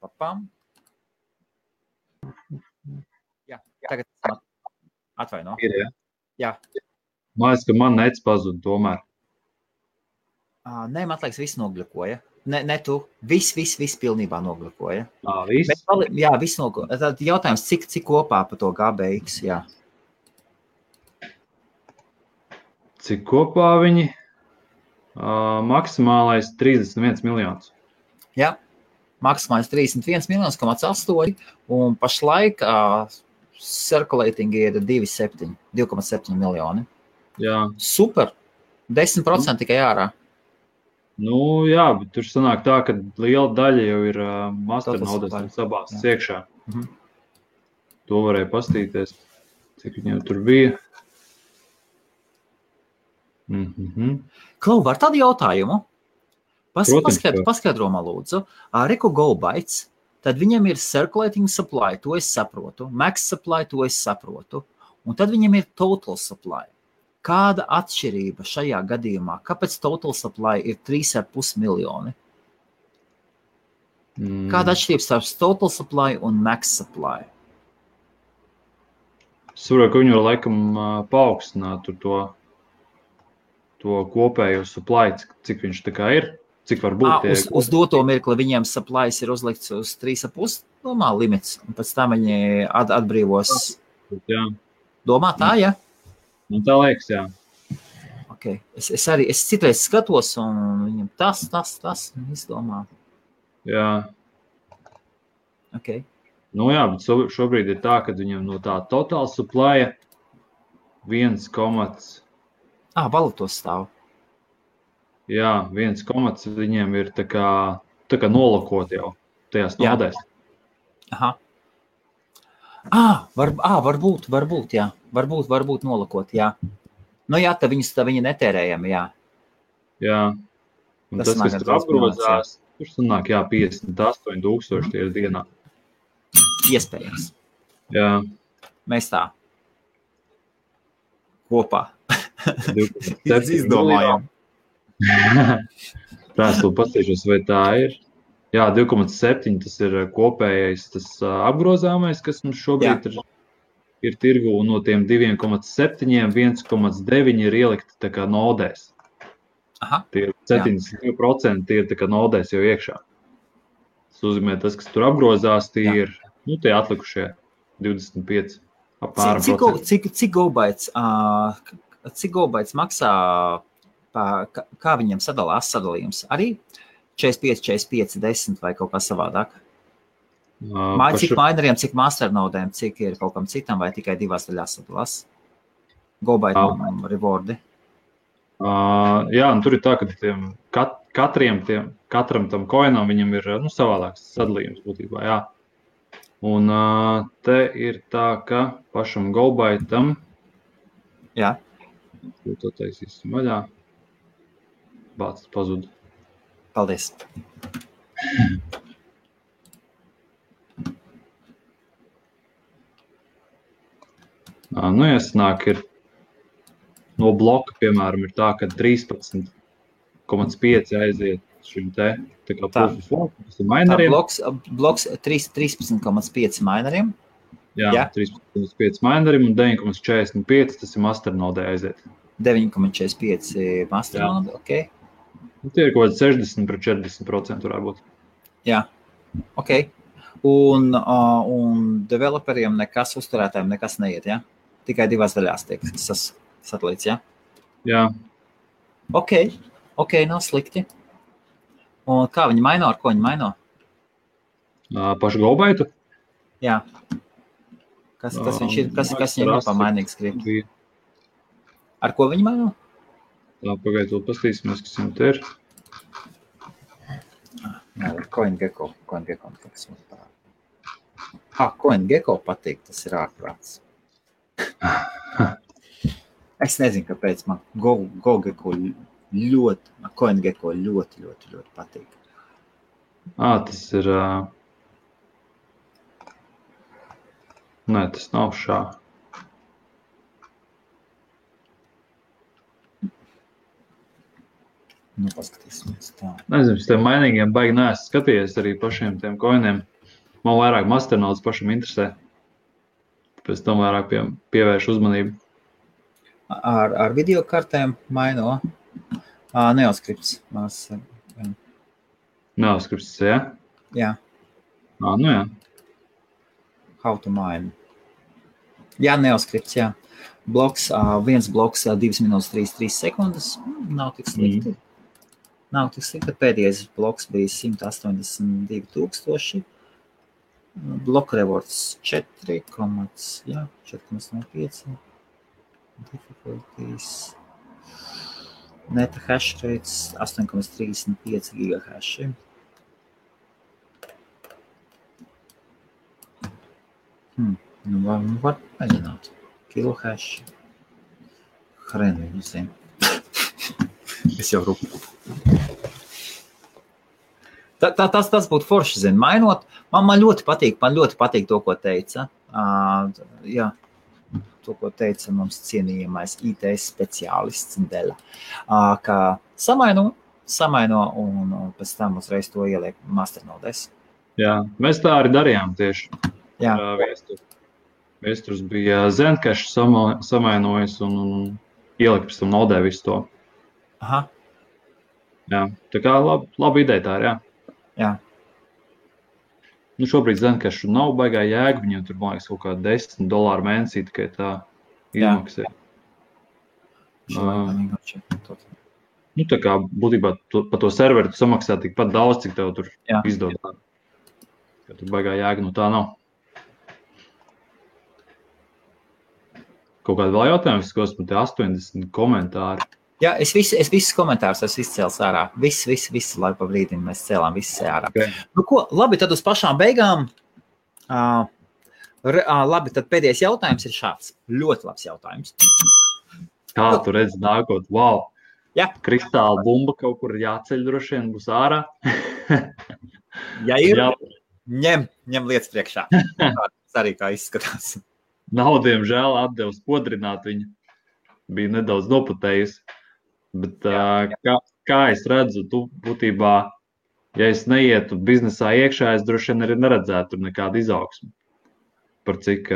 Param. Jā, tagad atvaino. Ir, ja? Jā. Man liekas, ka man nets pazud tomēr. Nē, man liekas, viss nogļukoja. Ne tu. Viss pilnībā nogļukoja. Viss? Jā, viss nogļukoja. Tad jautājums, cik kopā pa to GBX, jā. Cik kopā viņi? Maksimālais 31 miljonus. Jā. Maksimālais 31 miljonus, 8, un pašlaik circulating ir 2,7 miljoni. Jā. Super. 10% tikai ārā. Nu, jā, bet tur sanāk tā, ka liela daļa jau ir masternodēs abās iekšā. To varēja pastīties, cik viņiem tur bija. Klau, var tādu jautājumu? Paskaidro man lūdzu. Reku GoBytes, tad viņam ir circulating supply, to es saprotu. Max supply, to es saprotu. Un tad viņam ir total supply. Kāda atšķirība šajā gadījumā? Kāpēc total supply ir 3,5 miljoni? Kāda atšķirība starp total supply un max supply? Es saprotu, ka viņi var laikam paaugstināt to kopējo supply, cik viņš tā kā ir, cik var būt. Uz doto mirkli viņiem supplies ir uzlikts uz 3,5 limits, un pēc tam viņi atbrīvos. Jā. Domā tā, ja? Nu, tā liekas, jā. Okay. Es citreiz skatos, un viņam tas izdomā. Jā. Okay. Nu jā, bet šobrīd ir tā, ka viņam no tā total supply 1, valūtos stāv. Jā, 1, viņiem ir tā kā nolokot jau tajās nodēs. Aha. Varbūt, jā. Varbūt nolokot, jā. Nu jā, tad viņi netērējami, jā. Jā. Un tas kas tur apgrozās, tur sanāk, jā, 58,000 tie ir dienā. Iespējams. Jā. Mēs tā. Kopā. Izdomājām. Tās pastīšos, vai tā ir. Jā, 2,7 tas ir kopējais, tas apgrozāmais, kas mums šobrīd ir tirgu, un no tiem 2,7, 1,9 ir ielikti tā kā nodēs. Aha. Tie 72% tie ir tā kā nodēs jau iekšā. Tas nozīmē, tas, kas tur apgrozās, tie ir, tie atlikušie 25 apmēram procenti. Cik GoBytes maksā, kā viņiem sadalījums? Arī 45, 45, 10 vai kaut kā savādāk? Cik mineriem, cik masternodēm, cik ir kaut kam citam, vai tikai divās daļās sadalās? GoByte un rewardi? Jā, un tur ir tā, ka katram tam coinam viņam ir savādāks sadalījums būtībā, jā. Un te ir tā, ka pašam GoByteam to taisīsim vaļā. Bācis pazuda. Paldies. Nu, jāsanāk, ir no bloka, piemēram, ir tā, ka 13,5 aiziet šim te, tā kā proof of work, tas ir mineriem. Bloks 13,5 mineriem. Jā, 13,5 mineriem un 9,45 tas ir masternodē aiziet. 9,45 masternode, ok. Tie ir kaut kādi 60% varētu būt. Jā, ok. Un developeriem nekas, uzturētājiem nekas neiet, ja? Tikai divās daļās tiek sadalīts, ja? Jā. Ok, nav slikti. Un kā viņi maino, ar ko viņi maino? Pašu GoBaitu? Jā. Kas viņš ir, kas viņam ir pamainīgs grib? Ar ko viņi maino? Tā, pagaidu, pastīsimies, kas viņam te ir. Jā, CoinGecko kas mums parāda. CoinGecko patīk, tas ir ārprāts. Es nezinu, kāpēc man CoinGecko ļoti patīk. Tas ir... Nē, tas nav šā. Nu, paskatīsimies tā. Nezinu, es tiem mainīgiem baigi neesmu skatījies arī pašiem tiem koiniem. Man vairāk masternodes pašam interesē. Pēc tam vairāk pievērš uzmanību. Ar video kartēm maino? Neoskripts. Neoskripts, jā? Jā. Nu jā. How to mine. Jā, neoskripts, jā. Viens bloks 2 minūtes 33 sekundes. Nav tik slikti. Nav tik slikti. Pēdējais bloks bija 182,000. Block rewards 4,05. Difficulties. Neta hash rates 8,35 gigahashi. Nu, var mēģināt. Kilohash. Hren viņu zinu. Es jau rupu. Tas būtu forši, zinu. Mainot, man ļoti patīk to, ko teica. Jā, to, ko teica mums cienījamais IT speciālists Dela. Ka samaino un pēc tam uzreiz to ieliek masternodēs. Jā, mēs tā arī darījām tieši. Jā. Viesturs bija Zencash samainojis un ielika pēc tam nodē visu to. Aha. Jā, tā kā laba ideja tā ir, jā. Jā. Nu, šobrīd Zencashu nav baigā jēga, viņam tur, man liekas, kaut kā $10 mēnesī tikai tā izmaksē. Nu, tā kā būtībā pa to serveri tu samaksā tikpat daudz, cik tev tur izdod. Ka tur baigā jēga, nu tā nav. Kaut kāda vēl jautājums, kas man te 80 komentāri. Jā, es visus komentārus esmu izcēlis ārā. Visu laiku pa brīdim mēs cēlām visu ārā. Okay. Nu ko, labi, tad uz pašām beigām. Labi, tad pēdējais jautājums ir šāds. Ļoti labs jautājums. Kā tu redzi nākot? Wow! Jā. Kristāla bumba kaut kur jāceļ droši vien būs ārā. Ja ir, ņem lietas priekšā. Tas arī kā izskatās. Nav, diemžēl, atdevu spodrināt viņu. Bija nedaudz noputējusi. Bet kā es redzu, tu būtībā, ja es neietu biznesā iekšā, es droši vien arī neredzētu tur nekādu izaugsmu. Par cik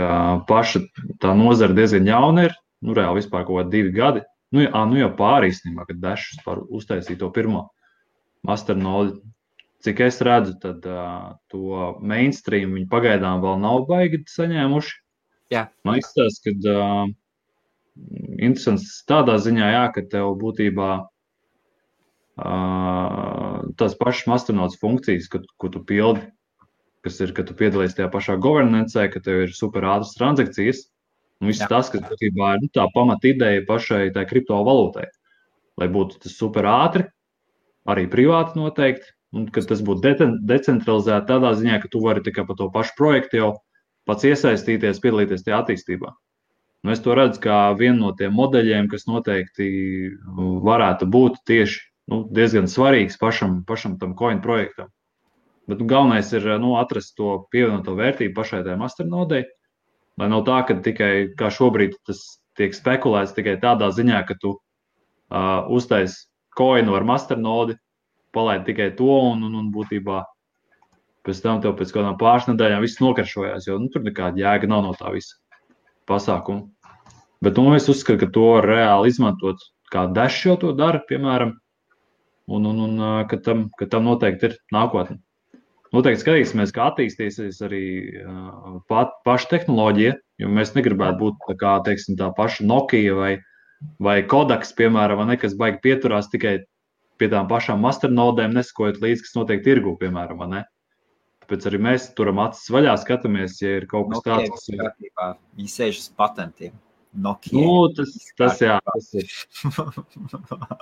paša tā nozara diezgan jauna ir, nu reāli vispār kaut kādi 2 gadi. Nu jau pāri īstenībā, kad Dash vispār uztaisīja to pirmo masternodi. Cik es redzu, tad to mainstream viņi pagaidām vēl nav baigi saņēmuši. Jā. Man izstāsta, ka interesants tādā ziņā, jā, ka tev būtībā tās pašas masternodes funkcijas, ko tu pildi, kas ir, ka tu piedalies tajā pašā governancē, ka tev ir super ātras transakcijas, un viss tas, kas būtībā ir tā pamata ideja pašai tai kriptovalūtai, lai būtu tas super ātri, arī privāti noteikti, un ka tas būtu decentralizēti tādā ziņā, ka tu vari tikai pa to pašu projektu jau pats iesaistīties, piedalīties tajā attīstībā. Un es to redzu kā vienu no tiem modeļiem, kas noteikti varētu būt tieši diezgan svarīgs pašam tam coin projektam. Bet galvenais ir atrast to pievienoto vērtību pašai tajā masternodei, Lai nav tā, ka tikai kā šobrīd tas tiek spekulēts tikai tādā ziņā, ka tu uztais coinu ar masternodi, palaid tikai to un būtībā pēc tam tev pēc kādām pāris nedēļām viss nokaršojās, jo tur nekāda jēga nav no tā visa pasākuma. Bet es uzskatu, ka to var reāli izmantot, kā Dash jau to dara, piemēram, un ka tam noteikti ir nākotne. Noteikti skatīsimies, kā attīstīsies arī paša tehnoloģija, jo mēs negribētu būt tā kā, teiksim, tā paša Nokia vai Kodaks, piemēram, vai nekas baigi pieturās tikai pie tām pašām masternodēm, nesakojot līdz, kas notiek tirgu, piemēram, vai ne? Tāpēc arī mēs turam acis vaļā, skatāmies, ja ir kaut kas tāds, kas ir. Viņi sēž uz patentiem. Nokia. Tas ir.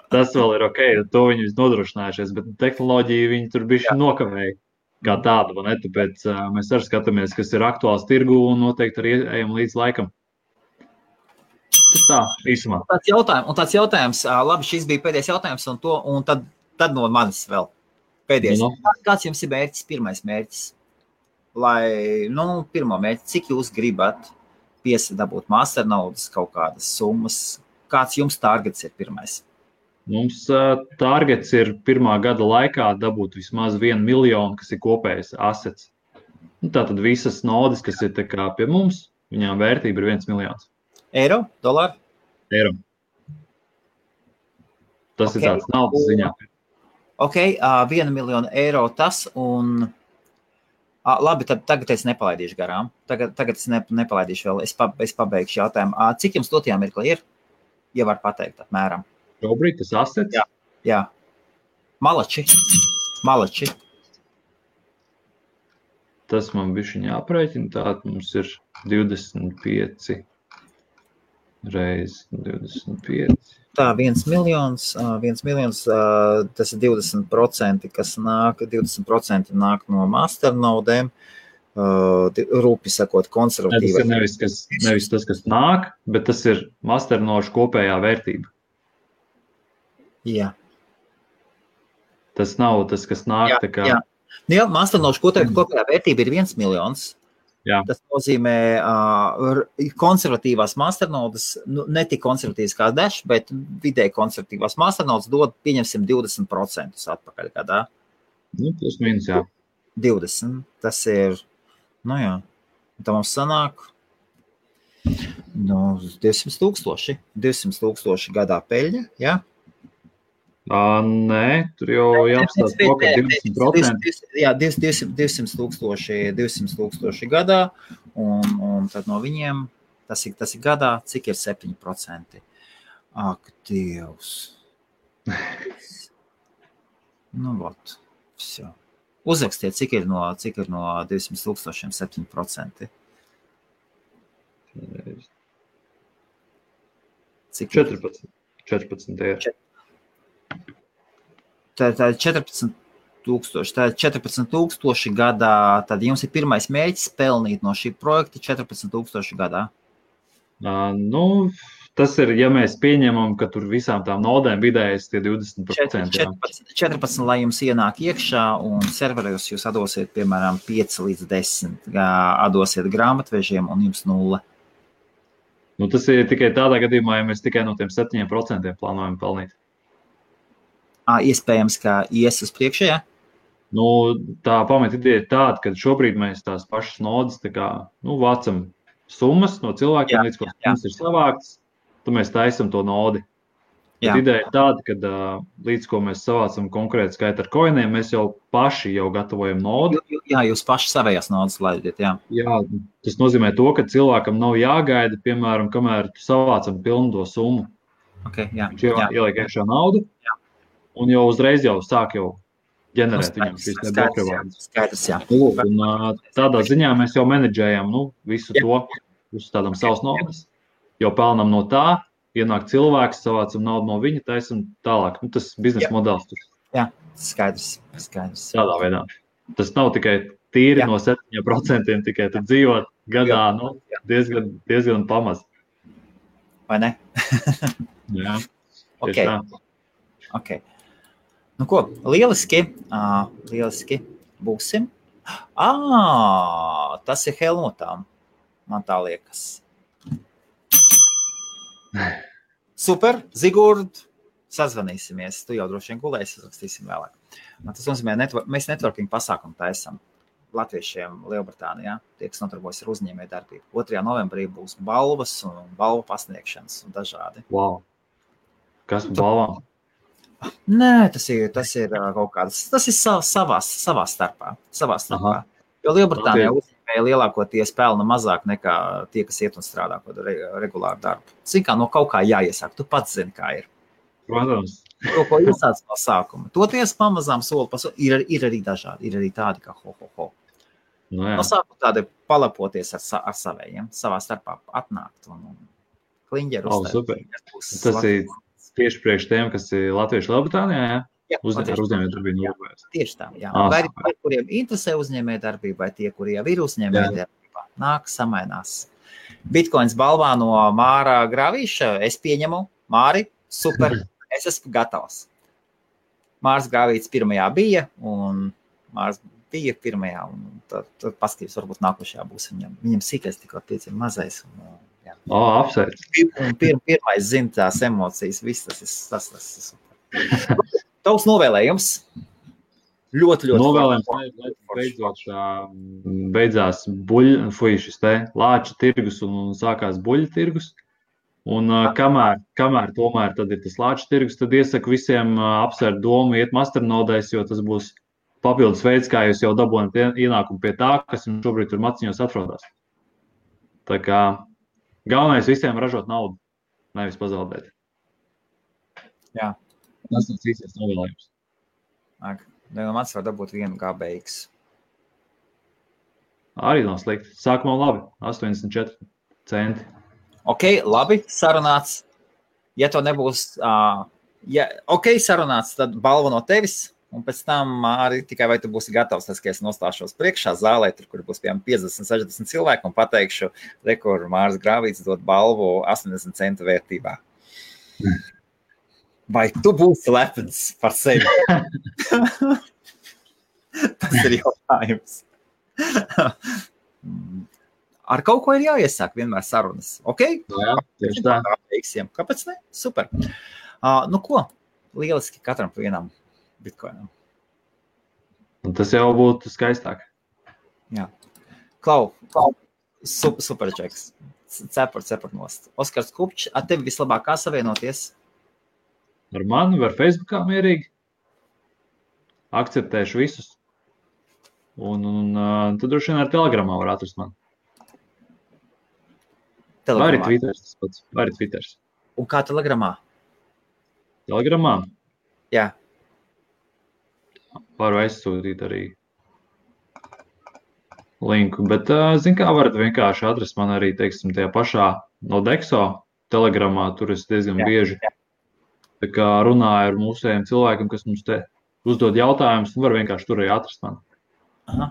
Tas vēl ir ok, to viņi nodrošinājušies, bet tehnoloģiju viņi tur bišķi nokavēja kā tādu, vai ne? Tāpēc mēs arī skatāmies, kas ir aktuāls tirgu un noteikti arī ejam līdz laikam. Tas tā, īsumā. Un tāds jautājums, labi, šis bija pēdējais jautājums, un tad no manis vēl pēdējais. Kāds jums ir mērķis, pirmais mērķis? Pirmo mērķi, cik jūs gribat dabūt masternaudas kaut kādas summas? Kāds jums targets ir pirmais? Mums targets ir pirmā gada laikā dabūt vismaz 1 miljonu, kas ir kopējais assets. Tātad visas nodes, kas ir tā kā pie mums, viņām vērtība ir 1 miljons. Eiro? Dolāru? Eiro. Tas ir tāds naudas ziņā. Ok, 1 miljonu eiro tas un... Labi, tad tagad es nepalaidīšu garām. Tagad es nepalaidīšu vēl. Es pabeigšu jautājumu. Cik jums dotajā mirklī ir? Ja var pateikt apmēram. Šobrīd tas assets? Jā. Malači. Tas man bišķiņ jāprēķina. Tātad mums ir 25 reiz 25. Tā, 1 miljons, tas ir 20%, kas nāk, 20% nāk no masternodēm, rūpi sakot, konservatīvai. Tas ir nevis tas, kas nāk, bet tas ir masternošu kopējā vērtība. Jā. Tas nav tas, kas nāk tā kā... Jā, masternošu kopējā vērtība ir 1 miljons. Jā. Tas nozīmē konservatīvās masternodas, ne tik konservatīvas kā Dash, bet vidēji konservatīvās masternodas dod, pieņemsim, 20% atpakaļ gadā. Plus mīnus, jā. 20. Tas ir, tā mums sanāk 200 tūkstoši gadā peļņa, jā? Nē, tur jau jāapstāst to, ka 20%. Jā, 200 tūkstoši gadā, un tad no viņiem, tas ir gadā, cik ir 7%. Ak, Dievs. Vot, viss jau. Uzrakstiet, cik ir no 200 tūkstošiem 7%. Cik 14 ir. Tā ir 14 tūkstoši gadā, tad jums ir pirmais mērķis pelnīt no šī projekta 14 tūkstoši gadā. Tas ir, ja mēs pieņemam, ka tur visām tām nodēm vidējais tie 20%. 14, lai jums ienāk iekšā, un serveros jūs atdosiet, piemēram, 5 līdz 10, atdosiet grāmatvežiem, un jums 0. Tas ir tikai tādā gadījumā, ja mēs tikai no tiem 7% plānojam pelnīt. Iespējams, ka ies uz priekšu, jā? Tā pamata ideja ir tāda, ka šobrīd mēs tās pašas nodas vācam summas no cilvēkiem, līdz ko mums ir savāktas, tad mēs taisam to nodi. Bet ideja ir tāda, ka līdz ko mēs savācam konkrētu skaitu ar coiniem, mēs jau paši gatavojam nodu. Jā, jūs paši savējās nodas laidiet, jā. Jā, tas nozīmē to, ka cilvēkam nav jāgaida, piemēram, kamēr savācam pilnu to summu. Okay, jā. Ieliek iekšā naudu. Jā. Un jau uzreiz sāk ģenerēt viņam šīs bloku vārdas. Skaidrs, jā. Tādā ziņā mēs jau menedžējam visu to, uzstādām savas naudas, jau pelnam no tā, ienāk cilvēks, savācam naudu no viņa, taisam tālāk. Tas biznesa modelis. Jā, skaidrs. Tādā veidā. Tas nav tikai tīri no 7%, tikai tu dzīvot gadā diezgan pamaz. Vai ne? Jā, tieši tā. Ok. Ko, lieliski būsim. Tas ir Helmutām. Man tā liekas. Super, Zigurd, sazvanīsimies. Tu jau droši vien gulēsi, uzrakstīsim vēlāk. Tas nozīmē, mēs networking pasākumu taisam latviešiem Lielbritānijā, tie, kas notarbojas ar uzņēmēju darbību. 2. novembrī būs balvas un balvu pasniegšanas un dažādi. Wow. Kas par balvām? Nē, tas ir kaut kādas, tas ir savā starpā. Jo Lielbritānijā uzņēmēji lielākoties pelna mazāk nekā tie, kas iet un strādā kaut regulāru darbu. Zin kā, no kaut kā jāiesāk, tu pats zini, kā ir. Protams. Ko iesāc no sākuma. Toties pamazām soli pa soli, ir arī dažādi, ir arī tādi, kā ho. No sākuma tādi palapoties ar savējiem, savā starpā atnākt un kliņģeru uzstāt. Tas ir tieši priekš tiem, kas ir latvieši Lielbritānijā, jā? Uzņēmējdarbību novērt. Tieši tā, jā. Vai arī, kuriem interesē uzņēmējdarbība, vai tie, kuri jau ir uzņēmējdarbībā, nāk, samainās. Bitcoins balvā no Māra Grāvīša, es pieņemu, Māri, super, es esmu gatavs. Mārs Grāvīts pirmajā bija, un Mārs bija pirmajā, un tad paskatījums varbūt nākošajā būs viņam sīkais tikko pieciem mazais. Apsveic. Un pirmais zina tās emocijas, viss tas ir super. Tavs novēlējums? Ļoti. Novēlējums, beidzās šis te lāča tirgus un sākās buļļa tirgus. Un kamēr tomēr tad ir tas lāča tirgus, tad iesaku visiem apsvērt domu, iet masternodēs, jo tas būs papildus veids, kā jūs jau dabūjat ienākumu pie tā, kas jums šobrīd tur maciņos atrodas. Tā kā galvenais visiem ražot naudu, nevis pazaudēt. Jā. Tas ir īstais novēlējums. Mans var dabūt 1 GBX. Arī nav slikti. Sākumā labi, 84 centi. Ok, labi, sarunāts. Ja to nebūs, sarunāts, tad balva no tevis. Un pēc tam arī tikai vai tu būsi gatavs, tas, ka es nostāšos priekšā zālē, tur, kur būs piemēram 50-60 cilvēki, un pateikšu, kur Mārs Grāvīts dod balvu 80 centu vērtībā. Vai tu būsi lepns par sevi? Tas ir jautājums. Ar kaut ko ir jāiesāk vienmēr sarunas, ok? Jā, tieši tā. Kāpēc ne? Super. Ko? Lieliski katram pa vienam bitcoinam. Un tas jau būtu skaistāk. Jā. Klau, super čeks. Cepur nost. Oskars Kupčs, ar tevi vislabāk kā savienoties? Ar mani var Facebookā mierīgi. Akceptēšu visus. Un tad droši vien ar Telegramā var atrast mani. Vai arī Twitters tas pats. Vai arī Twitters. Un kā Telegramā? Telegramā? Jā. Varu aizsūtīt arī linku, bet, zin kā, varat vienkārši atrast man arī, teiksim, tajā pašā no Dexo Telegramā, tur es diezgan bieži tā kā runāju ar mūsējiem cilvēkiem, kas mums te uzdod jautājumus, un var vienkārši tur arī atrast mani. Aha.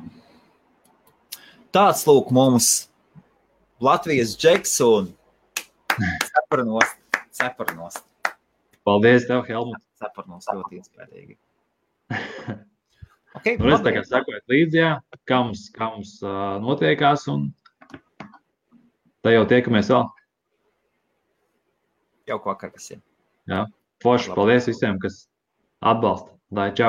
Tāds lūk mums Latvijas džeks un cepurnost. Paldies tev, Helmut. Cepurnost ļoti iespējīgi. Okay, nu, es tā kā sakoju līdzi, kā mums notiekās, un tā jau tiekamies vēl. Jauku vakar visiem. Jā, forši, paldies visiem, kas atbalsta. Lai, čau.